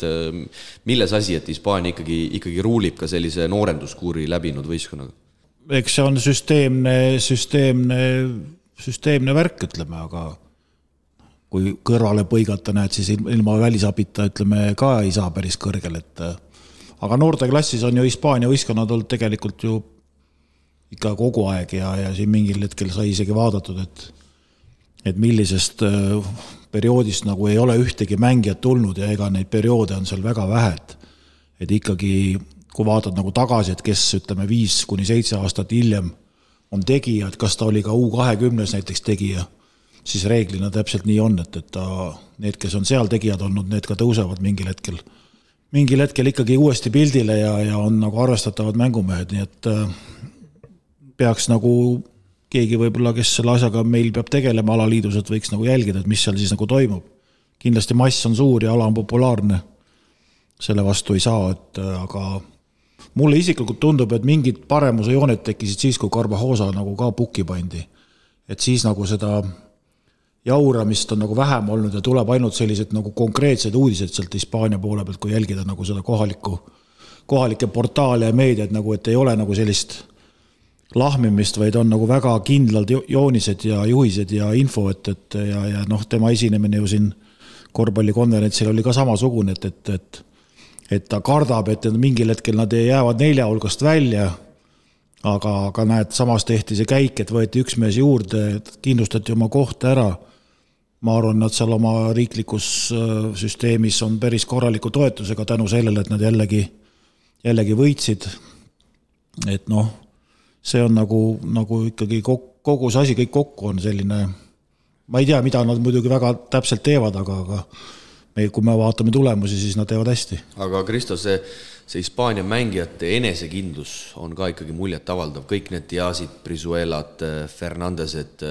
Speaker 2: milles asi, et Hispaania ikkagi ruulib ka sellise noorenduskuuri läbinud võistkonnaga?
Speaker 3: Eks see on süsteemne värk, ütleme, aga kui kõrvale põigata näed, siis ilma välisabita, ütleme, ka ei saa päris kõrgel, aga noorteklassis on ju Hispaania võistkonnad olnud tegelikult ju ikka kogu aeg ja siin mingil hetkel sai isegi vaadatud, et millisest perioodist nagu ei ole ühtegi mängijat tulnud ja ega neid perioode on seal väga vähe, et ikkagi kui vaatad nagu tagasi, et kes, ütleme, 5-7 aastat hiljem on tegija, et kas ta oli ka U20 näiteks tegija, siis reeglina täpselt nii on, et need, kes on seal tegijad olnud, need ka tõusevad mingil hetkel ikkagi uuesti pildile ja on nagu arvestatavad mängumehed, nii et peaks nagu keegi võib-olla, kes selle asjaga meil peab tegelema alaliidus, et võiks nagu jälgida, et mis seal siis nagu toimub. Kindlasti mass on suur ja ala on populaarne, selle vastu ei saa, aga mulle isiklikult tundub, et mingid paremuse jooned tekkisid siis, kui Carvajosa nagu ka pukki pandi. Et siis nagu seda jauramist on nagu vähem olnud ja tuleb ainult sellised nagu konkreetsed uudised sealt Hispaania poole pealt, kui jälgida nagu seda kohalike portaale ja meediat, nagu, et ei ole nagu sellist lahmimist, vaid on nagu väga kindlad joonised ja juhised ja info, ja tema esinemine ju siin korvpallikonverentsil oli ka samasugune, et ta kardab, et mingil hetkel nad jäävad 4 hulgast välja, aga näed, samas tehti see käik, et võeti üks mees juurde, kindlustati oma kohta ära. Ma arvan, nad seal oma riiklikus süsteemis on päris korraliku toetusega tänu sellele, et nad jällegi võitsid. Et see on nagu ikkagi kogu see asi kõik kokku on selline, ma ei tea, mida nad muidugi väga täpselt teevad, aga kui me vaatame tulemusi, siis nad teevad hästi.
Speaker 2: Aga Kristo, see Hispaania mängijate enesekindlus on ka ikkagi muljet avaldav. Kõik need Diazid, Brizuelad, Fernandesed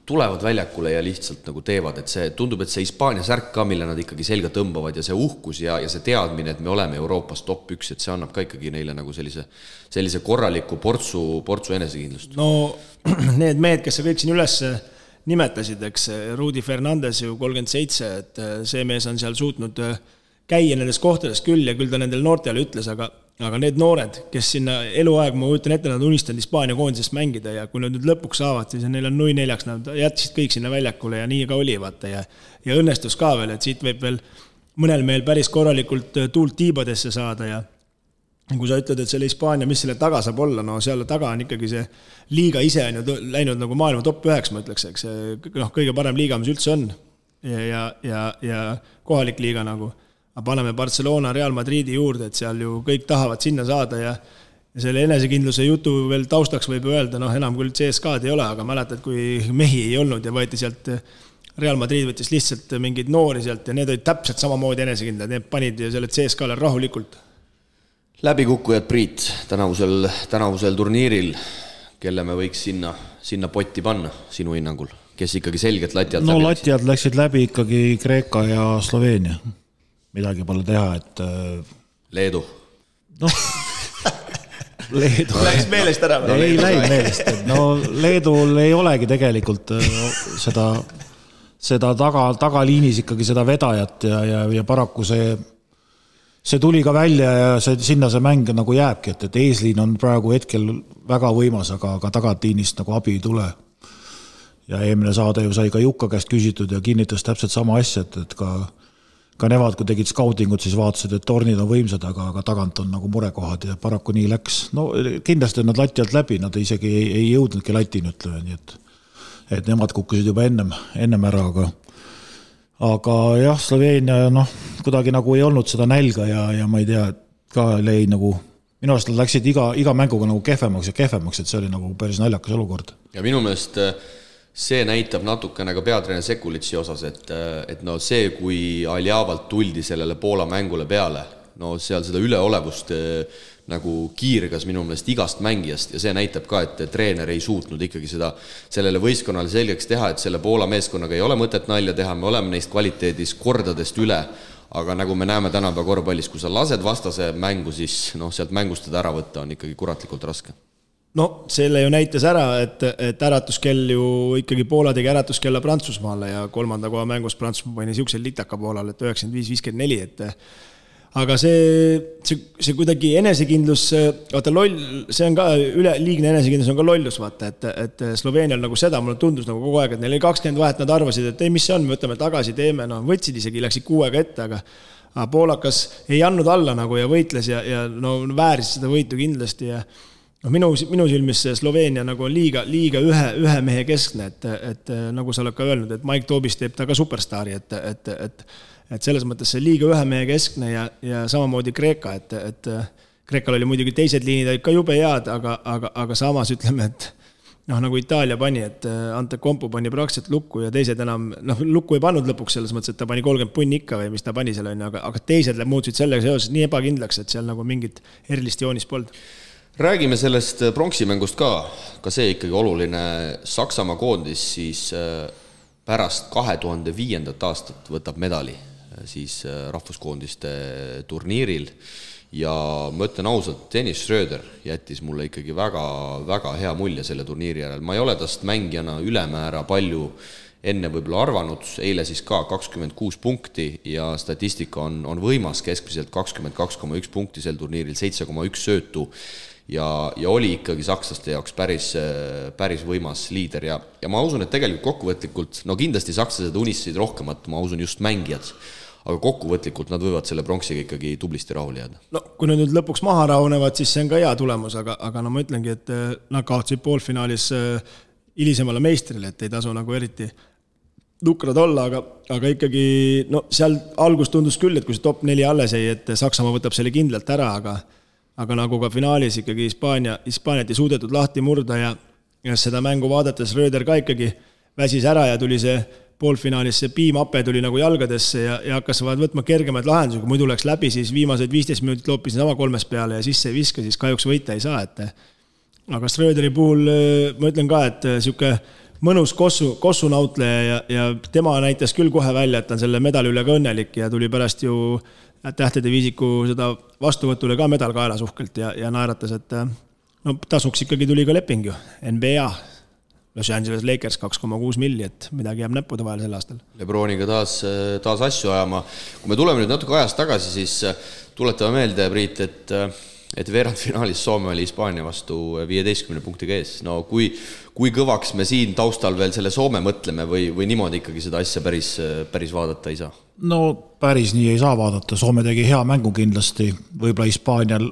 Speaker 2: tulevad väljakule ja lihtsalt nagu teevad. Et see tundub, et see Hispaania särk ka, mille nad ikkagi selga tõmbavad ja see uhkus ja see teadmine, et me oleme Euroopas top 1, et see annab ka ikkagi neile nagu sellise korraliku portsu enesekindlust.
Speaker 4: No need mehed, kes sa kõik siin üles nimetasid, eks Rudi Fernandes ju 37, et see mees on seal suutnud käia nendest kohtadest küll ja küll ta nendel noortele ütles, aga need noored, kes sinna eluaeg, ma võtan ette, nad unistanud Hispaania koondisest mängida ja kui nad nüüd lõpuks saavad, siis neil on 0-4, nad jätsid kõik sinna väljakule ja nii ka oli, vaata, ja õnnestus ka veel, et siit võib veel mõnel meil päris korralikult tuult tiibadesse saada ja kui sa ütled, et selle Hispaania, mis selle taga saab olla, no seal taga on ikkagi see liiga ise on ju läinud nagu maailma top 9, ma ütleks, eks kõige parem liiga, mis üldse on ja kohalik liiga nagu. Aga paneme Barcelona, Real Madridi juurde, et seal ju kõik tahavad sinna saada ja selle enesekindluse jutu veel taustaks võib öelda, enam küll CSK'd ei ole, aga mäletad, kui mehi ei olnud ja võeti sealt Real Madrid võttis lihtsalt mingid noori sealt ja need olid täpselt samamoodi enesekindlad, need panid ju selle CSK'le rahulikult.
Speaker 2: Läbikukkujad, Priit, tänavusel turniiril, kelle me võiks sinna potti panna sinu hinnangul, kes ikkagi selgelt lati alt läbi?
Speaker 3: No lati alt läksid läbi ikkagi Kreeka ja Sloveenia. Midagi pole teha, et...
Speaker 2: Leedu.
Speaker 3: Leedu
Speaker 4: läks meelest ära.
Speaker 3: Ei läinud meelest. No Leedul ei olegi tegelikult seda tagaliinis ikkagi seda vedajat ja paraku see tuli ka välja ja sinna see mäng nagu jääbki, et eesliin on praegu hetkel väga võimas, aga tagaliinist nagu abi ei tule. Ja eelmine saade ju sai ka Jukka käest küsitud ja kinnitas täpselt sama asja, et ka nemad, kui tegid skautingut, siis vaatasid, et tornid on võimsad, aga tagant on nagu murekohad ja paraku nii läks. No kindlasti nad lati alt läbi, nad isegi ei jõudnudki latini, ütleme, nii et nemad kukkusid juba ennem ära, aga jah, Sloveenia kuidagi nagu ei olnud seda nälga ja ma ei tea, ka lõi nagu, minu arust nad läksid iga mänguga nagu kehvemaks, et see oli nagu päris naljakas olukord.
Speaker 2: Ja minu meelest see näitab natukene ka peatreener Sekulitsi osas, et no see, kui Aljavalt tuldi sellele Poola mängule peale, no seal seda üleolevust nagu kiirgas minu meelest igast mängijast ja see näitab ka, et treener ei suutnud ikkagi sellele võistkonnale selgeks teha, et selle Poola meeskonnaga ei ole mõtet nalja teha, me oleme neist kvaliteedis kordadest üle, aga nagu me näeme tänapäeva korvpallis, kui sa lased vastase mängu, siis sealt mängust ära võtta on ikkagi kuratlikult raske.
Speaker 4: No selle ju näitas ära, et äratuskell ju ikkagi Poola tegi äratuskella Prantsusmaale ja 3. koha mängus Prantsusmaa pani siuksel litaka Poolal, et 95-54, aga see kuidagi enesekindlus, vaata loll, see on ka liigne enesekindlus on ka lollus, vaata, et Sloveenial nagu seda, mulle tundus nagu kogu aeg, et neil oli 20 vahet, nad arvasid, et ei, mis see on, me võtame tagasi, teeme, võtsid isegi, läksid 6 ette, aga poolakas ei andnud alla nagu ja võitles ja vääris seda võitu kindlasti ja minu silmis Sloveenia nagu on liiga ühe mehe keskne, et nagu sa oled ka öelnud, et Mike Tobis teeb ta ka superstaari, et selles mõttes see liiga ühe mehe keskne ja samamoodi Kreeka, et Kreekal oli muidugi teised liinid ka jube head, aga samas ütleme, et nagu Itaalia pani, et Ante Kompu pani praktiliselt lukku ja teised enam, lukku ei pannud lõpuks selles mõttes, et ta pani 30 punni ikka või mis ta pani seal on, aga teised muutusid sellega seoses nii ebakindlaks, et seal nagu mingit erilist joonist polnud.
Speaker 2: Räägime sellest pronksimängust ka see ikkagi oluline Saksamaa koondis siis pärast 2005. aastat võtab medali siis rahvuskoondiste turniiril ja ma ütlen ausalt, Dennis Schröder jättis mulle ikkagi väga, väga hea mulje selle turniiri järel. Ma ei ole tast mängijana ülemäära palju enne võib-olla arvanud, eile siis ka 26 punkti ja statistika on võimas, keskmiselt 22,1 punkti sel turniiril, 7,1 söötu ja oli ikkagi sakslaste jaoks päris võimas liider ja ma usun, et tegelikult kokkuvõtlikult, kindlasti sakslased unistasid rohkemat, ma usun just mängijad, aga kokkuvõtlikult nad võivad selle pronksiga ikkagi tublisti rahule jääda.
Speaker 4: No kui nad nüüd lõpuks maha rahunevad, siis see on ka hea tulemus, aga ma ütlengi, et nad kaotsid poolfinaalis hilisemale meistrile, et ei tasu nagu eriti nukrad olla, aga ikkagi seal algus tundus küll, et kui see top 4 alles ei, et Saksamaa võtab selle kindlalt ära, aga nagu ka finaalis ikkagi Hispaaniat ei suudetud lahti murda ja seda mängu vaadates Röder ka ikkagi väsis ära ja tuli see poolfinaalis see piimape tuli nagu jalgadesse ja hakkas võtma kergemaid lahendusi, kui muidu läks läbi, siis viimased 15 minutit loopisin sama 3 peale ja sisse ei viska, siis kahjuks võita ei saa, aga Röderi puhul ma ütlen ka, et siuke mõnus kossunautleja ja tema näitas küll kohe välja, et ta on selle medali üle ka õnnelik ja tuli pärast ju tähtede viisiku seda vastuvõtule ka medal kaelas uhkelt ja naeratas, et tasuks ikkagi tuli ka leping ju, NBA, Los Angeles Lakers 2,6 milli, et midagi jääb näppude vahel sel aastal.
Speaker 2: Lebroniga taas asju ajama. Kui me tuleme nüüd natuke ajast tagasi, siis tuletame meelde, Priit, et veerandfinaalis Soome oli Hispaania vastu 15 punktiga ees. No kui kõvaks me siin taustal veel selle Soome mõtleme või niimoodi ikkagi seda asja päris vaadata ei saa?
Speaker 3: No päris nii ei saa vaadata, Soome tegi hea mängu kindlasti, võib-olla Hispaanial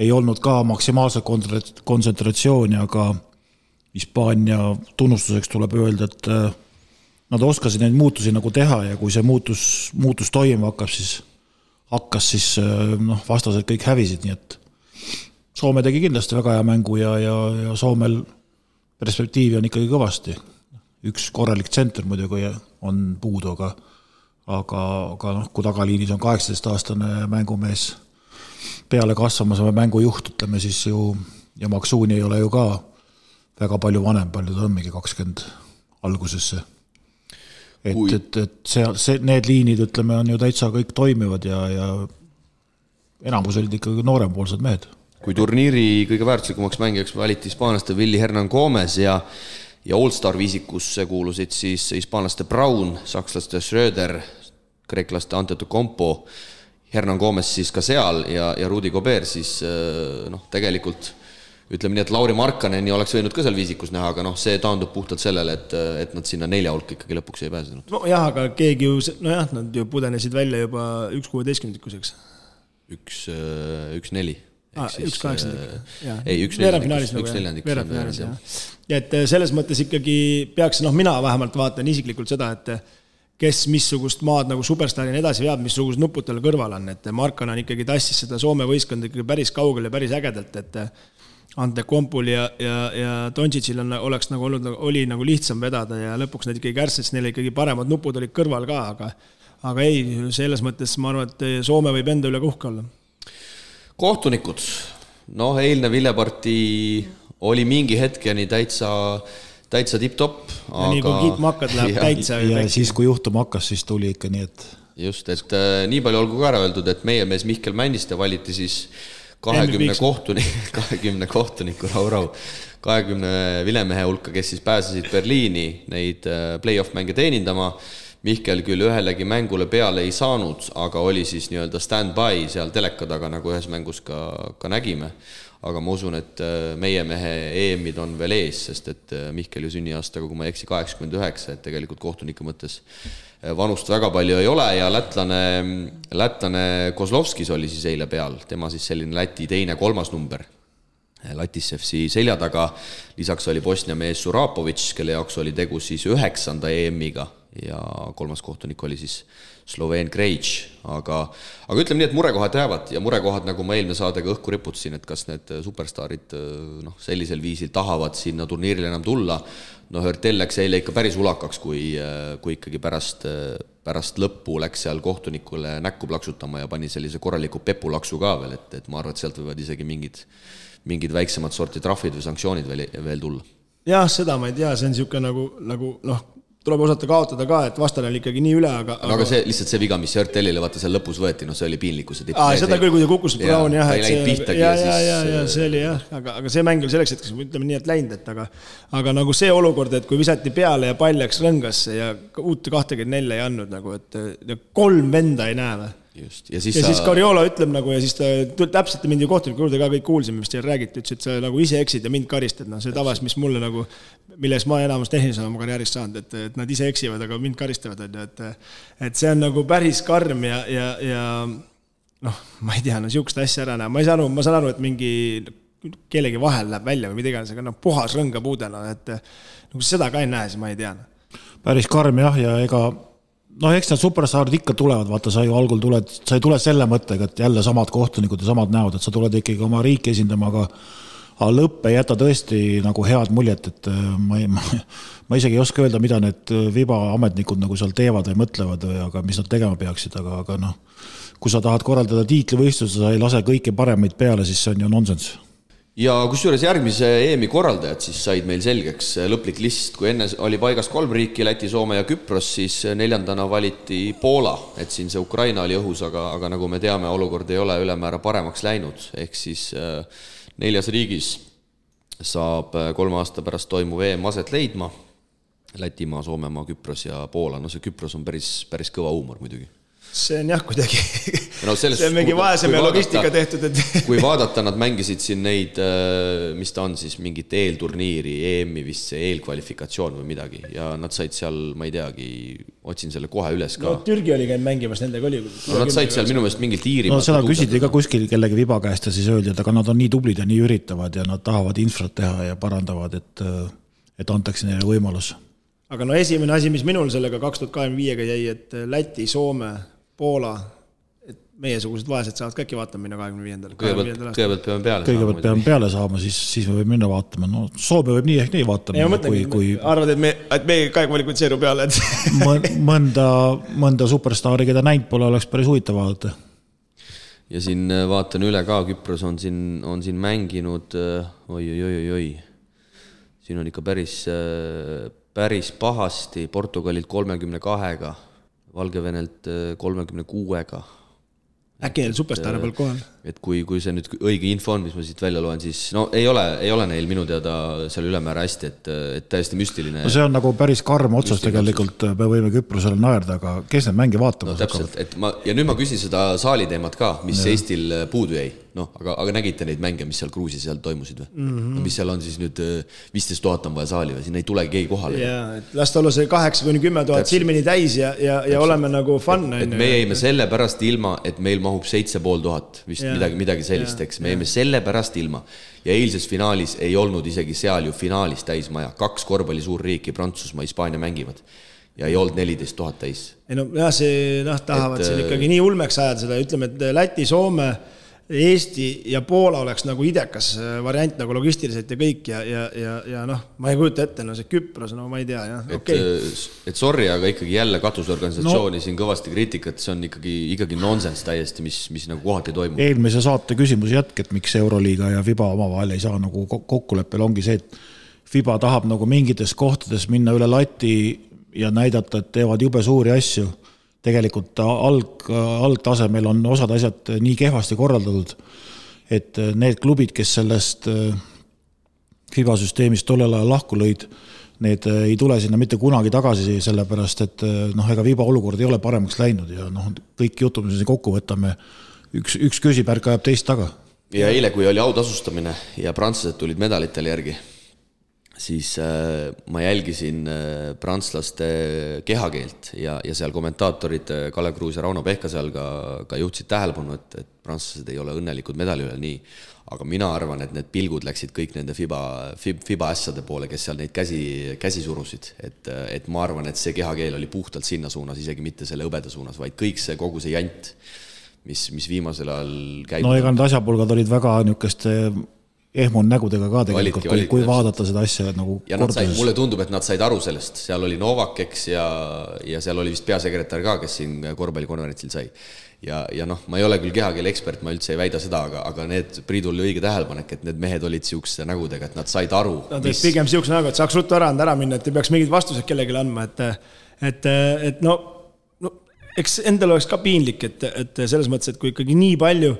Speaker 3: ei olnud ka maksimaalset kontsentratsiooni, aga Hispaania tunnustuseks tuleb öelda, et nad oskasid neid muutusi nagu teha ja kui see muutus toimuma hakkas, siis vastased kõik hävisid, nii et Soome tegi kindlasti väga hea mängu ja Soomel perspektiivi on ikkagi kõvasti. Üks korralik tsenter muidugi on puudu, aga kui tagaliinis on 18-aastane mängumees peale kasvamas või mängujuht, ütleme siis ju, ja Maksuuni ei ole ju ka väga palju vanem, palju ta on mingi 20 algusesse. Et need liinid, ütleme, on ju täitsa kõik toimivad ja enamus olid ikkagi noorempoolsed mehed.
Speaker 2: kui turniiri kõige väärtuslikumaks mängijaks valiti hispaanlaste Willy Hernan Gomez ja All-Star viisikusse kuulusid siis hispaanlaste Braun, sakslaste Schröder, kreeklaste Antetokounmpo, Hernan Gomez siis ka seal ja Rudy Gobert, siis tegelikult ütleme nii, et Lauri Markkaneni oleks võinud ka seal viisikus näha, aga see taandub puhtalt sellele, et nad sinna 4 hulka ikkagi lõpuks ei pääsenud.
Speaker 4: Nojah, aga keegi ju, nad ju pudenesid välja juba 1-16-kuseks.
Speaker 2: 1-4.
Speaker 4: 1-8.
Speaker 2: Ei, 1-4.
Speaker 4: Ja et selles mõttes ikkagi peaks, mina vähemalt vaatan isiklikult seda, et kes missugust maad nagu superstaarina edasi veab, missugused nupud tal kõrval on, et Markkanen ikkagi tassis seda Soome võistkond ikkagi päris kaugel ja päris ägedalt, et Antetokounmpol ja Doncicil oli nagu lihtsam vedada ja lõpuks need ikkagi kärssets, neil ikkagi paremad nupud olid kõrval ka, aga ei, selles mõttes ma arvan, et Soome võib enda üle uhke olla.
Speaker 2: Kohtunikud, eilne Villepartii oli mingi hetkeni täitsa tipp-topp.
Speaker 4: Ja nii kui kiitma hakkad, läheb täitsa.
Speaker 3: Ja siis kui juhtuma hakkas, siis tuli ikka nii, et...
Speaker 2: Just, et nii palju olgu ka ära öeldud, et meie mees Mihkel Männiste valiti siis 20 kohtuniku rahu 20 vilemehe hulka, kes siis pääsesid Berliini neid play-off mänge teenindama. Mihkel küll ühelegi mängule peale ei saanud, aga oli siis nii-öelda stand-by seal teleka taga, nagu ühes mängus ka nägime. Aga ma usun, et meie mehe EM-id on veel ees, sest et Mihkel ju sünniaastaga, kui ma eksi 89, et tegelikult kohtuniku mõttes vanust väga palju ei ole ja lätlane Kozlovskis oli siis eile peal, tema siis selline Läti 2-3 number Latisevsi selja taga, lisaks oli Bosnia mees Surapovic, kelle jaoks oli tegu siis 9. EM-iga ja 3. kohtunik oli siis Sloveen Krejč, aga ütleme nii, et murekohad jäävad ja murekohad, nagu ma eelmine saadega õhku riputasin, et kas need superstaarid sellisel viisil tahavad sinna turniirile enam tulla. Hörtel läks eile ikka päris ulakaks, kui ikkagi pärast lõppu läks seal kohtunikule näkku plaksutama ja pani sellise korraliku pepulaksu ka veel, et ma arvan, et sealt võivad isegi mingid väiksemad sorti trahvid või sanktsioonid veel tulla.
Speaker 4: Jah, seda ma ei tea, see on siuke nagu tuleb osata kaotada ka, et vastane oli ikkagi nii üle,
Speaker 2: aga see, lihtsalt see viga, mis Hörtelile vaata seal lõpus võeti, see oli piinlikkuse tipp.
Speaker 4: Seda küll, kui ta kukkus Braun, jah.
Speaker 2: Ta ei läinud pihtagi
Speaker 4: ja see oli jah, aga see mäng oli selleks hetkeks, ütleme nii, et läinud, aga nagu see olukord, et kui visati peale ja pall läks rõngasse ja uut 24 ei andnud, nagu, et 3 venda ei näe või.
Speaker 2: Just.
Speaker 4: Ja siis Cariolo ütleb nagu, ja siis ta täpselt mindi kohtuniku juurde ka kõik kuulsime, mis teil räägiti, ütles, et sa nagu ise eksid ja mind karistad, see tavas, mis mulle nagu, milles ma enamus tehnilisena oma karjäärist saanud, et nad ise eksivad, aga mind karistavad, et see on nagu päris karm ja ma ei tea, siukest asja ära näha, ma saan aru, et mingi kellegi vahel läheb välja või midagi, aga puhas rõngapuudena, et nagu seda ka ei näe, siis ma ei tea.
Speaker 3: Päris karm jah, ja ega eks need superstaarid ikka tulevad, vaata, sa ju algul sa ei tule selle mõttega, et jälle samad kohtunikud ja samad näod, et sa tuled ikkagi oma riiki esindama, aga lõpp ei jäta tõesti nagu head muljet, et ma isegi ei oska öelda, mida need vibaametnikud nagu seal teevad või mõtlevad, aga mis nad tegema peaksid, aga kui sa tahad korraldada tiitlivõistluse, sa ei lase kõiki paremaid peale, siis see on ju nonsense.
Speaker 2: Ja kusjuures järgmise EM-i korraldajad siis said meil selgeks lõplik list, kui enne oli paigas 3 riiki, Läti, Soome ja Küpros, siis 4. valiti Poola, et siin see Ukraina oli õhus, aga nagu me teame, olukord ei ole ülemäära paremaks läinud, ehk siis 4. riigis saab 3 aasta pärast toimuv EM aset leidma, Lätimaa, Soomemaa, Küpros ja Poola, see Küpros on päris kõva huumor muidugi.
Speaker 4: See on jah kuidagi, see on mingi vaeseme logistika tehtud.
Speaker 2: Kui vaadata, nad mängisid siin neid, mis ta on siis, mingit eelturniiri, EM-i vist see eelkvalifikatsioon või midagi ja nad said seal, ma ei teagi, otsin selle kohe üles ka.
Speaker 4: Türgi oli käinud mängimas, nendega oli.
Speaker 2: Nad said seal minu meelest mingit Iirimaalt.
Speaker 3: Seda küsiti ka kuskil kellegi viba käest ja siis öeldi, et aga nad on nii tublid ja nii üritavad ja nad tahavad infrat teha ja parandavad, et antakse neile võimalus.
Speaker 4: Aga esimene asi, mis minul sellega 2025-ga jäi, et Läti, Soome, Poola, et meiesugused vaesed saavad ka äkki vaatama minna 25.
Speaker 2: Kõigepealt peame peale
Speaker 3: saama. Kõigepealt peame peale saama, siis me võib minna vaatama. Soome võib nii ehk nii vaatama.
Speaker 4: Arvad, et me ka kvalifitseeru peale.
Speaker 3: mõnda superstaari, keda näinud pole, oleks päris huvitav vaadata.
Speaker 2: Ja siin vaatan üle ka, Küpros on siin mänginud, oi. Siin on ikka päris pahasti, Portugalilt 32-ga. Valgevenelt 36-ga.
Speaker 4: Äkki neil superstaare peal kohal.
Speaker 2: Et kui see nüüd õige info on, mis ma siit välja loen, siis no ei ole neil minu teada seal ülemäära hästi, et täiesti müstiline.
Speaker 3: No see on nagu päris karm otsas tegelikult, me võime Küprosele naerda, aga kes need mängi vaatama?
Speaker 2: No täpselt, ja nüüd ma küsin seda saali teemat ka, mis Eestil puudu jäi. No, aga nägite neid mänge, mis seal Gruusis seal toimusid või? No, mis seal on siis nüüd 15 000 on vaja saali või? Siin ei tulegi keegi kohale.
Speaker 4: Jaa, et last olla see 8-10 000 silmini täis ja oleme nagu fun.
Speaker 2: Et me jäime selle pärast ilma, et meil mahub 7500 vist midagi sellist, eks. Me jäime selle pärast ilma. Ja eilses finaalis ei olnud isegi seal ju finaalis täismaja. 2 korvpalli suurriiki, Prantsusmaa, Hispaania mängivad. Ja ei olnud 14 000 täis.
Speaker 4: Ei no, see tahavad siin ikkagi nii ulmeks ajada seda. Ütleme, et Läti, Soome, Eesti ja Poola oleks nagu idekas variant nagu logistiliselt ja kõik ja noh, ma ei kujuta ette, no see Küpros, no ma ei tea, jah, okei.
Speaker 2: Et sorry, aga ikkagi jälle katusorganisatsiooni siin kõvasti kriitikat, see on ikkagi nonsense täiesti, mis nagu kohati toimub.
Speaker 3: Eelmise saate küsimus jätk, et miks Euroliiga ja FIBA omavahel ei saa nagu kokkuleppel ongi see, et FIBA tahab nagu mingites kohtades minna üle lati ja näidata, et teevad jube suuri asju. Tegelikult algtasemel on osad asjad nii kehvasti korraldatud, et need klubid, kes sellest FIBA süsteemist tollel ajal lahku lõid, need ei tule sinna mitte kunagi tagasi, sellepärast, et ega FIBA olukord ei ole paremaks läinud ja kõik jutud, mis kokku võtame, üks küsipärk ajab teist taga.
Speaker 2: Ja eile, kui oli autasustamine ja prantslased tulid medalitele järgi, siis ma jälgisin prantslaste kehakeelt ja seal kommentaatorid Kalev Kruus ja Rauno Pehka seal ka juhtsid tähelepanu, et prantslased ei ole õnnelikud medali üle nii. Aga mina arvan, et need pilgud läksid kõik nende FIBA ässade poole, kes seal neid käsi surusid. Et ma arvan, et see kehakeel oli puhtalt sinna suunas, isegi mitte selle õbeda suunas, vaid kõik see kogu see jant, mis viimasel ajal käib.
Speaker 3: No ega need asjapulgad olid väga niisuguste ehmun nägudega ka tegelikult, kui vaadata seda asja nagu korduses.
Speaker 2: Mulle tundub, et nad said aru sellest. Seal oli Novak, eks, ja seal oli vist peasekretär ka, kes siin korvpallikonverentsil sai. Ja noh, ma ei ole küll kehakeele ekspert, ma üldse ei väida seda, aga need Priidul oli õige tähelepanek, et need mehed olid siukse nägudega, et nad said aru.
Speaker 4: Nad olid pigem siukse nägu, et saaks ruttu ära minna, et ei peaks mingid vastused kellelegi andma, et no, eks endal oleks ka piinlik, et selles mõttes, et kui ikkagi nii palju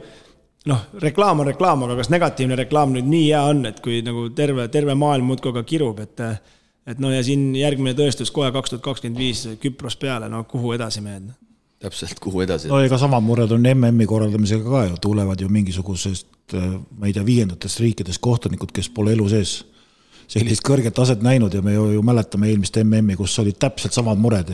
Speaker 4: reklaam on reklaam, aga kas negatiivne reklaam nüüd nii hea on, et kui nagu terve maailm muudkoga kirub, et ja siin järgmine tõestus kohe 2025 Küpros peale, kuhu edasi mehed?
Speaker 2: Täpselt, kuhu edasi?
Speaker 3: No ega samad mured on MM-i korraldamisega ka ju, tulevad ju mingisugusest, ma ei tea, 5. riikides kohtunikud, kes pole elu sees sellist kõrget taset näinud ja me ju mäletame eelmist MM-i, kus olid täpselt samad mured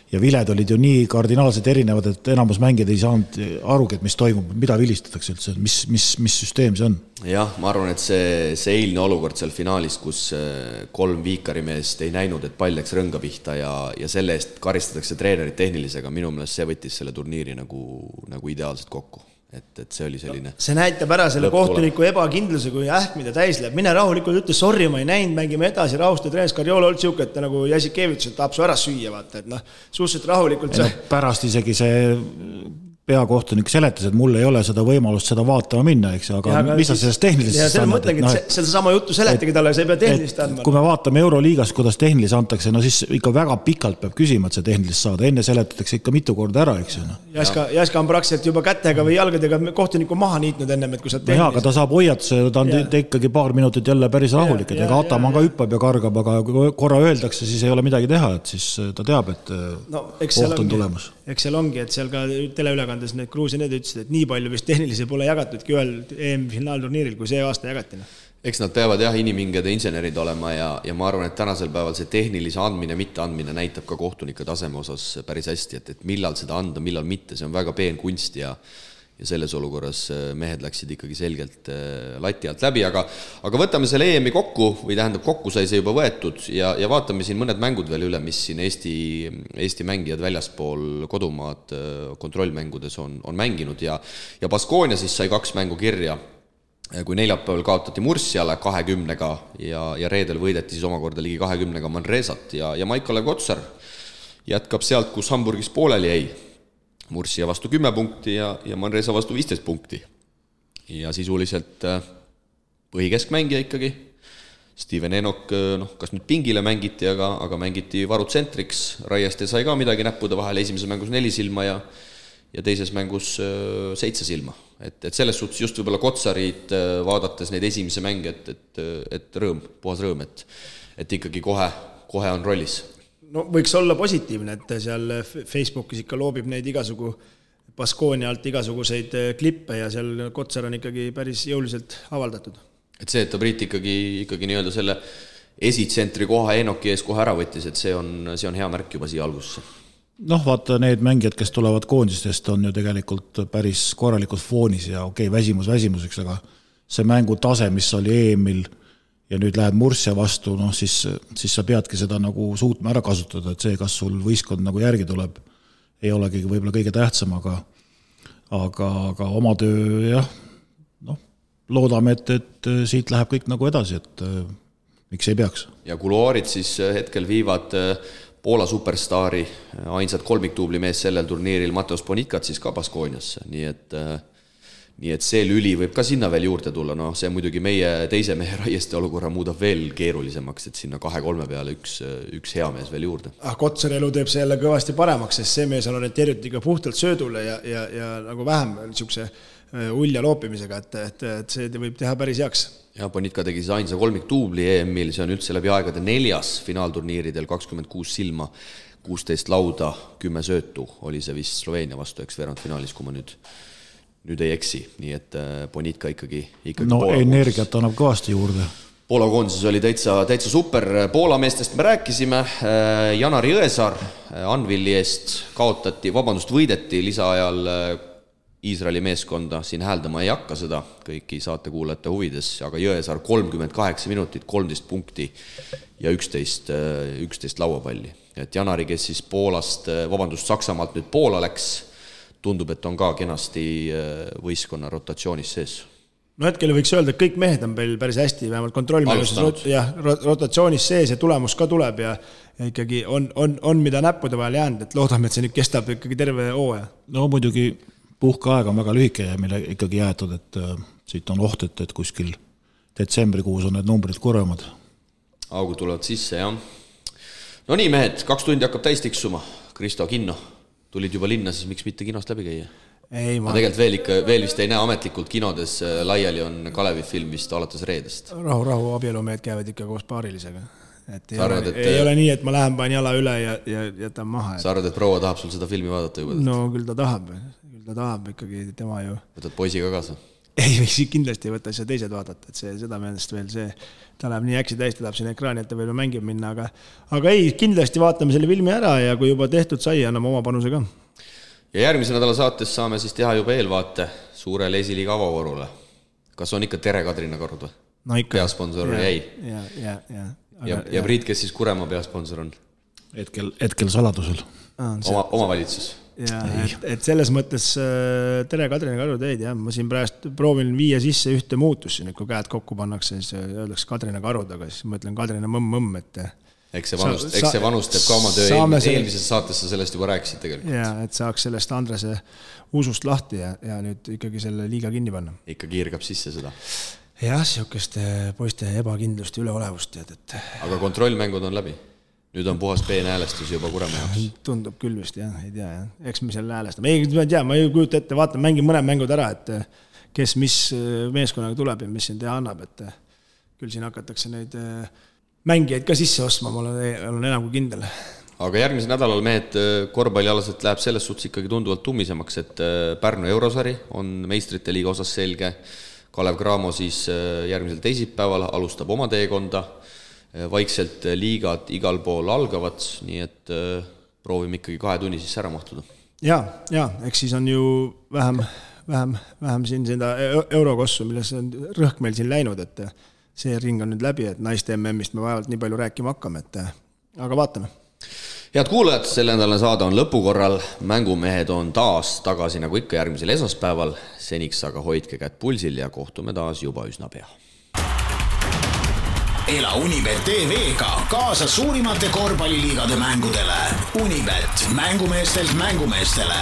Speaker 3: ja viled olid ju nii kardinaalselt erinevad, et enamus mängijad ei saanud arugi, et mis toimub, mida vilistatakse üldse, mis süsteem see on.
Speaker 2: Jah, ma arvan, et see eilne olukord seal finaalis, kus 3 viikarimeest ei näinud, et pall läks rõnga pihta ja selle eest karistatakse treenerit tehnilisega, minu meelest see võttis selle turniiri nagu ideaalselt kokku. Et see oli selline... See
Speaker 4: näitab ära selle kohtuniku ebakindluse, kui ähkmida täis läheb. Mine rahulikult ütle, sorry, ma ei näinud, mängime edasi, rahustu treenis Karjola olnud siuke, et nagu Jasikevic, et tahab su ära süüa, vaata, et suhteliselt rahulikult
Speaker 3: pärast isegi see peakohtunik seletas, et mul ei ole seda võimalust seda vaatama minna, eks, aga mis sa sellest tehnilist
Speaker 4: ja selle mõtlengi, et seda sama juttu seletagi talle, sa ei pea tehnilist andma.
Speaker 3: Kui me vaatame Euroliigas, kuidas tehnilist antakse, siis ikka väga pikalt peab küsima, et see tehnilist saada. Enne seletatakse ikka mitu korda ära, eks.
Speaker 4: Jaska on praktiliselt juba kätega või jalgadega kohtuniku maha niitnud ennem, et kui sa tehnilist...
Speaker 3: Aga ta saab hoiatuse, ta on ikkagi paar minutit jälle päris rahulik, et ega Ataman ka hüppab ja kargab, aga kui korra öeldakse, siis ei ole midagi teha, et siis ta teab, et koht on tulemas.
Speaker 4: Eks seal ongi, et seal ka teleülekandes need Gruusia need ütlesid, et nii palju vist tehnilisi pole jagatudki ühel EM-finaalturniiril, kui see aasta jagatina.
Speaker 2: Eks nad peavad inimingede insenerid olema ja ma arvan, et tänasel päeval see tehnilise andmine, mitte andmine näitab ka kohtunike taseme osas päris hästi, et millal seda anda, millal mitte, see on väga peen kunst ja selles olukorras mehed läksid ikkagi selgelt lati alt läbi, aga võtame selle EM-i kokku, või tähendab kokku sai see juba võetud ja vaatame siin mõned mängud veel üle, mis siin Eesti mängijad väljaspool kodumaad kontrollmängudes on mänginud ja Baskonia siis sai 2 mängu kirja, kui neljapäeval kaotati Mursiale 20-ga ja reedel võideti siis omakorda ligi 20-ga Manresat ja Maiko-Lev Kotsar jätkab sealt, kus Hamburgis pooleli jäi. Mursia vastu 10 punkti ja Manresa vastu 15 punkti. Ja sisuliselt põhikeskmängija ikkagi. Steven Enok, kas nüüd pingile mängiti, aga mängiti varutsentriks. Raieste sai ka midagi näppude vahel esimeses mängus 4 silma ja ja teises mängus 7 silma. Et selles suhtes just võib-olla Kotsarid vaadates neid esimese mänge, et rõõm, puhas rõõm, et ikkagi kohe on rollis.
Speaker 4: No võiks olla positiivne, et seal Facebookis ikka loobib neid igasugu Baskonia alt igasuguseid klippe ja seal Kotsar on ikkagi päris jõuliselt avaldatud.
Speaker 2: Et see, et ta Priit ikkagi nii-öelda selle esitsentri koha Enoki ees kohe ära võttis, et see on hea märk juba siia algusse.
Speaker 3: Noh, vaata, need mängijad, kes tulevad koondistest, on ju tegelikult päris korralikud foonis ja väsimuseks, aga see mängu tase, mis oli EM-il ja nüüd lähed Murcia vastu, noh, siis sa peadki seda nagu suutma ära kasutada, et see, kas sul võistkond nagu järgi tuleb, ei olegi võib-olla kõige tähtsam, aga oma töö, jah, noh, loodame, et siit läheb kõik nagu edasi, et miks ei peaks. Ja
Speaker 2: kuluaarid siis hetkel viivad Poola superstaari, ainsad kolmiktuubli mees sellel turniiril Mateus Bonitkat siis ka Baskoniasse, nii et see lüli võib ka sinna veel juurde tulla, noh, see muidugi meie teise mehe Raieste olukorra muudab veel keerulisemaks, et sinna 2-3 peale üks hea mees veel juurde.
Speaker 4: Kotsari elu teeb see jälle kõvasti paremaks, sest see mees on orienteeritud ikka puhtalt söödule ja nagu vähem niisuguse ulja loopimisega, et see võib teha päris heaks.
Speaker 2: Ja Bonitka tegi siis ainsa kolmiktuubli EM-il, see on üldse läbi aegade 4. finaalturniiridel, 26 silma, 16 lauda, 10 söötu oli see vist Sloveenia vastu, eks veerandfinaalis, kui ma nüüd ei eksi, nii et Bonitka ikkagi
Speaker 3: no Poola energiat annab kõvasti juurde.
Speaker 2: Poola koondises oli täitsa super. Poola meestest me rääkisime, Janar Jõesaar Anvilli eest võideti lisaajal Iisraeli meeskonda, siin hääldama ei hakka seda kõiki saatekuulajate huvides, aga Jõesaar 38 minutit, 13 punkti ja 11 lauapalli. Et Janari, kes siis Saksamaalt nüüd Poola läks, tundub, et on ka kenasti võistkonna rotatsioonis sees.
Speaker 4: No hetkel võiks öelda, et kõik mehed on meil päris hästi, vähemalt kontrollmängus rotatsioonis sees ja tulemus ka tuleb ja ikkagi on mida näppude vahel jäänud, et loodame, et see nüüd kestab ikkagi terve hooaja.
Speaker 3: No muidugi puhkeaeg on väga lühike ja meile ikkagi jäetud, et siit on oht, et kuskil detsembrikuus on need numbrid kurvemad.
Speaker 2: Augud tulevad sisse, jah. No nii, mehed, 2 tundi hakkab täis tiksuma. Kristo, Kinno, tulid juba linna, siis miks mitte kinost läbi käia?
Speaker 4: Ei, ma
Speaker 2: tegelikult veel vist ei näe ametlikult kinodes, laiali on Kalevi film vist alates reedest.
Speaker 4: Rahu, abielumehed käivad ikka koos paarilisega. Ei ole nii, et ma lähen panen jala üle ja jätan maha.
Speaker 2: Sa arvad, et proua tahab sul seda filmi vaadata juba?
Speaker 4: No küll ta tahab ikkagi tema ju.
Speaker 2: Võtad poisiga kaasa?
Speaker 4: Ei, kindlasti ei võta seda teised vaadata, et seda meelest veel see, ta läheb nii äksi täis, ta tahab siin ekraani, et ta veel mängib minna, aga ei, kindlasti vaatame selle filmi ära ja kui juba tehtud sai, anname oma panuse ka.
Speaker 2: Ja järgmise nädala saates saame siis teha juba eelvaate suurele esiliiga avavõrule. Kas on ikka Tere Kadrina Karud või?
Speaker 4: No ikka.
Speaker 2: Peasponsor jäi. Ja Priit, kes siis Kuremaa peasponsor on?
Speaker 3: Hetkel saladusel.
Speaker 2: Oma valitsus.
Speaker 4: Ja, et selles mõttes Tere Kadrina Karud jäid, ma siin praegu proovin viia sisse ühte muutusse, kui käed kokku pannakse, siis öeldaks Kadrina Karud, aga siis ma ütlen Kadrina mõmm, et
Speaker 2: Eks see vanus teeb ka oma töö, eelmises saates sa sellest juba rääkisid tegelikult.
Speaker 4: Ja, et saaks sellest Andrese usust lahti ja nüüd ikkagi selle liiga kinni panna.
Speaker 2: Ikka kiirgab sisse seda.
Speaker 4: Jah, siukeste poiste ebakindlust ja üleolevust tead, et
Speaker 2: aga kontrollmängud on läbi? Nüüd on puhas peenäälestus juba Kuremaa jaoks.
Speaker 4: Tundub küll vist, jah, ei tea, jah. Eks me selle häälestame. Ma ei kujuta ette, vaatan, mängin mõned mängud ära, et kes mis meeskonnaga tuleb ja mis siin teha annab, et küll siin hakatakse neid mängijaid ka sisse ostma, ma olen enam kui kindel.
Speaker 2: Aga järgmisel nädalal mehed korvpallialaselt läheb selles suhtes ikkagi tunduvalt tummisemaks, et Pärnu Eurosari on meistrite liiga osas selge. Kalev Cramo siis järgmisel teisipäeval alustab oma teekonda. Vaikselt liigad igal pool algavad, nii et proovime ikkagi 2 tunni siis ära mahtuda.
Speaker 4: Ja, eks siis on ju vähem siin seda eurokossu, milles on rõhk meil siin läinud, et see ring on nüüd läbi, et naiste MM-ist me vaevalt nii palju rääkima hakkame, aga vaatame.
Speaker 2: Head kuulajad, selle nädalane saade on lõpukorral. Mängumehed on taas tagasi nagu ikka järgmisel esmaspäeval. Seniks aga hoidke kätt pulsil ja kohtume taas juba üsna pea.
Speaker 1: Ela Unibet TV-ga kaasa suurimate korvpalliliigade mängudele. Unibet, mängumeestelt mängumeestele.